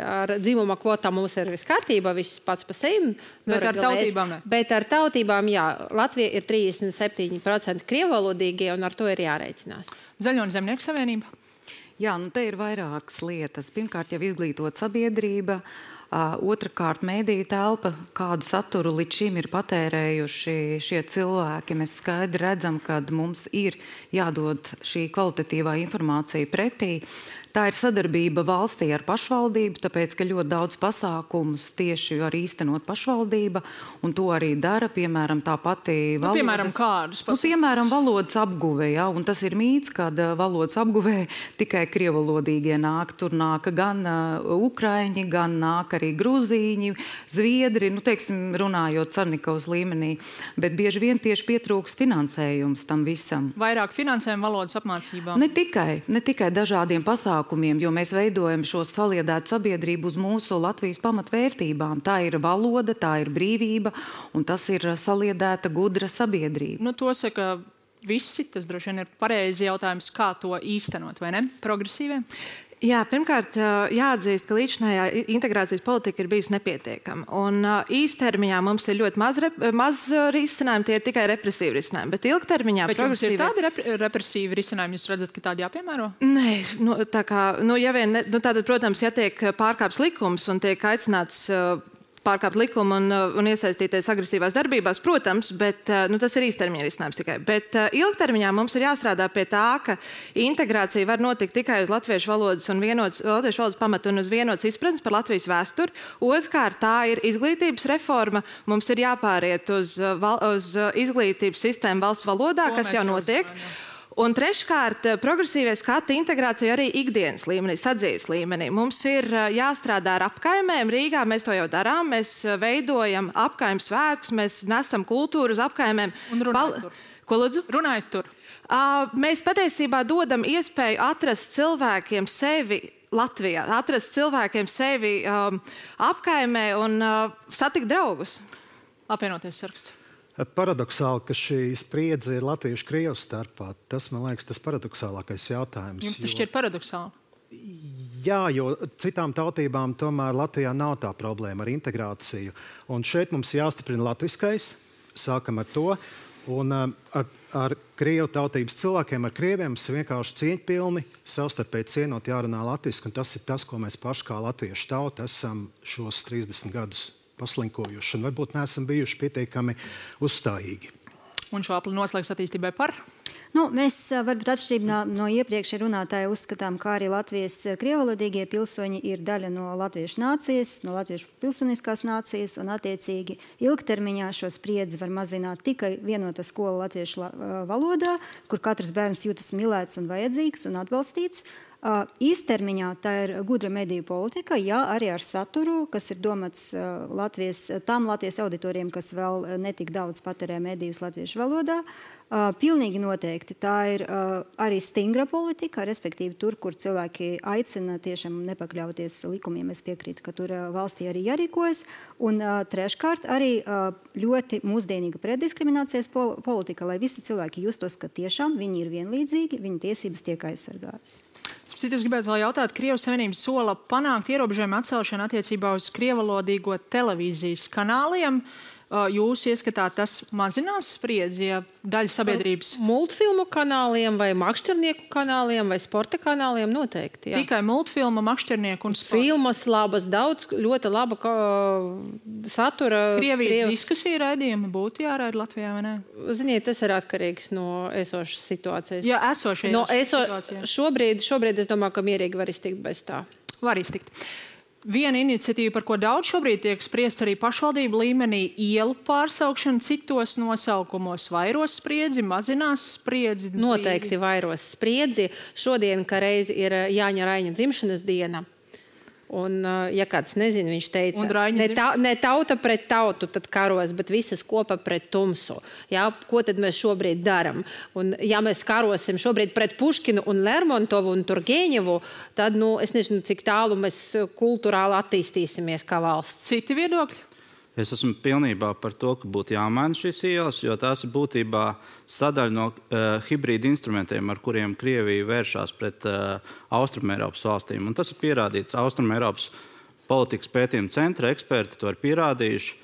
ar dzimuma kvotām mums ir viss kārtībā, viss pats pa sevi.
Bet ar tautībām ne?
Bet ar tautībām, jā. Latvija ir 37% krievvalodīgie, un ar to ir jārēķinās.
Zaļo un Zemnieku savienība?
Jā, nu te ir vairākas lietas. Pirmkārt, jau izglītot sabiedrība. Otrakārt, mēdīja telpa, kādu saturu līdz šim ir patērējuši šie cilvēki. Mēs skaidri redzam, ka mums ir jādod šī kvalitatīvā informācija pretī. Tā ir sadarbība valstī ar pašvaldību, tāpēc, ka ļoti daudz pasākumus tieši var īstenot pašvaldība, un to arī dara, piemēram, tā pati valodas...
piemēram, kādus pasākumus?
Piemēram, valodas apguvē, ja, un tas ir mīts, kad valodas apguvē tikai krievalodīgie nāk. Tur nāk gan ukraiņi, gan nāk arī grūzīņi, zviedri, teiksim, runājot Carnikovas līmenī, bet bieži vien tieši pietrūks finansējums tam visam.
Vairāk finansējumu valodas apmācībām?
Ne tikai dažādiem pasākumiem, jo mēs veidojam šo saliedētu sabiedrību uz mūsu Latvijas pamatvērtībām. Tā ir valoda, tā ir brīvība, un tas ir saliedēta gudra sabiedrība.
To saka visi, tas droši vien ir pareizi jautājums, kā to īstenot, vai ne? Progresīviem?
Jā, pirmkārt, jāatzīst, ka līdzinājā integrācijas politika ir bijusi nepietiekama. Un īstermiņā mums ir ļoti maz risinājumi, tie ir tikai represīvi risinājumi. Bet ilgtermiņā
progresīvi... Bet jums ir tādi represīvi risinājumi, jūs redzat, ka tādi jāpiemēro?
Nē, tātad, protams, ja tiek pārkāpts likums un tiek aicināts pārkāpt likumu un iesaistīties agresīvās darbībās, protams, bet tas ir īstermiņa risinājums tikai. Bet ilgtermiņā mums ir jāstrādā pie tā, ka integrācija var notikt tikai uz latviešu valodas un latviešu valodas pamatu un uz vienotas izpratnes par Latvijas vēsturi. Otrkārt, tā ir izglītības reforma. Mums ir jāpāriet uz izglītības sistēmu valsts valodā, kas jau notiek. Un treškārt, progresīvie skati integrācija arī ikdienas līmenī, sadzīves līmenī. Mums ir jāstrādā ar apkaimēm. Rīgā mēs to jau darām. Mēs veidojam apkaimes svētkus, mēs nesam kultūru uz apkaimēm.
Un runājot tur.
Ko lūdzu?
Runājot tur.
Mēs patiesībā dodam iespēju atrast cilvēkiem sevi Latvijā, atrast cilvēkiem sevi apkaimē un satikt draugus.
Apvienoties saraksts.
Paradoxāli, ka šī spriedze ir latviešu-krievu starpā. Tas, man liekas, tas paradoxālākais jautājums.
Jums tas šķiet paradoxāli?
Jā, jo citām tautībām tomēr Latvijā nav tā problēma ar integrāciju. Un šeit mums jāstiprina latviskais, sākam ar to. Un ar krievu tautības cilvēkiem, ar krieviem, mums vienkārši cieņpilni, savstarpēji cienot jārunā latviski. Un tas ir tas, ko mēs paši kā latviešu tauta esam šos 30 gadus paslinkojuši. Un varbūt neesam bijuši pietiekami uzstājīgi.
Un šo apli noslēgs attīstībai par?
Mēs varbūt atšķirībā no iepriekšējā runātāja uzskatām, ka arī Latvijas krievalodīgie pilsoņi ir daļa no latviešu nācijas, no latviešu pilsoniskās nācijas, un attiecīgi ilgtermiņā šo spriedzi var mazināt tikai vienota skola latviešu valodā, kur katrs bērns jūtas mīlēts un vajadzīgs un atbalstīts. Īstermiņā tā ir gudra mediju politika, jā, arī ar saturu, kas ir domāts tām Latvijas auditoriem, kas vēl netik daudz patērē medijus latviešu valodā. Pilnīgi noteikti tā ir arī stingra politika, respektīvi tur, kur cilvēki aicina tiešām nepakļauties likumiem. Es piekrītu, ka tur valstī arī jārīkojas. Un treškārt arī ļoti mūsdienīga preddiskriminācijas politika, lai visi cilvēki justos, ka tiešām viņi ir vienlīdzīgi, viņu tiesības tiek aizsargātas.
Es gribētu vēl jautāt, Krievijas Savienība sola panākt ierobežojumu atcelšanu attiecībā uz krievalodīgo televīzijas kanāliem. Jūs ieskatāt, tas mazinās spriedzi, ja daļa sabiedrības...
Multfilmu kanāliem vai makšķernieku kanāliem vai sporta kanāliem noteikti, jā.
Tikai multfilma, makšķernieku un sporta.
Filmas labas, daudz, ļoti laba satura.
Krievijas diskusija raidījumi būtu jāraida Latvijā, vai ne?
Ziniet, tas ir atkarīgs no esošas situācijas.
Jā, esošajās situācijās.
Šobrīd es domāju, ka mierīgi var iztikt bez tā.
Var iztikt. Viena iniciatīva, par ko daudz šobrīd tiek spriest arī pašvaldību līmenī, ielu pārsaukšana citos nosaukumos, vairos spriedzi, mazinās spriedzi.
Noteikti vairos spriedzi. Šodien, ka reiz ir Jāņa Raiņa dzimšanas diena. Un, ja kāds nezina, viņš teica, ne tauta pret tautu tad karos, bet visas kopā pret tumsu. Jā, ko tad mēs šobrīd daram? Un, ja mēs karosim šobrīd pret Puškinu un Lermontovu un Turgeņevu, tad, es nezinu, cik tālu mēs kulturāli attīstīsimies kā valsts.
Citi viedokļi?
Es esmu pilnībā par to, ka būtu jāmaina šīs ielas, jo tās ir būtībā sadaļa no hibrīda instrumentiem, ar kuriem Krievija vēršās pret Austrumēropas valstīm. Un tas ir pierādīts. Austrumēropas politikas pētījuma centra eksperti to ir pierādījuši.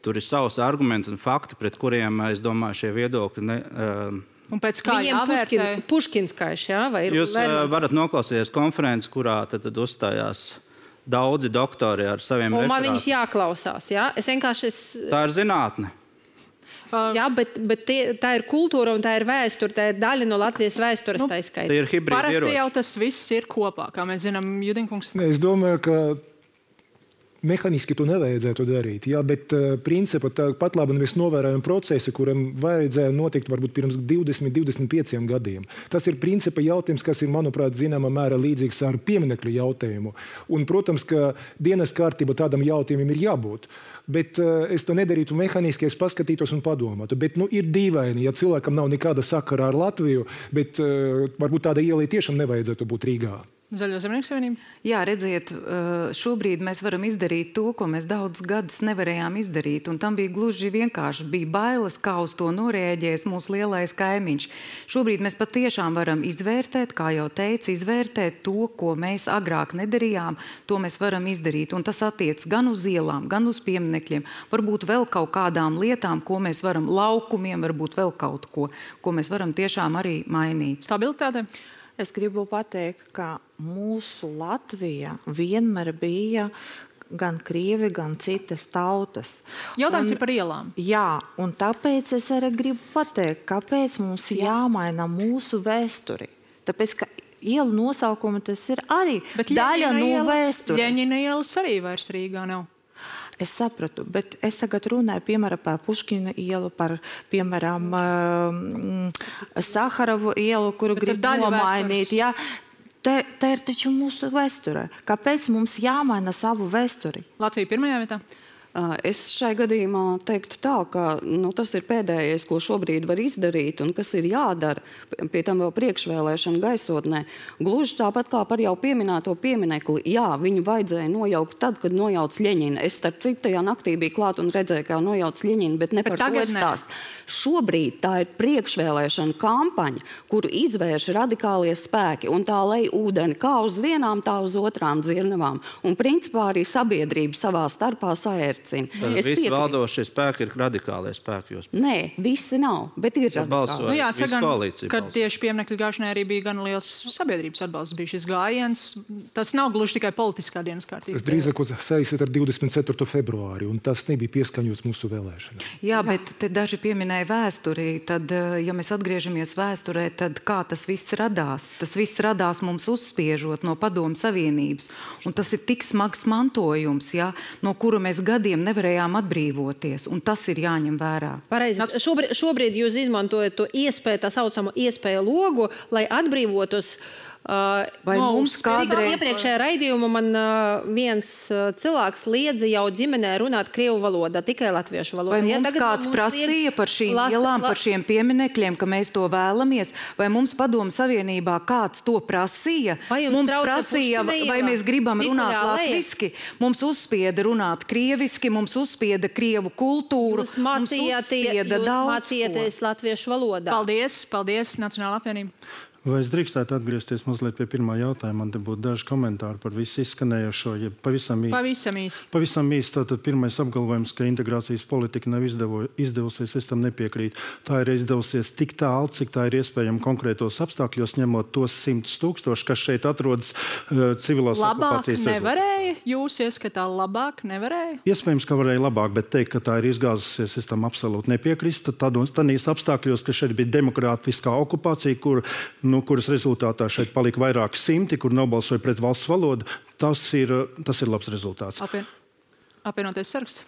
Tur ir savs argumenti un fakti, pret kuriem, es domāju, šie viedokļi
un pēc kā jāvērtē?
Puškinskaiši, jā? Vai
jūs varat noklausīties konferenci, kurā tad uzstājās daudzi doktori ar saviem referātiem.
Un man viņus jāklausās, jā? Tā
ir zinātne.
Jā, bet tā ir kultūra un tā ir vēsture, tā ir daļa no Latvijas vēstures, tā izskaita.
Tā ir hibrīda ieroči.
Parasti jau tas viss ir kopā, kā mēs zinām, Judinkungs.
Es domāju, ka mehāniski to nevajadzētu darīt, jā, bet principā pat labi mēs novērojam procesu, kuram vajadzēja notikt varbūt pirms 20-25 gadiem. Tas ir principā jautājums, kas ir, manuprāt, zināmā mērā līdzīgs ar pieminekļu jautājumu. Un, protams, ka dienas kārtība tādam jautājumam ir jābūt. Bet es to nedarītu mehāniski, es paskatītos un padomātu. Bet ir dīvaini, ja cilvēkam nav nekāda sakara ar Latviju, bet varbūt tāda ielai tiešām nevajadzētu būt Rīgā.
Zaļo Zemnieku savienību?
Jā, redziet, šobrīd mēs varam izdarīt to, ko mēs daudz gadus nevarējām izdarīt. Un tam bija gluži vienkārši. Bija bailes, kā uz to norēģēs mūsu lielais kaimiņš. Šobrīd mēs patiešām varam izvērtēt, kā jau teicu, izvērtēt to, ko mēs agrāk nedarījām. To mēs varam izdarīt. Un tas attiec gan uz ielām, gan uz pieminekļiem. Varbūt vēl kaut kādām lietām, ko mēs varam, laukumiem, varbūt vēl kaut ko mēs varam tiešām arī mainīt.
Stabilitāte?
Es gribu pateikt, ka mūsu Latvija vienmēr bija gan krievi, gan citas tautas.
Jautājums ir par ielām.
Jā, un tāpēc es arī gribu pateikt, kāpēc mums jāmaina mūsu vēsturi. Tāpēc, ka ielu nosaukumi tas ir arī daļa no vēstures.
Ļeņina ielas arī vairs Rīgā nav.
Es sapratu, bet es tagad runāju, piemēram, par Puškina ielu, par, piemēram, Saharovu ielu, kuru grib nomainīt. Jā. Tā ir taču mūsu vēsture. Kāpēc mums jāmaina savu vēsturi?
Latvija pirmajā vietā?
Es šai gadījumā teiktu tā, ka tas ir pēdējais, ko šobrīd var izdarīt un kas ir jādara, pie tam vēl priekšvēlēšana gaisotnē. Gluži tāpat kā par jau pieminēto pieminekli, jā, viņu vajadzēja nojaukt tad, kad nojauc Ļeņina. Es starp citu tajā naktī biju klāt un redzēju, kā nojauc Ļeņina, bet ne par to stāst. Šobrīd tā ir priekšvēlēšana kampaņa, kuru izvērš radikālie spēki, un tā lej ūdeni kā uz vienām, tā uz otrām dzirnavām. Un principā arī sabiedrība savā starpā saērcina.
Tad visi valdošie spēki ir radikālie spēki.
Nē, visi nav, bet ir radikāli.
Jāsaka, kad tieši pieminekļu gāšanai arī bija gan liels sabiedrības atbalsts, bija šis gājiens. Tas nav gluži tikai politiskā dienas kārtība.
Es drīzāk saistītu ar 24. februāri, un tas nebija pieskaņots mūsu vēlēšanām.
Jā, bet te daži pieminēja vēsturī. Tad, ja mēs atgriežamies vēsturē, tad kā tas viss radās? Tas viss radās mums uzspiežot no Padomu Savienības. Un tas ir tik smags mantojums, ja, no kura mēs gadiem nevarējām atbrīvoties, un tas ir jāņem vērā.
Pareizi. Šobrīd jūs izmantojat to iespēju, tā saucamo iespēju logu, lai atbrīvotos.
Vai mums kādreiz...
Iepriekšējā raidījumā man viens cilvēks liedza jau ģimenē runāt krievu valodā, tikai latviešu valodā.
Vai mums kāds prasīja par šīm ielām, par šiem pieminekļiem, ka mēs to vēlamies? Vai mums Padomu Savienībā kāds to prasīja? Mums prasīja, vai mēs gribam runāt latviski? Mums uzspieda runāt krieviski, mums uzspieda krievu kultūru, mums uzspieda daudz
mācījāties latviešu valodā.
Paldies, Nacionālā apvienība.
Vai es drīkstētu atgriezties mazliet pie pirmā jautājuma? Man te būtu daži komentāri par visu izskanējošo, ja pavisam īsi. Pavisam īsi. Tātad pirmais apgalvojums, ka integrācijas politika nav izdevusies, es tam nepiekrītu. Tā ir izdevusies tik tālu, cik tā ir iespējama konkrētos apstākļos, ņemot tos 100 000, kas šeit atrodas civilās okupācijas rezultātā.
Nevarēja? Jūs ieskatā labāk nevarēja?
Iespējams, ka varēja labāk, bet teikt, ka tā ir izgāzusies, es tam absolūti nepiekrīstu. Tādīs apstākļos, ka šeit bija demokrātiskā okupācija, kuras rezultātā šeit palika vairāki simti, kur nobalsoja pret valsts valodu, tas ir labs rezultāts.
Apvienotais saraksts.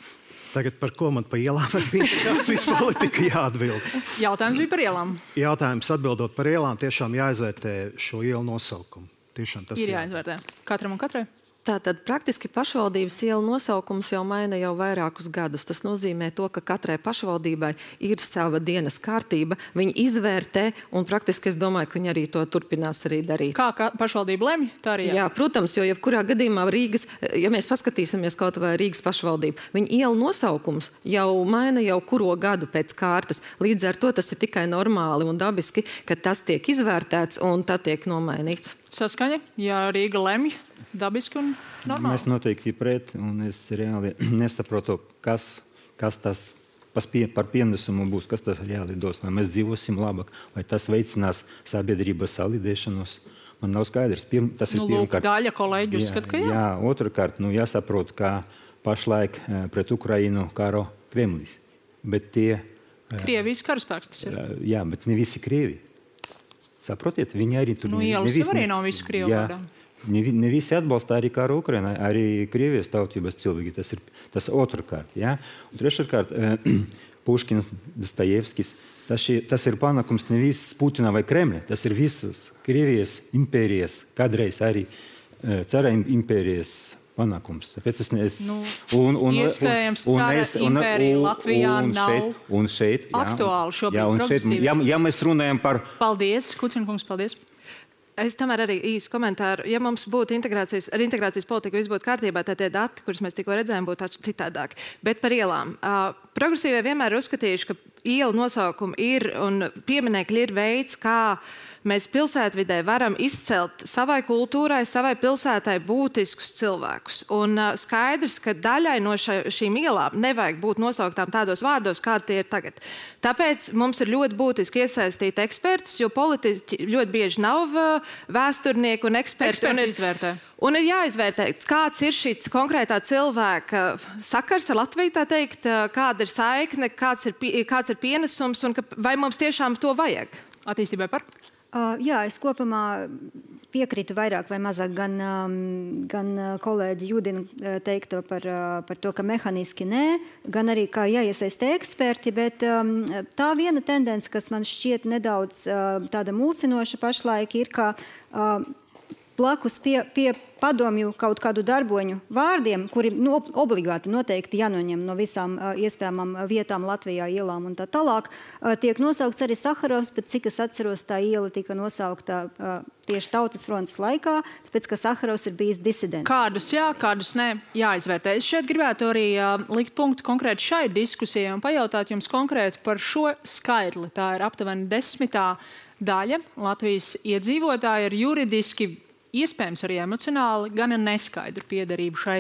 Tagad par ko man pa ielām ar integrācijas politiku jāatbild?
Jautājums bija par ielām.
Jautājums atbildot par ielām, tiešām jāizvērtē šo ielu nosaukumu. Tiešām tas
ir jāizvērtē. Katram un katrai.
Tātad praktiski pašvaldības ielu nosaukums jau maina jau vairākus gadus. Tas nozīmē to, ka katrai pašvaldībai ir sava dienas kārtība. Viņi izvērtē, un praktiski es domāju, ka viņi arī to turpinās arī darīt.
Kā pašvaldība lemj, tā arī
jā. Jā, protams, jo jebkurā gadījumā Rīgas, ja mēs paskatīsimies kaut vai Rīgas pašvaldību, viņa ielu nosaukums jau maina jau kuro gadu pēc kārtas. Līdz ar to tas ir tikai normāli un dabiski, ka tas tiek izvērtēts un tad tiek nomainīts.
Saskaņa, ja Rīga lemj, dabiski un normāli.
Mēs noteikti pret, un es reāli nesaprotu, kas tas par pienesumu būs, kas tas reāli dos, vai mēs dzīvosim labāk, vai tas veicinās sabiedrības salīdēšanos. Man nav skaidrs. Tas ir pirmkārt.
Daļa kolēģi uzskata, ka jā.
Jā, otrkārt, jāsaprot, ka pašlaik pret Ukrainu karo Kremlis. Bet
Krievijas karaspēks tas ir.
Jā, bet ne visi Krievi. Saprotiet, viņi arī tur...
Ielas arī nav visu Krievu vārdā.
Ne visi atbalsta arī karu Ukrainai, arī Krievijas tautības cilvēki. Tas otrkārt, jā. Un treškārt, Puškins, Dostojevskis. Tas ir panākums nevis Putina vai Kremļa, tas ir visas Krievijas impērijas, kādreiz arī cara impērijas panākums.
Iespējams, cara impērija Latvijā nav aktuāli šobrīd progresīvi.
Ja mēs runājam par...
Paldies, Kucinkungs, paldies.
Es tomēr arī īsi komentāru. Ja mums būtu integrācijas politika viss būtu kārtībā, tad tie dati, kurus mēs tikko redzējām, būtu citādāki. Bet par ielām. Progresīvie vienmēr ir uzskatījuši, ka ielu nosaukumi ir un pieminekļi ir veids, kā mēs pilsētvidē varam izcelt savai kultūrai, savai pilsētai būtiskus cilvēkus. Un skaidrs, ka daļai no šīm ielām nevajag būt nosauktām tādos vārdos, kādi tie ir tagad. Tāpēc mums ir ļoti būtiski iesaistīt ekspertus, jo politiķi ļoti bieži nav vēsturnieki un eksperti. Un ir jāizvērtē, kāds ir šī konkrētā cilvēka sakars ar Latviju, tā teikt, kāda ir saikne, kāds ir pienesums un vai mums tiešām to vajag.
Attīstībai par?
Jā, es kopumā piekrītu vairāk vai mazāk gan kolēģi Judina teikto par to, ka mehaniski nē, gan arī kā jāiesaista eksperti, bet tā viena tendence, kas man šķiet nedaudz tāda mulsinoša pašlaik, ir, ka blakus pie padomju kaut kādu darboņu vārdiem, kuri obligāti noteikti jānoņem no visām iespējamām vietām Latvijā, ielām un tā tālāk, tiek nosaukts arī Saharovs, bet cik es atceros, tā iela tika nosaukta tieši Tautas frontes laikā, tāpēc, ka Saharovs ir bijis disidents.
Kādus jā, kādus nē, jāizvērtē. Es šeit gribētu arī likt punktu konkrēti šai diskusijai un pajautāt jums konkrēti par šo skaitli. Tā ir aptuveni 10. daļa Latvijas iedzīvotāji ar juridiski, iespējams arī emocionāli, gan neskaidru piederību šai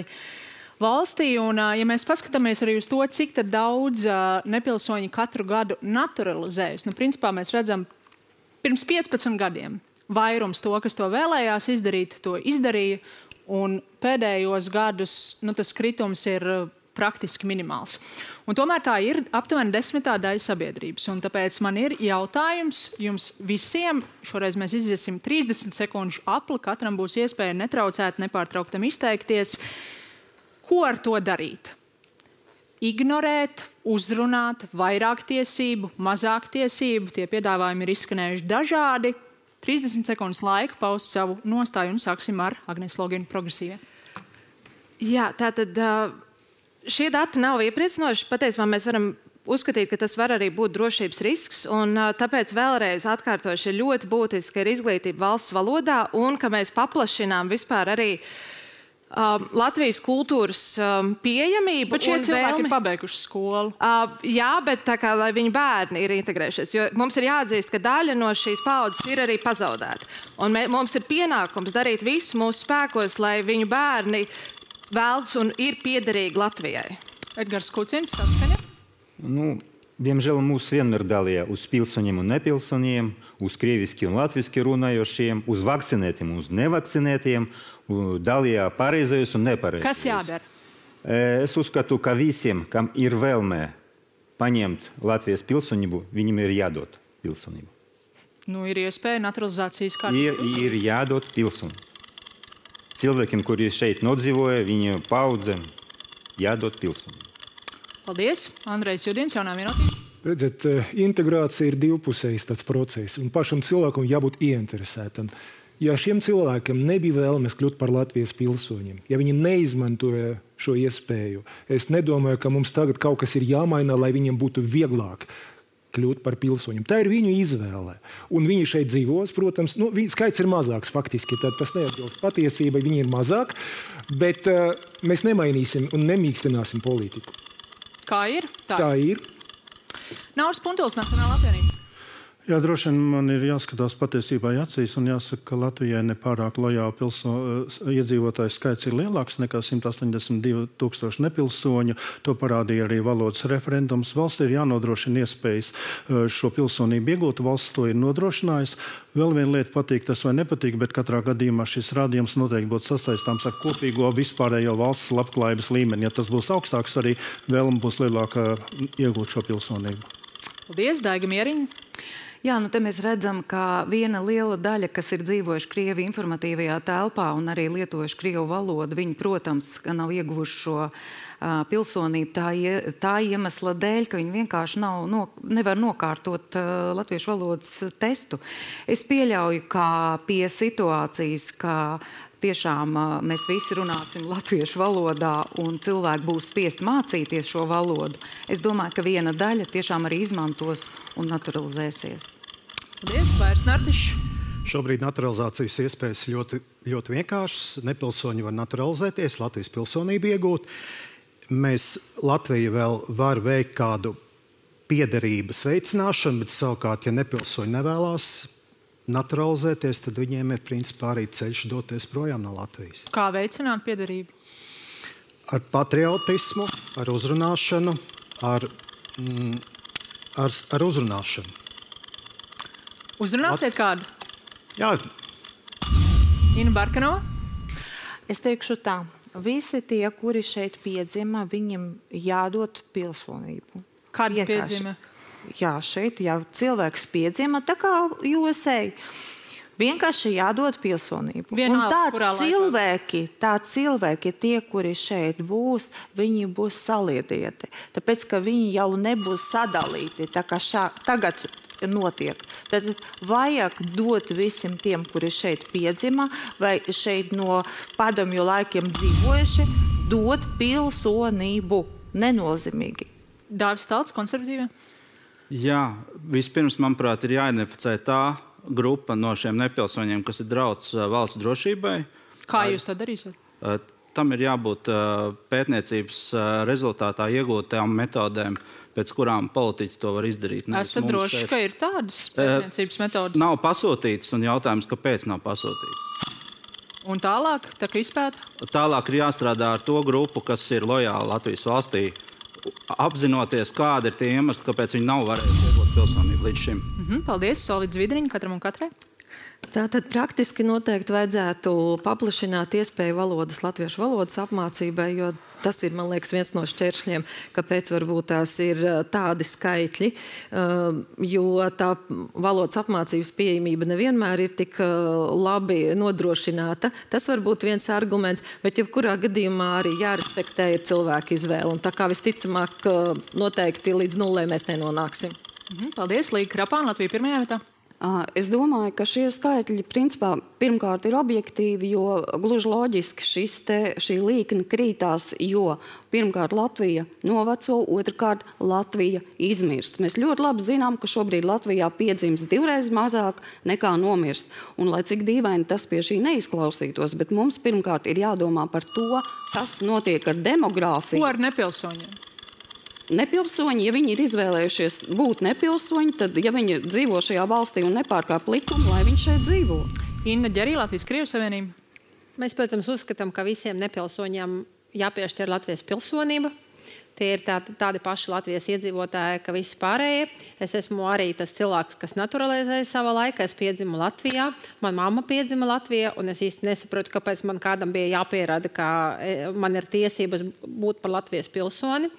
valstī. Un, ja mēs paskatāmies arī uz to, cik tad daudz nepilsoņi katru gadu naturalizējas, principā mēs redzam pirms 15 gadiem vairums to, kas to vēlējās izdarīt, to izdarīja, un pēdējos gadus tas kritums ir praktiski minimāls. Un tomēr tā ir aptuveni 10. daļa sabiedrības. Un tāpēc man ir jautājums jums visiem. Šoreiz mēs iziesim 30 sekundžu apli. Katram būs iespēja netraucēt, nepārtrauktam izteikties. Ko ar to darīt? Ignorēt, uzrunāt, vairāk tiesību, mazāk tiesību. Tie piedāvājumi ir izskanējuši dažādi. 30 sekundes laika paust savu nostāju un sāksim ar Agnes Loginu progresīvie.
Jā, tātad... Šie dati nav iepriecinoši. Patiesībā mēs varam uzskatīt, ka tas var arī būt drošības risks. Un, tāpēc vēlreiz atkārtoši ir ļoti būtiski, ka ir izglītība valsts valodā un ka mēs paplašinām vispār arī Latvijas kultūras pieejamību.
Bet šie cilvēki ir pabeiguši skolu.
Jā, bet tā kā, lai viņu bērni ir integrējušies. Jo mums ir jāatzīst, ka daļa no šīs paudzes ir arī pazaudēta. Un mums ir pienākums darīt visu mūsu spēkos, lai viņu bērni vēlas un ir piederīgi Latvijai.
Edgars Kucins, saskaņa?
Diemžēl mūs vienmēr dalīja uz pilsoņiem un nepilsoņiem, uz krieviski un latviski runājošiem, uz vakcinētiem un uz nevakcinētiem, dalīja pareizajos un nepareizajos.
Kas jādara?
Es uzskatu, ka visiem, kam ir vēlmē paņemt Latvijas pilsonību, viņiem ir jādod pilsonību.
Ir iespēja naturalizācijas kārtībā.
Ir jādod pilsonību. Cilvēkiem, kuri šeit nodzīvoja, viņa paudzēm jādod pilsonību.
Paldies. Andrejs Judins, jaunā vienotība.
Redziet, integrācija ir divpusējs tāds process, un pašam cilvēkam jābūt ieinteresētam. Ja šiem cilvēkiem nebija vēlmes kļūt par Latvijas pilsoņiem, ja viņi neizmantoja šo iespēju, es nedomāju, ka mums tagad kaut kas ir jāmaina, lai viņiem būtu vieglāk kļūt par pilsoņiem. Tā ir viņu izvēle. Un viņi šeit dzīvos, protams, skaits ir mazāks faktiski, tad tas neatbilst patiesībai, viņi ir mazāk, bet mēs nemainīsim un nemīkstināsim politiku.
Kā ir?
Tā ir.
Nauris Puntuls, Nacionālā apvienība.
Jā, droši vien man ir jāskatās patiesībā acīs un jāsaka, ka Latvijai nepārāk lojāli iedzīvotāju skaits ir lielāks nekā 182,000 nepilsoņu. To parādīja arī valodas referendums. Valsts ir jānodrošina iespējas šo pilsonību iegūt. Valsts to ir nodrošinājusi. Vēl viena lieta patīk tas vai nepatīk, bet katrā gadījumā šis rādījums noteikti būtu sasaistāms ar kopīgo vispārējo valsts labklājības līmeni. Ja tas būs augstāks, arī vēlme būs lielāka iegūt šo pilsonību.
Paldies, Daiga Mieriņa.
Jā, te mēs redzam, ka viena liela daļa, kas ir dzīvojuši Krievi informatīvajā telpā un arī lietojuši Krievu valodu, viņi, protams, nav ieguvuši šo pilsonību tā iemesla dēļ, ka viņi vienkārši nevar nokārtot latviešu valodas testu. Es pieļauju, ka pie situācijas, ka tiešām mēs visi runāsim latviešu valodā un cilvēki būs spiesti mācīties šo valodu. Es domāju, ka viena daļa tiešām arī izmantos un naturalizēsies.
Paldies, Vairs Nartišs.
Šobrīd naturalizācijas iespējas ļoti, ļoti vienkāršas. Nepilsoņi var naturalizēties, Latvijas pilsonību iegūt. Latvija vēl var veikt kādu piederības veicināšanu, bet savukārt, ja nepilsoņi nevēlās naturalizēties, tad viņiem ir principā arī ceļš doties projām no Latvijas.
Kā veicināt piederību?
Ar patriotismu, ar uzrunāšanu, ar uzrunāšanu.
Uzrunāsiet kādu?
Jā.
Ina Barkanova?
Es teikšu tā. Visi tie, kuri šeit piedzima, viņiem jādod pilsonību.
Kādi piedzima?
Jā, šeit jau cilvēks piedzima, tā kā USA. Vienkārši jādod pilsonību.
Vienalga,
un tā cilvēki, tie, kuri šeit būs, viņi būs saliedēti. Tāpēc, ka viņi jau nebūs sadalīti. Tā kā tagad notiek. Tad vajag dot visiem tiem, kuri šeit piedzima vai šeit no padomju laikiem dzīvojuši, dot pilsonību nenozīmīgi.
Dāvis Talts, konservatīvie?
Jā, vispirms, manuprāt, ir jāidentificē tā grupa no šiem nepilsoņiem, kas ir drauds valsts drošībai.
Kā jūs to darīsiet?
Tam ir jābūt pētniecības rezultātā iegūtām metodēm, pēc kurām politiķi to var izdarīt.
Esat droši, ka ir tādas pētniecības metodas?
Nav pasūtītas, un jautājums, kāpēc nav pasūtītas.
Un tālāk, tā kā izpēta?
Tālāk ir jāstrādā ar to grupu, kas ir lojāli Latvijas valstī, apzinoties, kādi ir tie iemesli, kāpēc viņi nav varējuši iegūt pilsonību līdz šim.
Paldies, Solvids Vidriņa, katram un katrai.
Tātad praktiski noteikti vajadzētu paplašināt iespēju latviešu valodas apmācībai, jo tas ir, man liekas, viens no šķēršļiem, kāpēc varbūt tās ir tādi skaitļi, jo tā valodas apmācības pieejamība nevienmēr ir tik labi nodrošināta. Tas var būt viens arguments, bet jebkurā gadījumā arī jārespektē ir cilvēku izvēle. Un tā kā visticamāk noteikti līdz nulē mēs nenonāksim.
Paldies, Līga Krapāna, Latvija pirmajā vietā.
Es domāju, ka šie skaitļi principā pirmkārt ir objektīvi, jo gluži loģiski šī līkne krītās, jo pirmkārt Latvija noveco, otrkārt Latvija izmirst. Mēs ļoti labi zinām, ka šobrīd Latvijā piedzimst 2 reizes mazāk nekā nomirst. Un lai cik dīvaini tas pie šī neizklausītos, bet mums pirmkārt ir jādomā par to, kas notiek ar demogrāfiju.
Ko ar nepilsoņiem?
Nepilsoņi, ja viņi ir izvēlējušies būt nepilsoņi, tad, ja viņi dzīvo šajā valstī un nepārkāp likumu, lai viņi šeit dzīvo.
Inna Ģerī, Latvijas-Krievijas Savienība.
Mēs, protams, uzskatām, ka visiem nepilsoņiem jāpiešķir Latvijas pilsonība. Tie ir tādi paši Latvijas iedzīvotāji, ka visi pārējie. Es esmu arī tas cilvēks, kas naturalizēja savā laikā. Es piedzimu Latvijā, man mamma piedzima Latvijā, un es īsti nesaprotu, kāpēc man kādam bija jāpierāda, ka man ir tiesības būt par Latvijas pilsoni.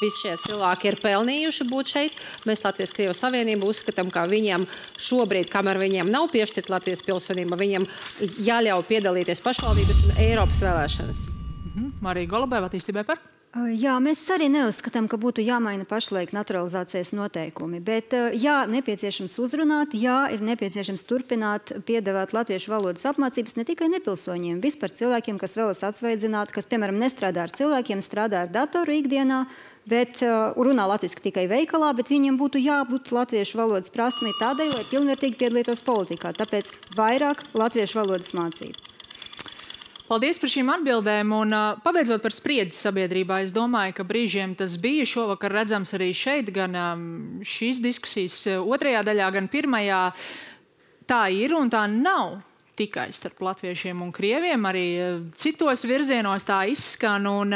Visi šie cilvēki ir pelnījuši būt šeit. Mēs Latvijas-Krievijas Savienību uzskatām, ka viņiem šobrīd, kamēr viņiem nav piešķirta Latvijas pilsonība, viņiem jāļauj piedalīties pašvaldības un Eiropas vēlēšanas.
Marija Golubeva, attīstībai par?
Jā, mēs arī neuzskatām, ka būtu jāmaina pašlaik naturalizācijas noteikumi, bet jā, nepieciešams uzrunāt, jā, ir nepieciešams turpināt piedāvāt latviešu valodas apmācības ne tikai nepilsoņiem, vispār cilvēkiem, kas vēlas atsvaidzināt, kas, piemēram, nestrādā ar cilvēkiem, strādā ar datoru ikdienā, bet runā latviski tikai veikalā, bet viņiem būtu jābūt latviešu valodas prasmei tādai, lai pilnvērtīgi piedalītos politikā, tāpēc vairāk latviešu valodas mācību.
Paldies par šīm atbildēm, un pabeidzot par spriedzi sabiedrībā, es domāju, ka brīžiem tas bija šovakar redzams arī šeit, gan šīs diskusijas otrajā daļā, gan pirmajā. Tā ir un tā nav tikai starp latviešiem un krieviem, arī citos virzienos tā izskan, un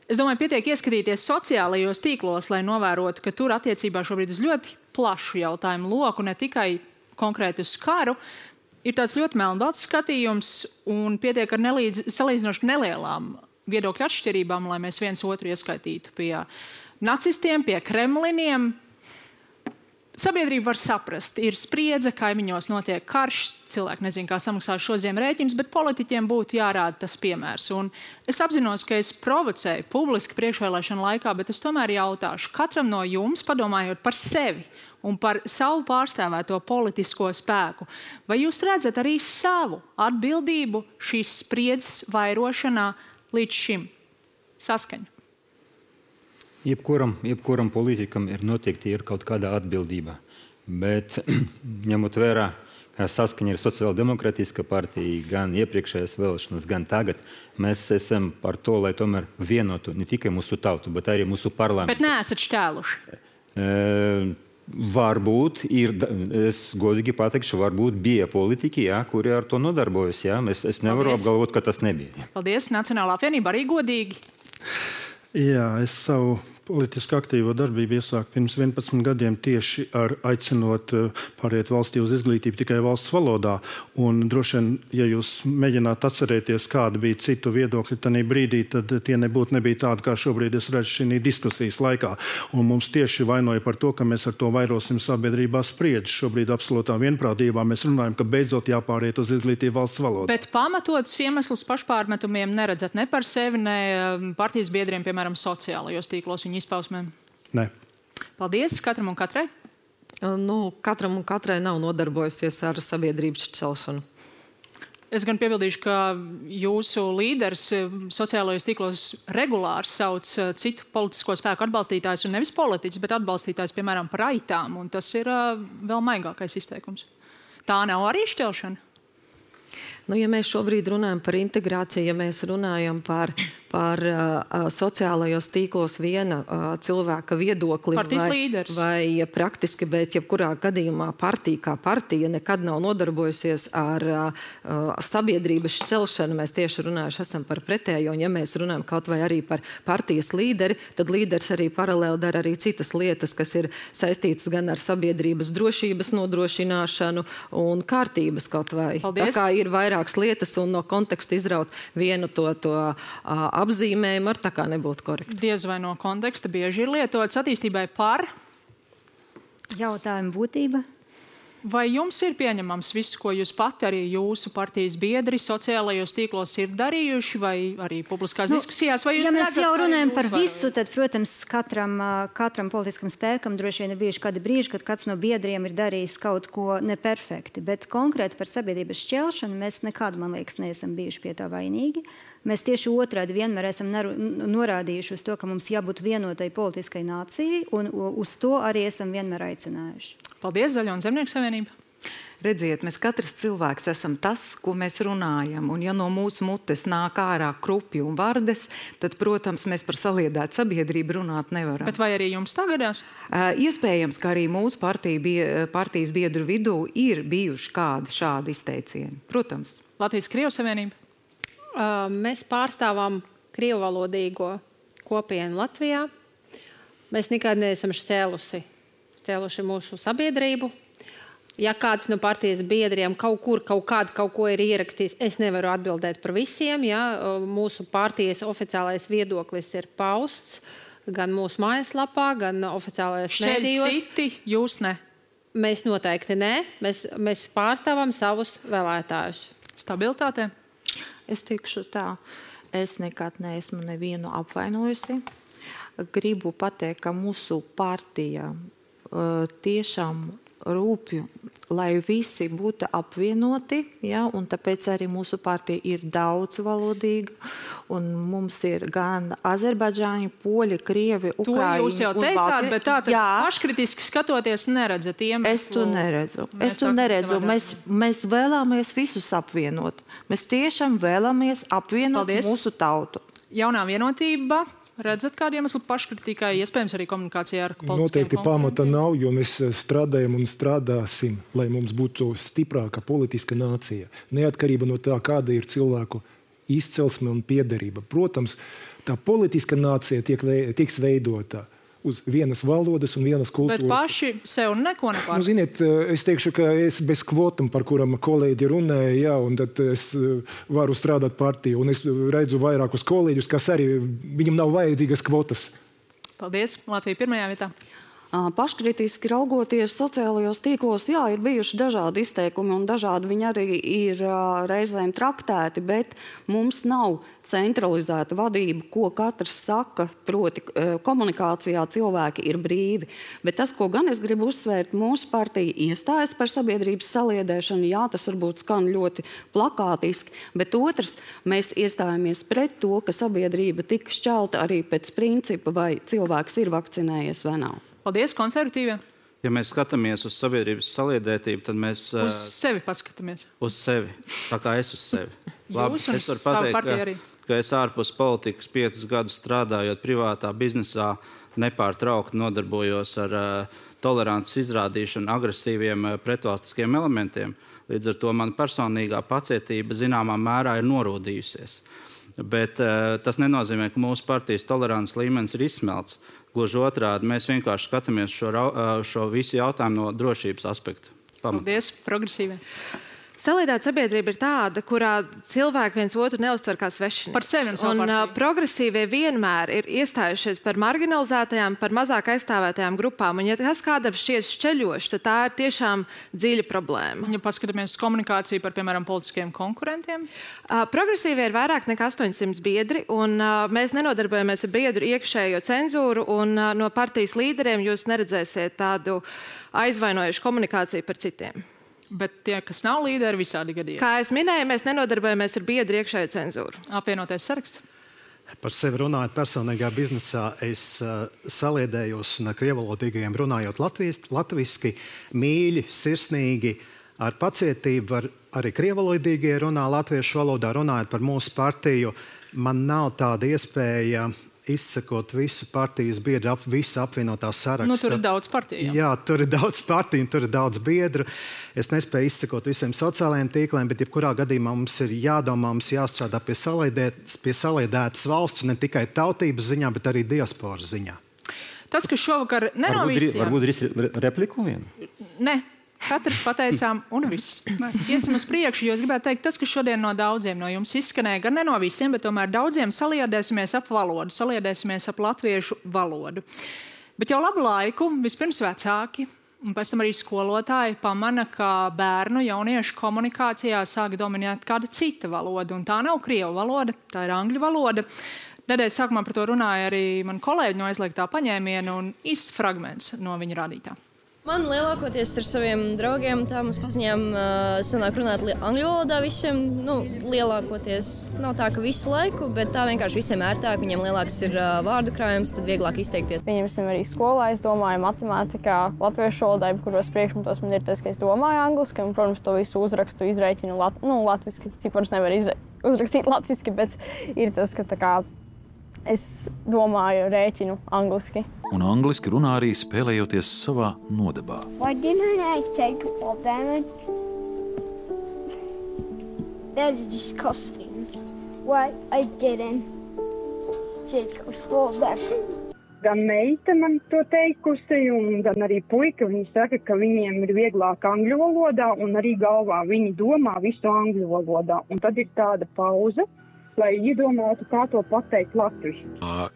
es domāju, pietiek ieskatīties sociālajos tīklos, lai novērotu, ka tur attiecībā šobrīd uz ļoti plašu jautājumu loku, ne tikai konkrēti uz karu, ir tāds ļoti melnbalts skatījums un pietiek ar salīdzinoši nelielām viedokļu atšķirībām, lai mēs viens otru ieskaitītu pie nacistiem, pie kremliniem. Sabiedrība var saprast, ir spriedze, kaimiņos notiek karš, cilvēki nezin, kā samaksās šo ziemu rēķinus, bet politiķiem būtu jārāda tas piemērs. Un es apzinos, ka es provocēju publiski priekšvēlēšanu laikā, bet es tomēr jautāšu katram no jums, padomājot par sevi un par savu pārstāvēto politisko spēku. Vai jūs redzat arī savu atbildību šīs spriedzes vairošanā līdz šim? Saskaņa.
Jebkuram politikam ir noteikti kaut kāda atbildība. Bet ņemot vērā, ka Saskaņa ir sociāldemokrātiska partija, gan iepriekšējās vēlēšanas, gan tagad, mēs esam par to, lai tomēr vienotu ne tikai mūsu tautu, bet arī mūsu parlamentu.
Bet neesat šķēluši?
Varbūt ir, es godīgi pateikšu, varbūt bija politiķi, kuri ar to nodarbojas. Es nevaru apgalvot, ka tas nebija.
Paldies. Nacionālā apvienība arī godīgi.
Jā, es savu politiski aktīvo darbību iesāku pirms 11 gadiem tieši ar aicinot pāriet valstī uz izglītību tikai valsts valodā. Un droši vien, ja jūs mēģināt atcerēties, kāda bija citu viedokļi tajā brīdī, tad tie nebija tādi, kā šobrīd es redzu šī diskusijas laikā. Un mums tieši vainoja par to, ka mēs ar to vairosim sabiedrībā spriedzi. Šobrīd absolūtā vienprātībā mēs runājam, ka beidzot jāpāriet uz izglītību valsts valodā.
Bet pamatotus iemeslus pašpārmetumiem neredzat ne par sevi, ne partijas biedriem, piemēram, sociālajos tīklos viņu izpausmēm?
Nē.
Paldies katram un katrai.
katram un katrai nav nodarbojusies ar sabiedrības šķelšanu.
Es gan piebildīšu, ka jūsu līderis sociālajos tīklos regulāri sauc citu politisko spēku atbalstītājus, un nevis politiķus, bet atbalstītājus, piemēram, par aitām, un tas ir vēl maigākais izteikums. Tā nav arī šķelšana?
Ja mēs šobrīd runājam par integrāciju, ja mēs runājam par sociālajos tīklos viena cilvēka viedokli vai praktiski, bet jebkurā gadījumā partija kā partija nekad nav nodarbojusies ar sabiedrības šķelšanu. Mēs tieši runājuši esam par pretējo, un ja mēs runājam kaut vai arī par partijas līderi, tad līderis arī paralēli dara arī citas lietas, kas ir saistītas gan ar sabiedrības drošības nodrošināšanu un kārtības kaut vai.
Paldies.
Tā kā ir vairākas lietas, un no konteksta izraut vienu to apzīmējumu ar tā kā nebūtu korekti.
Diez vai no konteksta bieži ir lietots attīstībai par
jautājumu būtība.
Vai jums ir pieņemams viss, ko jūs pati arī jūsu partijas biedri sociālajos tīklos ir darījuši, vai arī publiskās diskusijās? Vai jūs
mēs jau runājam par visu, tad, protams, katram politiskam spēkam droši vien ir bijuši kādi brīži, kad kāds no biedriem ir darījis kaut ko neperfekti, bet konkrēti par sabiedrības šķelšanu mēs nekad, man liekas, neesam bijuši pie tā vainīgi. Mēs tieši otrādi vienmēr esam norādījuši uz to, ka mums jābūt vienotai politiskai nācijai, un uz to arī esam vienmēr aicinājuši.
Paldies, Zaļo un Zemnieku savienība.
Redziet, mēs katrs cilvēks esam tas, ko mēs runājam, un ja no mūsu mutes nāk ārā krupi un vardes, tad, protams, mēs par saliedētu sabiedrību runāt nevaram.
Bet vai arī jums tā gadās?
Iespējams, ka arī mūsu partijas biedru vidū ir bijuši kādi šādi izteicieni. Protams.
Latvijas-Krievu savienība.
Mēs pārstāvam krievuvalodīgo kopienu Latvijā. Mēs nekad neesam šķēluši mūsu sabiedrību. Ja kāds no partijas biedriem kaut ko ir ierakstījis, es nevaru atbildēt par visiem. Ja? Mūsu partijas oficiālais viedoklis ir pausts gan mūsu mājaslapā, gan oficiālajos mēdījos.
Citi, jūs ne?
Mēs noteikti ne. Mēs pārstāvam savus vēlētājus.
Stabilitāte?
Es teikšu tā, es nekad neesmu nevienu apvainojusi. Gribu pateikt, ka mūsu partija tiešām rūpju, lai visi būtu apvienoti, ja, un tāpēc arī mūsu partija ir daudzvalodīga, un mums ir gan azerbaidžāņi, poļi, krievi, ukraiņi.
To jūs jau teicāt, bet tā paškritiski skatoties neredzat iemeslu.
Es to neredzu. Mēs vēlamies visus apvienot. Mēs tiešām vēlamies apvienot mūsu tautu.
Jaunā vienotība. Redzat, kādu iemeslu paškritikai, iespējams arī komunikācijā ar politiskiem
Noteikti pamata nav, jo mēs strādājam un strādāsim, lai mums būtu stiprāka politiska nācija. Neatkarība no tā, kāda ir cilvēku izcelsme un piederība. Protams, tā politiska nācija tiks veidota uz vienas valodas un vienas kultūras.
Bet paši sev neko nepārāk.
Ziniet, es teikšu, ka es bez kvotam, par kuram kolēģi runāja, jā, un tad es varu strādāt partiju, un es redzu vairākus kolēģus, kas arī viņam nav vajadzīgas kvotas.
Paldies. Latvija pirmajā vietā.
Paškritiski raugoties sociālajos tīklos, jā, ir bijuši dažādi izteikumi un dažādi viņi arī ir reizēm traktēti, bet mums nav centralizēta vadība, ko katrs saka, proti komunikācijā cilvēki ir brīvi. Bet tas, ko gan es gribu uzsvērt, mūsu partija iestājas par sabiedrības saliedēšanu, jā, tas varbūt skan ļoti plakātiski, bet otrs, mēs iestājamies pret to, ka sabiedrība tika šķelta arī pēc principa, vai cilvēks ir vakcinējies vai nav.
Paldies, konservatīvie.
Ja mēs skatāmies uz sabiedrības saliedētību, tad mēs...
Uz sevi paskatāmies.
Uz sevi. Tā kā es uz sevi.
Labi,
es varu pateikt, ka es ārpus politikas 5 gadus strādājot privātā biznesā nepārtraukti nodarbojos ar tolerances izrādīšanu agresīviem pretvalstiskiem elementiem. Līdz ar to man personīgā pacietība zināmā mērā ir norūdījusies. Bet tas nenozīmē, ka mūsu partijas tolerances līmenis ir izsmelts. Gluži otrādi, mēs vienkārši skatāmies šo visu jautājumu no drošības aspekta.
Paldies, progresīvie.
Saliedēta sabiedrība ir tāda, kurā cilvēki viens otru neuztver kā svešinieks.
Par sevi un savu partiju.
Progresīvie vienmēr ir iestājušies par marginalizētajām, par mazāk aizstāvētajām grupām. Un ja tas kādam šķiet šķeļoši, tad tā ir tiešām dziļa problēma.
Ja paskatāmies uz komunikāciju par, piemēram, politiskiem konkurentiem?
Progresīvie ir vairāk nekā 800 biedri, un mēs nenodarbojamies ar biedru iekšējo cenzūru, un no partijas līderiem jūs neredzēsiet tādu aizvainojušu komunikāciju par citiem.
Bet tie, kas nav līderi, visādi gadījumi.
Kā es minēju, mēs nenodarbojamies ar biedru iekšējo cenzūru.
Apvienotais saraksts?
Par sevi runājot personīgā biznesā, es saliedējos un ar krievalodīgajiem runājot latviski, mīļi, sirsnīgi, ar pacietību, arī krievalodīgie runā latviešu valodā, runājot par mūsu partiju. Man nav tāda iespēja izsakot visu partijas biedru, visu apvienotā sarakstu.
Nu, tur ir daudz partiju.
Jā, tur ir daudz partiju, tur ir daudz biedru. Es nespēju izsakot visiem sociālajiem tīkliem, bet jebkurā gadījumā mums ir jādomā, mums jāstrādā pie saliedētas valsts, ne tikai tautības ziņā, bet arī diasporas ziņā.
Tas, kas šovakar nenovīsījām...
Varbūt repliku vienu?
Ne. Katrs pateicām, un viss. Iesim uz priekšu, jo es gribētu teikt, tas, kas šodien no daudziem no jums izskanēja, gan ne no visiem, bet tomēr daudziem saliedēsimies ap valodu, saliedēsimies ap latviešu valodu. Bet jau labu laiku vispirms vecāki, un pēc tam arī skolotāji pamana, ka bērnu jauniešu komunikācijā sāk dominēt kāda cita valoda, un tā nav krievu valoda, tā ir angļu valoda. Nedēļas sākumā par to runāja arī man kolēģi no aizliegtā paņēmiena un īsts fragments no viņa rādītā.
Man lielākoties ar saviem draugiem, tā mums paziņām sanāk runāt angļu valodā visiem. Nu, lielākoties nav tā, ka visu laiku, bet tā vienkārši visiem ērtāk. Viņiem lielāks ir vārdu krājums, tad vieglāk izteikties.
Pieņemsim arī skolā, es domāju matemātikā, latviešu valodā, kuros priekšmetos man ir tas, ka es domāju angliski, un, protams, to visu uzrakstu, izreikinu latviski. Ciparus nevar uzrakstīt latviski, bet ir tas, ka tā kā es domāju, rēķinu angliski.
Un angliski runā arī spēlējoties savā nodabā.
Why didn't I take fall damage? That's disgusting. Why I didn't take fall damage?
Gan meita man to teikusi, un gan arī puika. Viņi saka, ka viņiem ir vieglāk angļu valodā, un arī galvā viņi domā visu angļu valodā. Un tad ir tāda pauze, lai iedomātu, kā to pateikt latviski.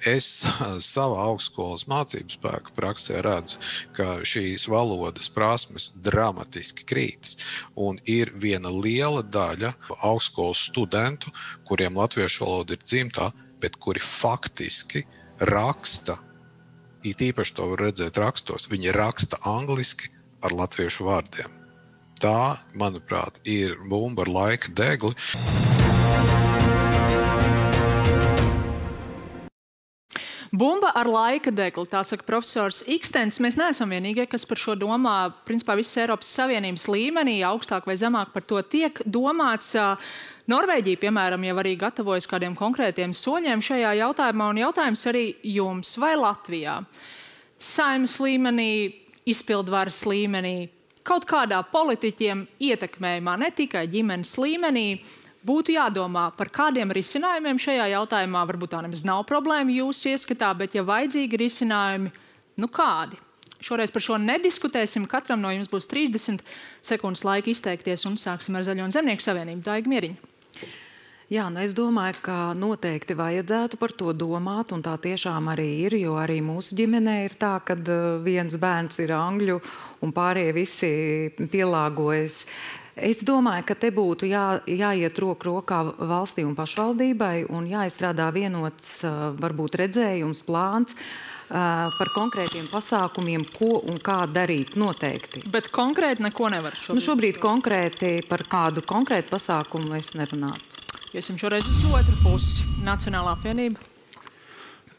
Es savā augstskolas mācību spēku praksē redzu, ka šīs valodas prasmes dramatiski krītas. Un ir viena liela daļa augstskolas studentu, kuriem latviešu valoda ir dzimtā, bet kuri faktiski raksta, it īpaši to var redzēt rakstos, viņi raksta angliski ar latviešu vārdiem. Tā, manuprāt, ir bumba ar laika degli.
Bumba ar laika degli, tā saka profesors Ikstens. Mēs neesam vienīgie, kas par šo domā. Principā visas Eiropas Savienības līmenī, augstāk vai zemāk par to tiek domāts. Norvēģija, piemēram, jau arī gatavojas kādiem konkrētiem soļiem šajā jautājumā, un jautājums arī jums vai Latvijā. Saeimas līmenī, izpildvaras līmenī, kaut kādā politiķiem ietekmējumā, ne tikai ģimenes līmenī, būtu jādomā par kādiem risinājumiem šajā jautājumā. Varbūt tā nemaz nav problēma jūsu ieskatā, bet ja vajadzīgi risinājumi, nu kādi? Šoreiz par šo nediskutēsim. Katram no jums būs 30 sekundes laika izteikties, un sāksim ar Zaļo un Zemnieku savienību. Daiga Mieriņa.
Jā, nu es domāju, ka noteikti vajadzētu par to domāt, un tā tiešām arī ir, jo arī mūsu ģimenē ir tā, ka viens bērns ir angļu un pārējie visi pielāgojas. Es domāju, ka te būtu jāiet roku rokā valstī un pašvaldībai un jāizstrādā vienots varbūt redzējums, plāns par konkrētiem pasākumiem, ko un kā darīt noteikti.
Bet konkrēti neko nevar šobrīd?
Nu, šobrīd konkrēti par kādu konkrētu pasākumu es nerunātu.
Iesim šoreiz uz otru pusi. Nacionālā apvienība.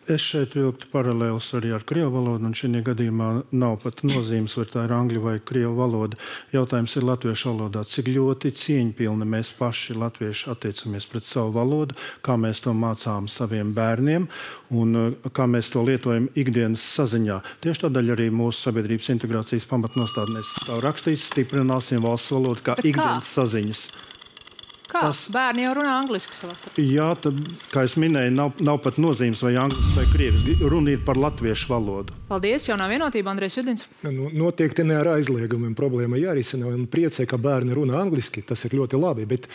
Es šeit vilktu paralēlus arī ar krievu valodu, un šajā gadījumā nav pat nozīmes, vai tā ir angļu vai krievu valoda. Jautājums ir latviešu valodā. Cik ļoti cieņpilni mēs paši latvieši attiecamies pret savu valodu, kā mēs to mācām saviem bērniem un kā mēs to lietojam ikdienas saziņā. Tieši tādēļ arī mūsu sabiedrības integrācijas pamatnostādnēs stāv rakstīts, stiprināsim valsts valodu kā ikdienas saziņas.
Kā? Bērni jau runā angliski savā starpā.
Jā, tad, kā es minēju, nav pat nozīmes vai angļuiski vai krieviski. Runa ir par latviešu valodu.
Paldies, Jaunā vienotība, Andrejs Judins.
Noteikti ne ar aizliegumiem problēma jārisina. Un priecē, ka bērni runā angliski, tas ir ļoti labi. Bet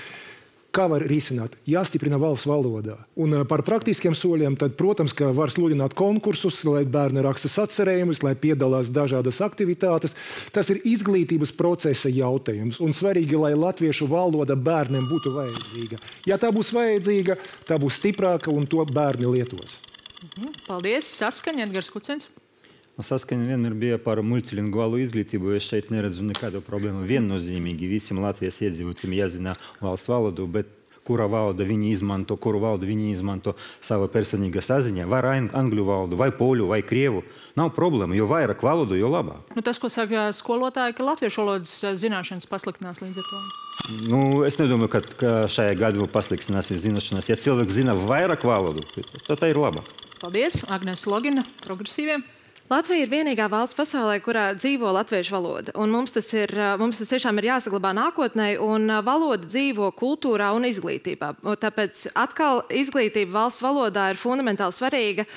kā var risināt? Jāstiprina valsts valodā. Un par praktiskiem soļiem, tad, protams, ka var sludināt konkursus, lai bērni raksta sacerējumus, lai piedalās dažādas aktivitātes. Tas ir izglītības procesa jautājums. Un svarīgi, lai latviešu valoda bērniem būtu vajadzīga. Ja tā būs vajadzīga, tā būs stiprāka un to bērni lietos.
Paldies, Saskaņa, Edgars Kucens.
Saskaņa vienmēr bija par multilingvālu izglītību. Es šeit neredzu nekādu problēmu. Viennozīmīgi visiem Latvijas iedzīvotājiem jāzina valsts valodu, bet kura valoda viņi izmanto sava personīga saziņa, vai angļu valodu, vai poļu, vai krievu. Nav problēma, jo vairāk valodu, jo labāk.
Tas, ko saka skolotāji, ka latviešu valodas zināšanas pasliktinās līdz ar to.
Es nedomāju, ka šajā gadījumā pasliktinās zināšanas. Ja cilvēks zina vairāk valodu, tad tā ir labāk.
Paldies, Agnēs Logina, Progresīviem.
Latvija ir vienīgā valsts pasaulē, kurā dzīvo latviešu valoda. Un mums tas tiešām ir jāsaglabā nākotnē, un valoda dzīvo kultūrā un izglītībā. Tāpēc atkal izglītība valsts valodā ir fundamentāli svarīga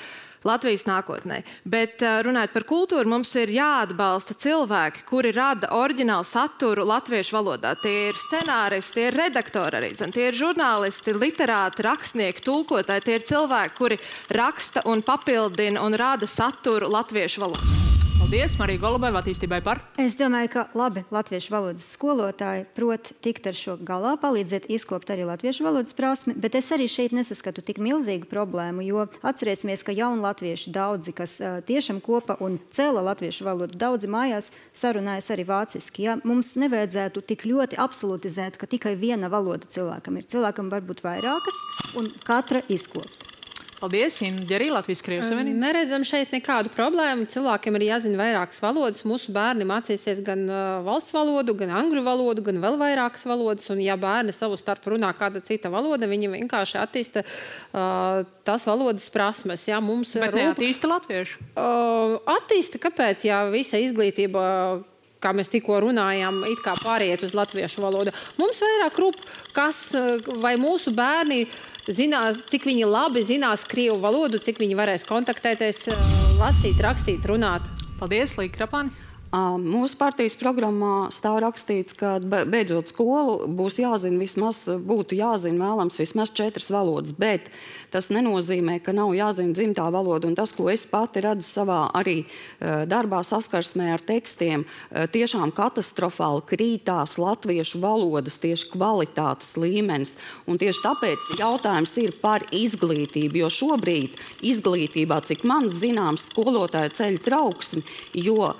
Latvijas nākotnē. Bet runājot par kultūru, mums ir jāatbalsta cilvēki, kuri rada oriģinālu saturu latviešu valodā. Tie ir scenāristi, tie ir redaktori arī, tie ir žurnālisti, literāti, rakstnieki, tulkotāji. Tie ir cilvēki, kuri raksta un papildina un rada saturu latviešu valodā.
Paldies, Marija Golubeva, attīstībai par.
Es domāju, ka labi latviešu valodas skolotāji prot tikt ar šo galā, palīdzēt izkopt arī latviešu valodas prasmi, bet es arī šeit nesaskatu tik milzīgu problēmu, jo atcerēsimies, ka jauni latvieši daudzi, kas tiešām kopa un cēla latviešu valodu, daudzi mājās sarunājas arī vāciski. Ja? Mums nevajadzētu tik ļoti absolutizēt, ka tikai viena valoda cilvēkam ir. Cilvēkam var būt vairākas un katra izkopt.
Paldies, Inga arī Latvijas Krievijas Savienība.
Neredzam šeit nekādu problēmu. Cilvēkiem ir jāzina vairākas valodas. Mūsu bērni mācīsies gan valsts valodu, gan angļu valodu, gan vēl vairākas valodas. Un ja bērni savu starp runā kāda cita valoda, viņi vienkārši attīsta tās valodas prasmes. Ja,
bet neattīsta latviešu?
Attīsta, kāpēc? Ja visa izglītība, kā mēs tikko runājām, it kā pāriet uz latviešu valodu. Mums vairāk rūp, vai mūsu bērni zinās, cik viņi labi zinās krievu valodu, cik viņi varēs kontaktēties, lasīt, rakstīt, runāt.
Paldies, Līga Krapāni.
Mūsu partijas programmā stāv rakstīts, ka beidzot skolu būtu jāzina vēlams vismaz 4 valodas, bet tas nenozīmē, ka nav jāzina dzimtā valoda. Un tas, ko es pati redzu savā arī darbā saskarsmē ar tekstiem, tiešām katastrofāli krītās latviešu valodas tieši kvalitātes līmenis. Un tieši tāpēc jautājums ir par izglītību, jo šobrīd izglītībā, cik man zināms, skolotāja ceļ trauksmi, jo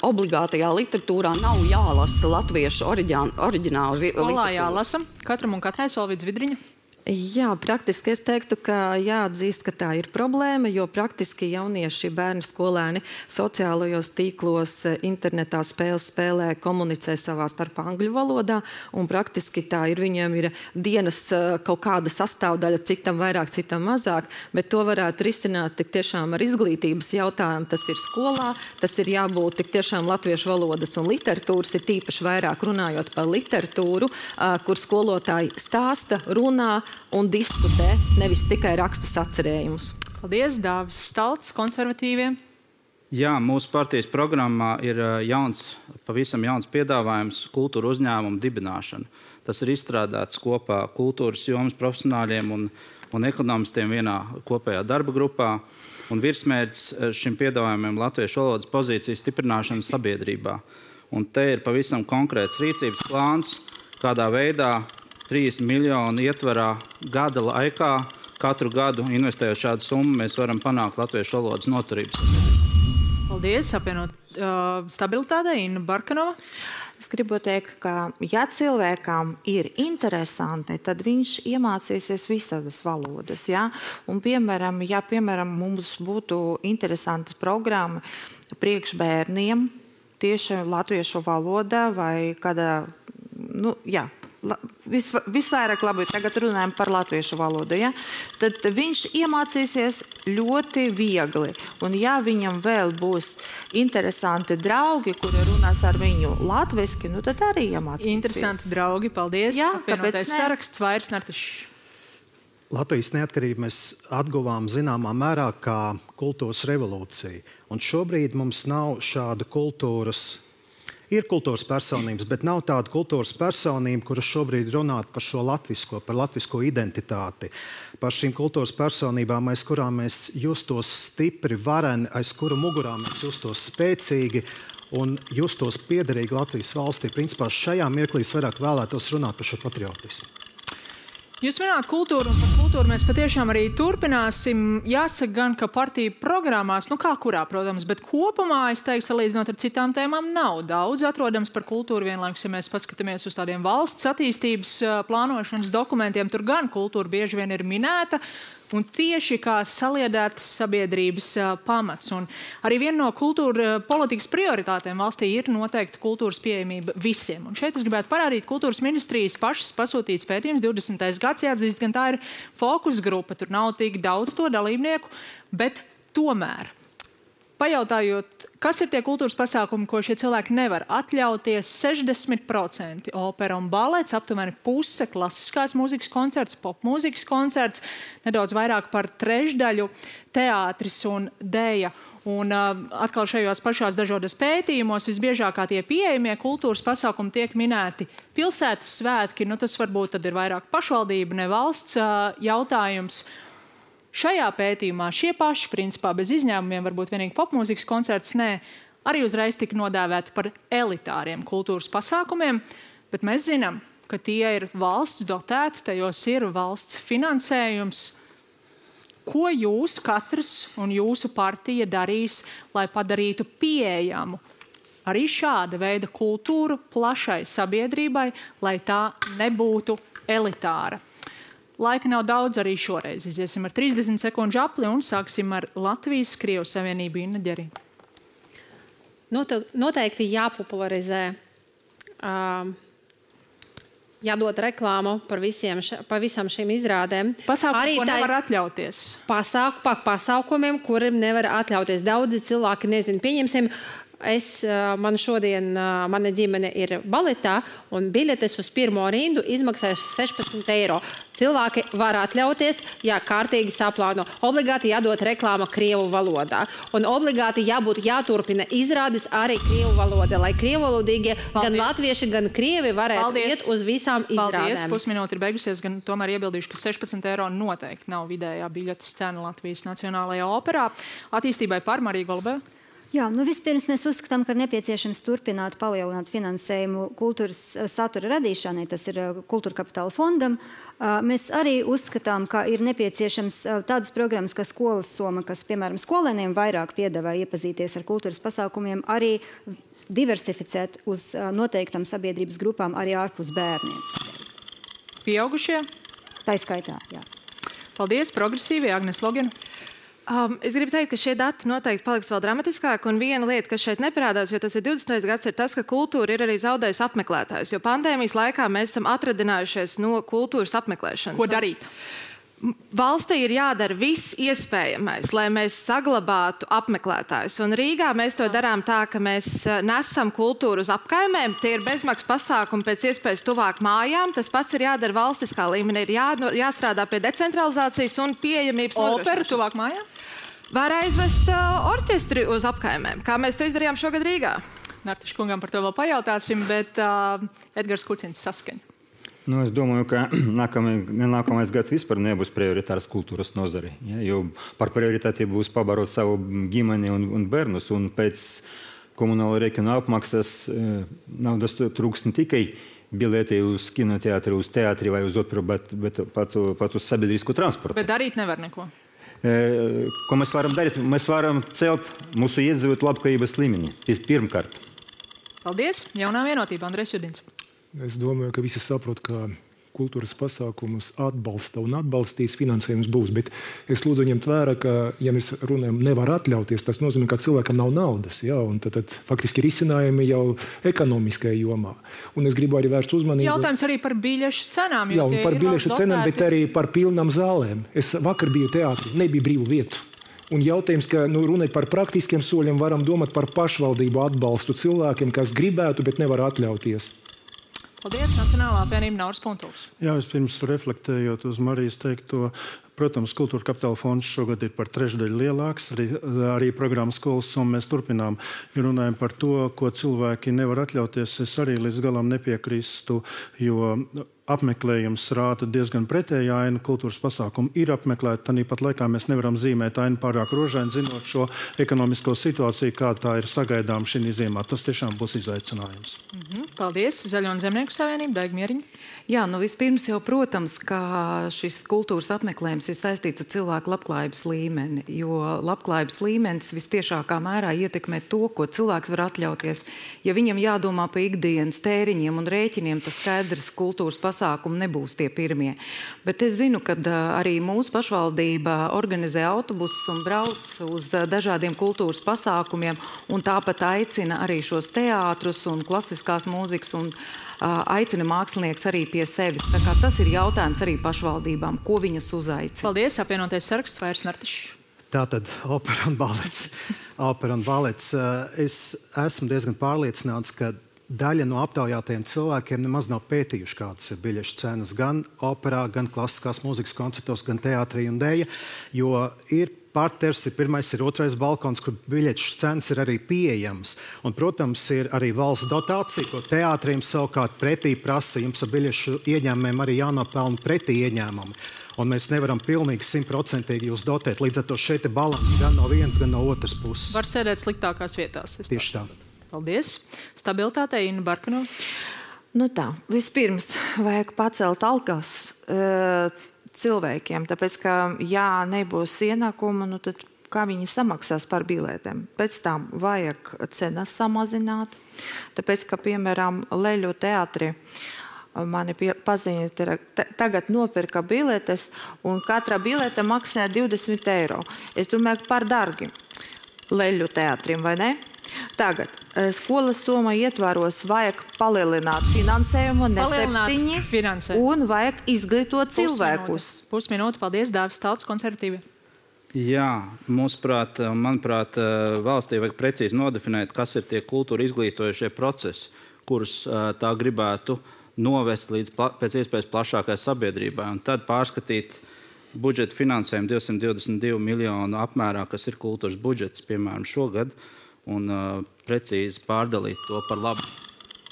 obligātajā literatūrā nav jālasa latviešu oriģinālu literatūru.
Skolā jālasa katram un katrai Solvīts Vidriņa.
Jā, praktiski es teiktu, ka jāatzīst, ka tā ir problēma, jo praktiski jaunieši, bērni, skolēni sociālajos tīklos, internetā spēles spēlē, komunicē savā starpā angļu valodā, un praktiski tā ir, viņiem ir dienas kaut kāda sastāvdaļa, citam vairāk, citam mazāk, bet to varētu risināt tik tiešām ar izglītības jautājumu. Tas ir skolā, tas ir jābūt tik tiešām latviešu valodas un literatūras, ir tīpaši vairāk runājot par literatūru, kur skolotāji stāsta, runā un diskutē, nevis tikai raksta sacerējumus.
Paldies, Dāvis Stalts, konservatīviem.
Jā, mūsu partijas programmā ir pavisam jauns piedāvājums kultūra uzņēmumu dibināšana. Tas ir izstrādāts kopā kultūras jomas profesionāļiem un ekonomistiem vienā kopējā darba grupā. Un virsmērķis šim piedāvājumiem latviešu valodas pozīcijas stiprināšana sabiedrībā. Un te ir pavisam konkrēts rīcības plāns, kādā veidā 3 miljonu ietvarā gada laikā, katru gadu investējot šādu summu, mēs varam panākt latviešu valodas noturības.
Paldies, apvienot stabilitātei, Inna Barkanova.
Es gribu teikt, ka ja cilvēkam ir interesanti, tad viņš iemācīsies visādas valodas. Ja? Un, piemēram, mums būtu interesantas programma priekšbērniem tieši latviešu valodā vai kādā, visvairāk labi, tagad runājam par latviešu valodu, ja? Tad viņš iemācīsies ļoti viegli. Un ja viņam vēl būs interesanti draugi, kuri runās ar viņu latviski, nu tad arī iemācīsies.
Interesanti draugi, paldies.
Jā,
apvienotais saraksts, Vairs Nartišs.
Latvijas neatkarību mēs atguvām zināmā mērā kā kultūras revolūcija. Un šobrīd mums nav šāda kultūras. Ir kultūras personības, bet nav tāda kultūras personība, kuras šobrīd runāt par šo latvisko, par latvisko identitāti. Par šīm kultūras personībām, aiz kurām mēs justos stipri, vareni, aiz kuru mugurā mēs justos spēcīgi un justos piederīgi Latvijas valstī. Principā šajā mirklī vairāk vēlētos runāt par šo patriotismu.
Jūs minējāt kultūru, un par kultūru mēs patiešām arī turpināsim. Jāsaka gan, ka partiju programmās, kā kurā, protams, bet kopumā, es teiktu, salīdzinot ar citām tēmām, nav daudz atrodams par kultūru. Vienlaikus, ja mēs paskatāmies uz tādiem valsts attīstības plānošanas dokumentiem, tur gan kultūra bieži vien ir minēta, un tieši kā saliedētas sabiedrības pamats. Un arī viena no kultūra politikas prioritātēm valstī ir noteikti kultūras pieejamība visiem. Un šeit es gribētu parādīt kultūras ministrijas pašas pasūtīts pētījums 20. gads, jāatzīst, gan tā ir fokus grupa, tur nav tik daudz to dalībnieku, bet tomēr. Pajautājot, kas ir tie kultūras pasākumi, ko šie cilvēki nevar atļauties, 60% opera un balets, aptuveni puse klasiskās mūzikas koncerts, popmūzikas koncerts, nedaudz vairāk par trešdaļu teātris un dēja. Un atkal šajos pašās dažādos pētījumos visbiežākā tie pieejamie kultūras pasākumi tiek minēti pilsētas svētki, tas varbūt tad ir vairāk pašvaldība, ne valsts jautājums. Šajā pētījumā šie paši, principā bez izņēmumiem, varbūt vienīgi popmūzikas koncerts, arī uzreiz tika nodēvēti par elitāriem kultūras pasākumiem, bet mēs zinām, ka tie ir valsts dotēti, tajos ir valsts finansējums. Ko jūs katrs un jūsu partija darīs, lai padarītu pieejamu arī šāda veida kultūru plašai sabiedrībai, lai tā nebūtu elitāra? Laika nav daudz arī šoreiz. Iziesim ar 30 sekundžu apli un sāksim ar Latvijas-Krievu savienību. Inna Ģerī.
Noteikti jāpopularizē, jādod reklāmu par visām šīm izrādēm.
Pasākumu, ko nevar atļauties.
Pasākumiem, kuriem nevar atļauties. Daudzi cilvēki nezin, pieņemsim, mana ģimene ir baletā, un biļetes uz pirmo rindu izmaksāja 16 eiro. Cilvēki var atļauties, ja kārtīgi saplāno. Obligāti jādod reklāma krievu valodā. Un obligāti jāturpina izrādes arī krievu valodā, lai krievalodīgie gan latvieši, gan krievi varētu iet uz visām izrādēm.
Paldies, pusminūte ir beigusies, gan tomēr iebildīšu, ka 16 eiro noteikti nav vidējā biļetes cena Latvijas Nacionālajā operā. Attīstībai par Mariju Golubēvu.
Jā, vispirms mēs uzskatām, ka ir nepieciešams turpināt palielināt finansējumu kultūras satura radīšanai, tas ir Kultūra Kapitāla fondam. Mēs arī uzskatām, ka ir nepieciešams tādas programmas, kā Skolas soma, kas, piemēram, skolēniem vairāk piedāvā iepazīties ar kultūras pasākumiem, arī diversificēt uz noteiktam sabiedrības grupām arī ārpus bērniem.
Pieaugušie?
Tā skaitā, jā.
Paldies, progresīvie, Agnes Logena.
Es gribu teikt, ka šie dati noteikti paliks vēl dramatiskāki, un viena lieta, kas šeit neparādās, jo tas ir 20. gads, ir tas, ka kultūra ir arī zaudējusi apmeklētājus, jo pandēmijas laikā mēs esam atradinājušies no kultūras apmeklēšanas.
Ko darīt?
Valstī ir jādara viss iespējamais, lai mēs saglabātu apmeklētājus. Un Rīgā mēs to darām tā, ka mēs nesam kultūru uz apkaimēm. Tie ir bezmaksas pasākumi pēc iespējas tuvāk mājām. Tas pats ir jādara valstiskā līmenī. Ir jāstrādā pie decentralizācijas un pieejamības nodrošināšanas.
Operu tuvāk mājām?
Var aizvest orķestri uz apkaimēm, kā mēs to izdarījām šogad Rīgā.
Nartiša kungam par to vēl pajautāsim, bet Edgars Kucins Saskaņa.
Es domāju, ka nākamais gads vispār nebūs prioritārs kultūras nozari. Ja, jo par prioritāti būs pabarot savu ģimeni un bērnus. Un pēc komunāla rēķina apmaksas naudas trūks ne tikai biļeti uz kinoteātri, uz teātri vai uz operu, bet pat uz sabiedrisku transportu.
Bet darīt nevar neko.
Ko mēs varam darīt? Mēs varam celt mūsu iedzīvotāju labklājības līmeni. Pirmkārt.
Paldies. Jaunā vienotība, Andrejs Judins.
Es domāju, ka visi saprot, ka kultūras pasākumus atbalsta un atbalstīs, finansējums būs. Bet es lūdzu ņemt vērā, ka, ja mēs runājam, nevar atļauties, tas nozīmē, ka cilvēkam nav naudas. Ja? Un tad faktiski risinājumi jau ekonomiskajā jomā. Un es gribu arī vērst uzmanību.
Jautājums arī par biļešu cenām.
Jā, un par biļešu cenām, bet arī par pilnām zālēm. Es vakar biju teātrī, nebija brīvu vietu. Un jautājums, ka runāt par praktiskiem soļiem, varam domāt par pašvaldību atbalstu cilvēkiem, kas gribētu, bet nevar atļauties.
Paldies, Nacionālā apvienība Nauris Puntuls.
Jā, vispirms reflektējot uz Marijas teikto, protams, Kultūra Kapitāla fonds šogad ir par trešdaļu lielāks, arī programmas skolas summa mēs turpinām. Ja runājam par to, ko cilvēki nevar atļauties, es arī līdz galam nepiekrīstu, jo apmeklējums rāda diezgan pretēju ainu. Kultūras pasākumu ir apmeklēti, tāpat laikā mēs nevaram zīmēt ainu pārāk rožaini, zinot šo ekonomisko situāciju, kā tā ir sagaidām šī ziemā. Tas tiešām būs izaicinājums.
Paldies. Zaļo un Zemnieku savienība, Daiga Mieriņa.
Jā, vispirms jau, protams, ka šis kultūras apmeklējums ir saistīts ar cilvēku labklājības līmeni, jo labklājības līmenis vistiešākā mērā ietekmē to, ko cilvēks var atļauties. Ja viņam jādomā par ikdienas tēriņiem un rēķiniem, tas skaidrs kultūras pasākumi nebūs tie pirmie. Bet es zinu, ka arī mūsu pašvaldība organizē autobusus un brauc uz dažādiem kultūras pasākumiem, un tāpat aicina arī šos teātrus un klasiskās mūzikas un aicina mākslinieks arī pie sevis. Tā kā tas ir jautājums arī pašvaldībām, ko viņas uzaicina.
Paldies, apvienotais saraksts, Vairs Nartišs.
Tātad opera un balets. Opera un balets. Es esmu diezgan pārliecināts, ka daļa no aptaujātajiem cilvēkiem nemaz nav pētījuši, kādas ir biļešu cenas gan operā, gan klasiskās mūzikas koncertos, gan teātrī un dēļa, jo ir parters, ir pirmais, ir otrais balkons, kur biļešu cenas ir arī pieejamas. Un, protams, ir arī valsts dotācija, ko teātriem savukārt pretī prasa. Jums ar biļešu ieņēmumiem arī jānopelna pretī ieņēmumi. Un mēs nevaram pilnīgi 100% jūs dotēt. Līdz ar to šeit ir balans gan no vienas, gan no otras puses.
Var sēdēt sliktākās vietās.
Tieši tā.
Paldies. Stabilitātei, Inna Barkanova.
Tā, vispirms vajag pacelt algas cilvēkiem, tāpēc, ka, ja nebūs ienākuma, tad kā viņi samaksās par biletēm. Pēc tam vajag cenas samazināt, tāpēc, ka, piemēram, Leļu teātri mani paziņa, tagad nopirka biletes, un katra bilete maksā 20 eiro. Es domāju, par dargi Leļu teātrim, vai ne? Tagad skolas summa ietvaros vajag palielināt finansējumu, ne 7, un vajag izglītot cilvēkus.
Pusminūte, paldies, Dāvis Talts, konservatīvi.
Jā, manuprāt, valstī vajag precīzi nodefinēt, kas ir tie kultūra izglītojušie procesi, kurus tā gribētu novest līdz pēc iespējas plašākai sabiedrībai, un tad pārskatīt budžeta finansējumu 222 miljonu apmērā, kas ir kultūras budžets, piemēram, šogad, un precīzi pārdalīt to par labu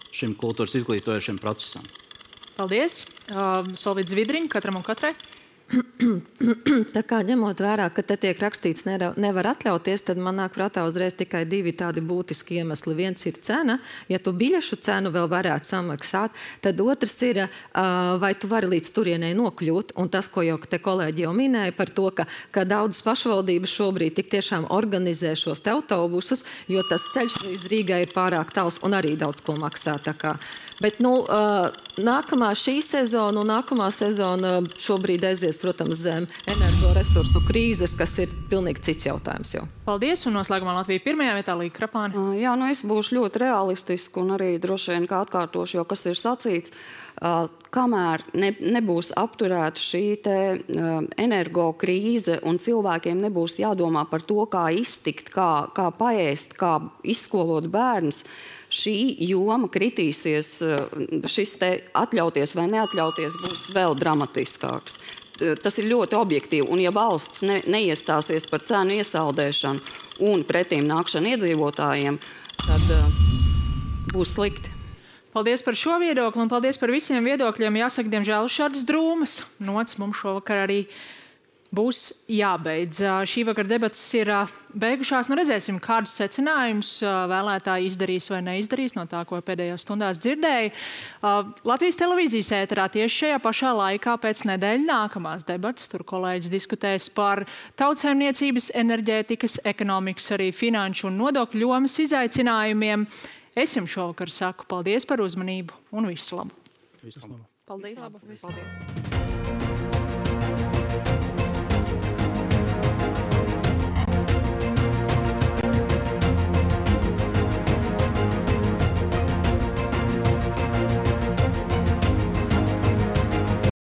šim kultūras izglītojošiem procesam.
Paldies. Solvīts Zvidriņa, katram un katrai.
Tā kā ņemot vērā, ka te tiek rakstīts nevar atļauties, tad man nāk prātā uzreiz tikai 2 tādi būtiski iemesli. Viens ir cena, ja tu biļešu cenu vēl varētu samaksāt, tad otrs ir, vai tu vari līdz turienei nokļūt, un tas, ko jau te kolēģi jau minēja par to, ka daudzas pašvaldības šobrīd tik tiešām organizē šos te autobusus, jo tas ceļš līdz Rīgai ir pārāk tāls un arī daudz ko maksā. Bet nākamā šī sezona un nākamā sezona šobrīd aizies, protams, zem energoresursu krīzes, kas ir pilnīgi cits jautājums jau.
Paldies, un noslēgumā Latvija pirmajā vietā, Līga Krapāne.
Jā, es būšu ļoti realistiski un arī droši vien kā atkārtošu, jo kas ir sacīts, kamēr nebūs apturēta šī energo krīze un cilvēkiem nebūs jādomā par to, kā iztikt, kā paēst, kā izskolot bērnus, šī joma kritīsies, šis te atļauties vai neatļauties būs vēl dramatiskāks. Tas ir ļoti objektīvi, un ja valsts neiestāsies par cenu iesaldēšanu un pretīm nākšanu iedzīvotājiem, tad būs slikti.
Paldies par šo viedokli un paldies par visiem viedokļiem. Jāsaka, diemžēl šādas drūmas nots mums šovakar arī būs jābeidz. Šī vakar debatas ir beigušās. Redzēsim, kādus secinājumus vēlētāji izdarīs vai neizdarīs no tā, ko pēdējās stundās dzirdēja. Latvijas televīzijas ēterā tieši šajā pašā laikā pēc nedēļa nākamās debatas. Tur kolēģis diskutēs par tautsaimniecības, enerģētikas, ekonomikas, arī finanšu un nodokļu jomas izaicinājumiem. Es jums šovakar saku paldies par uzmanību un visu labu.
Paldies!
Visu labu.
Paldies!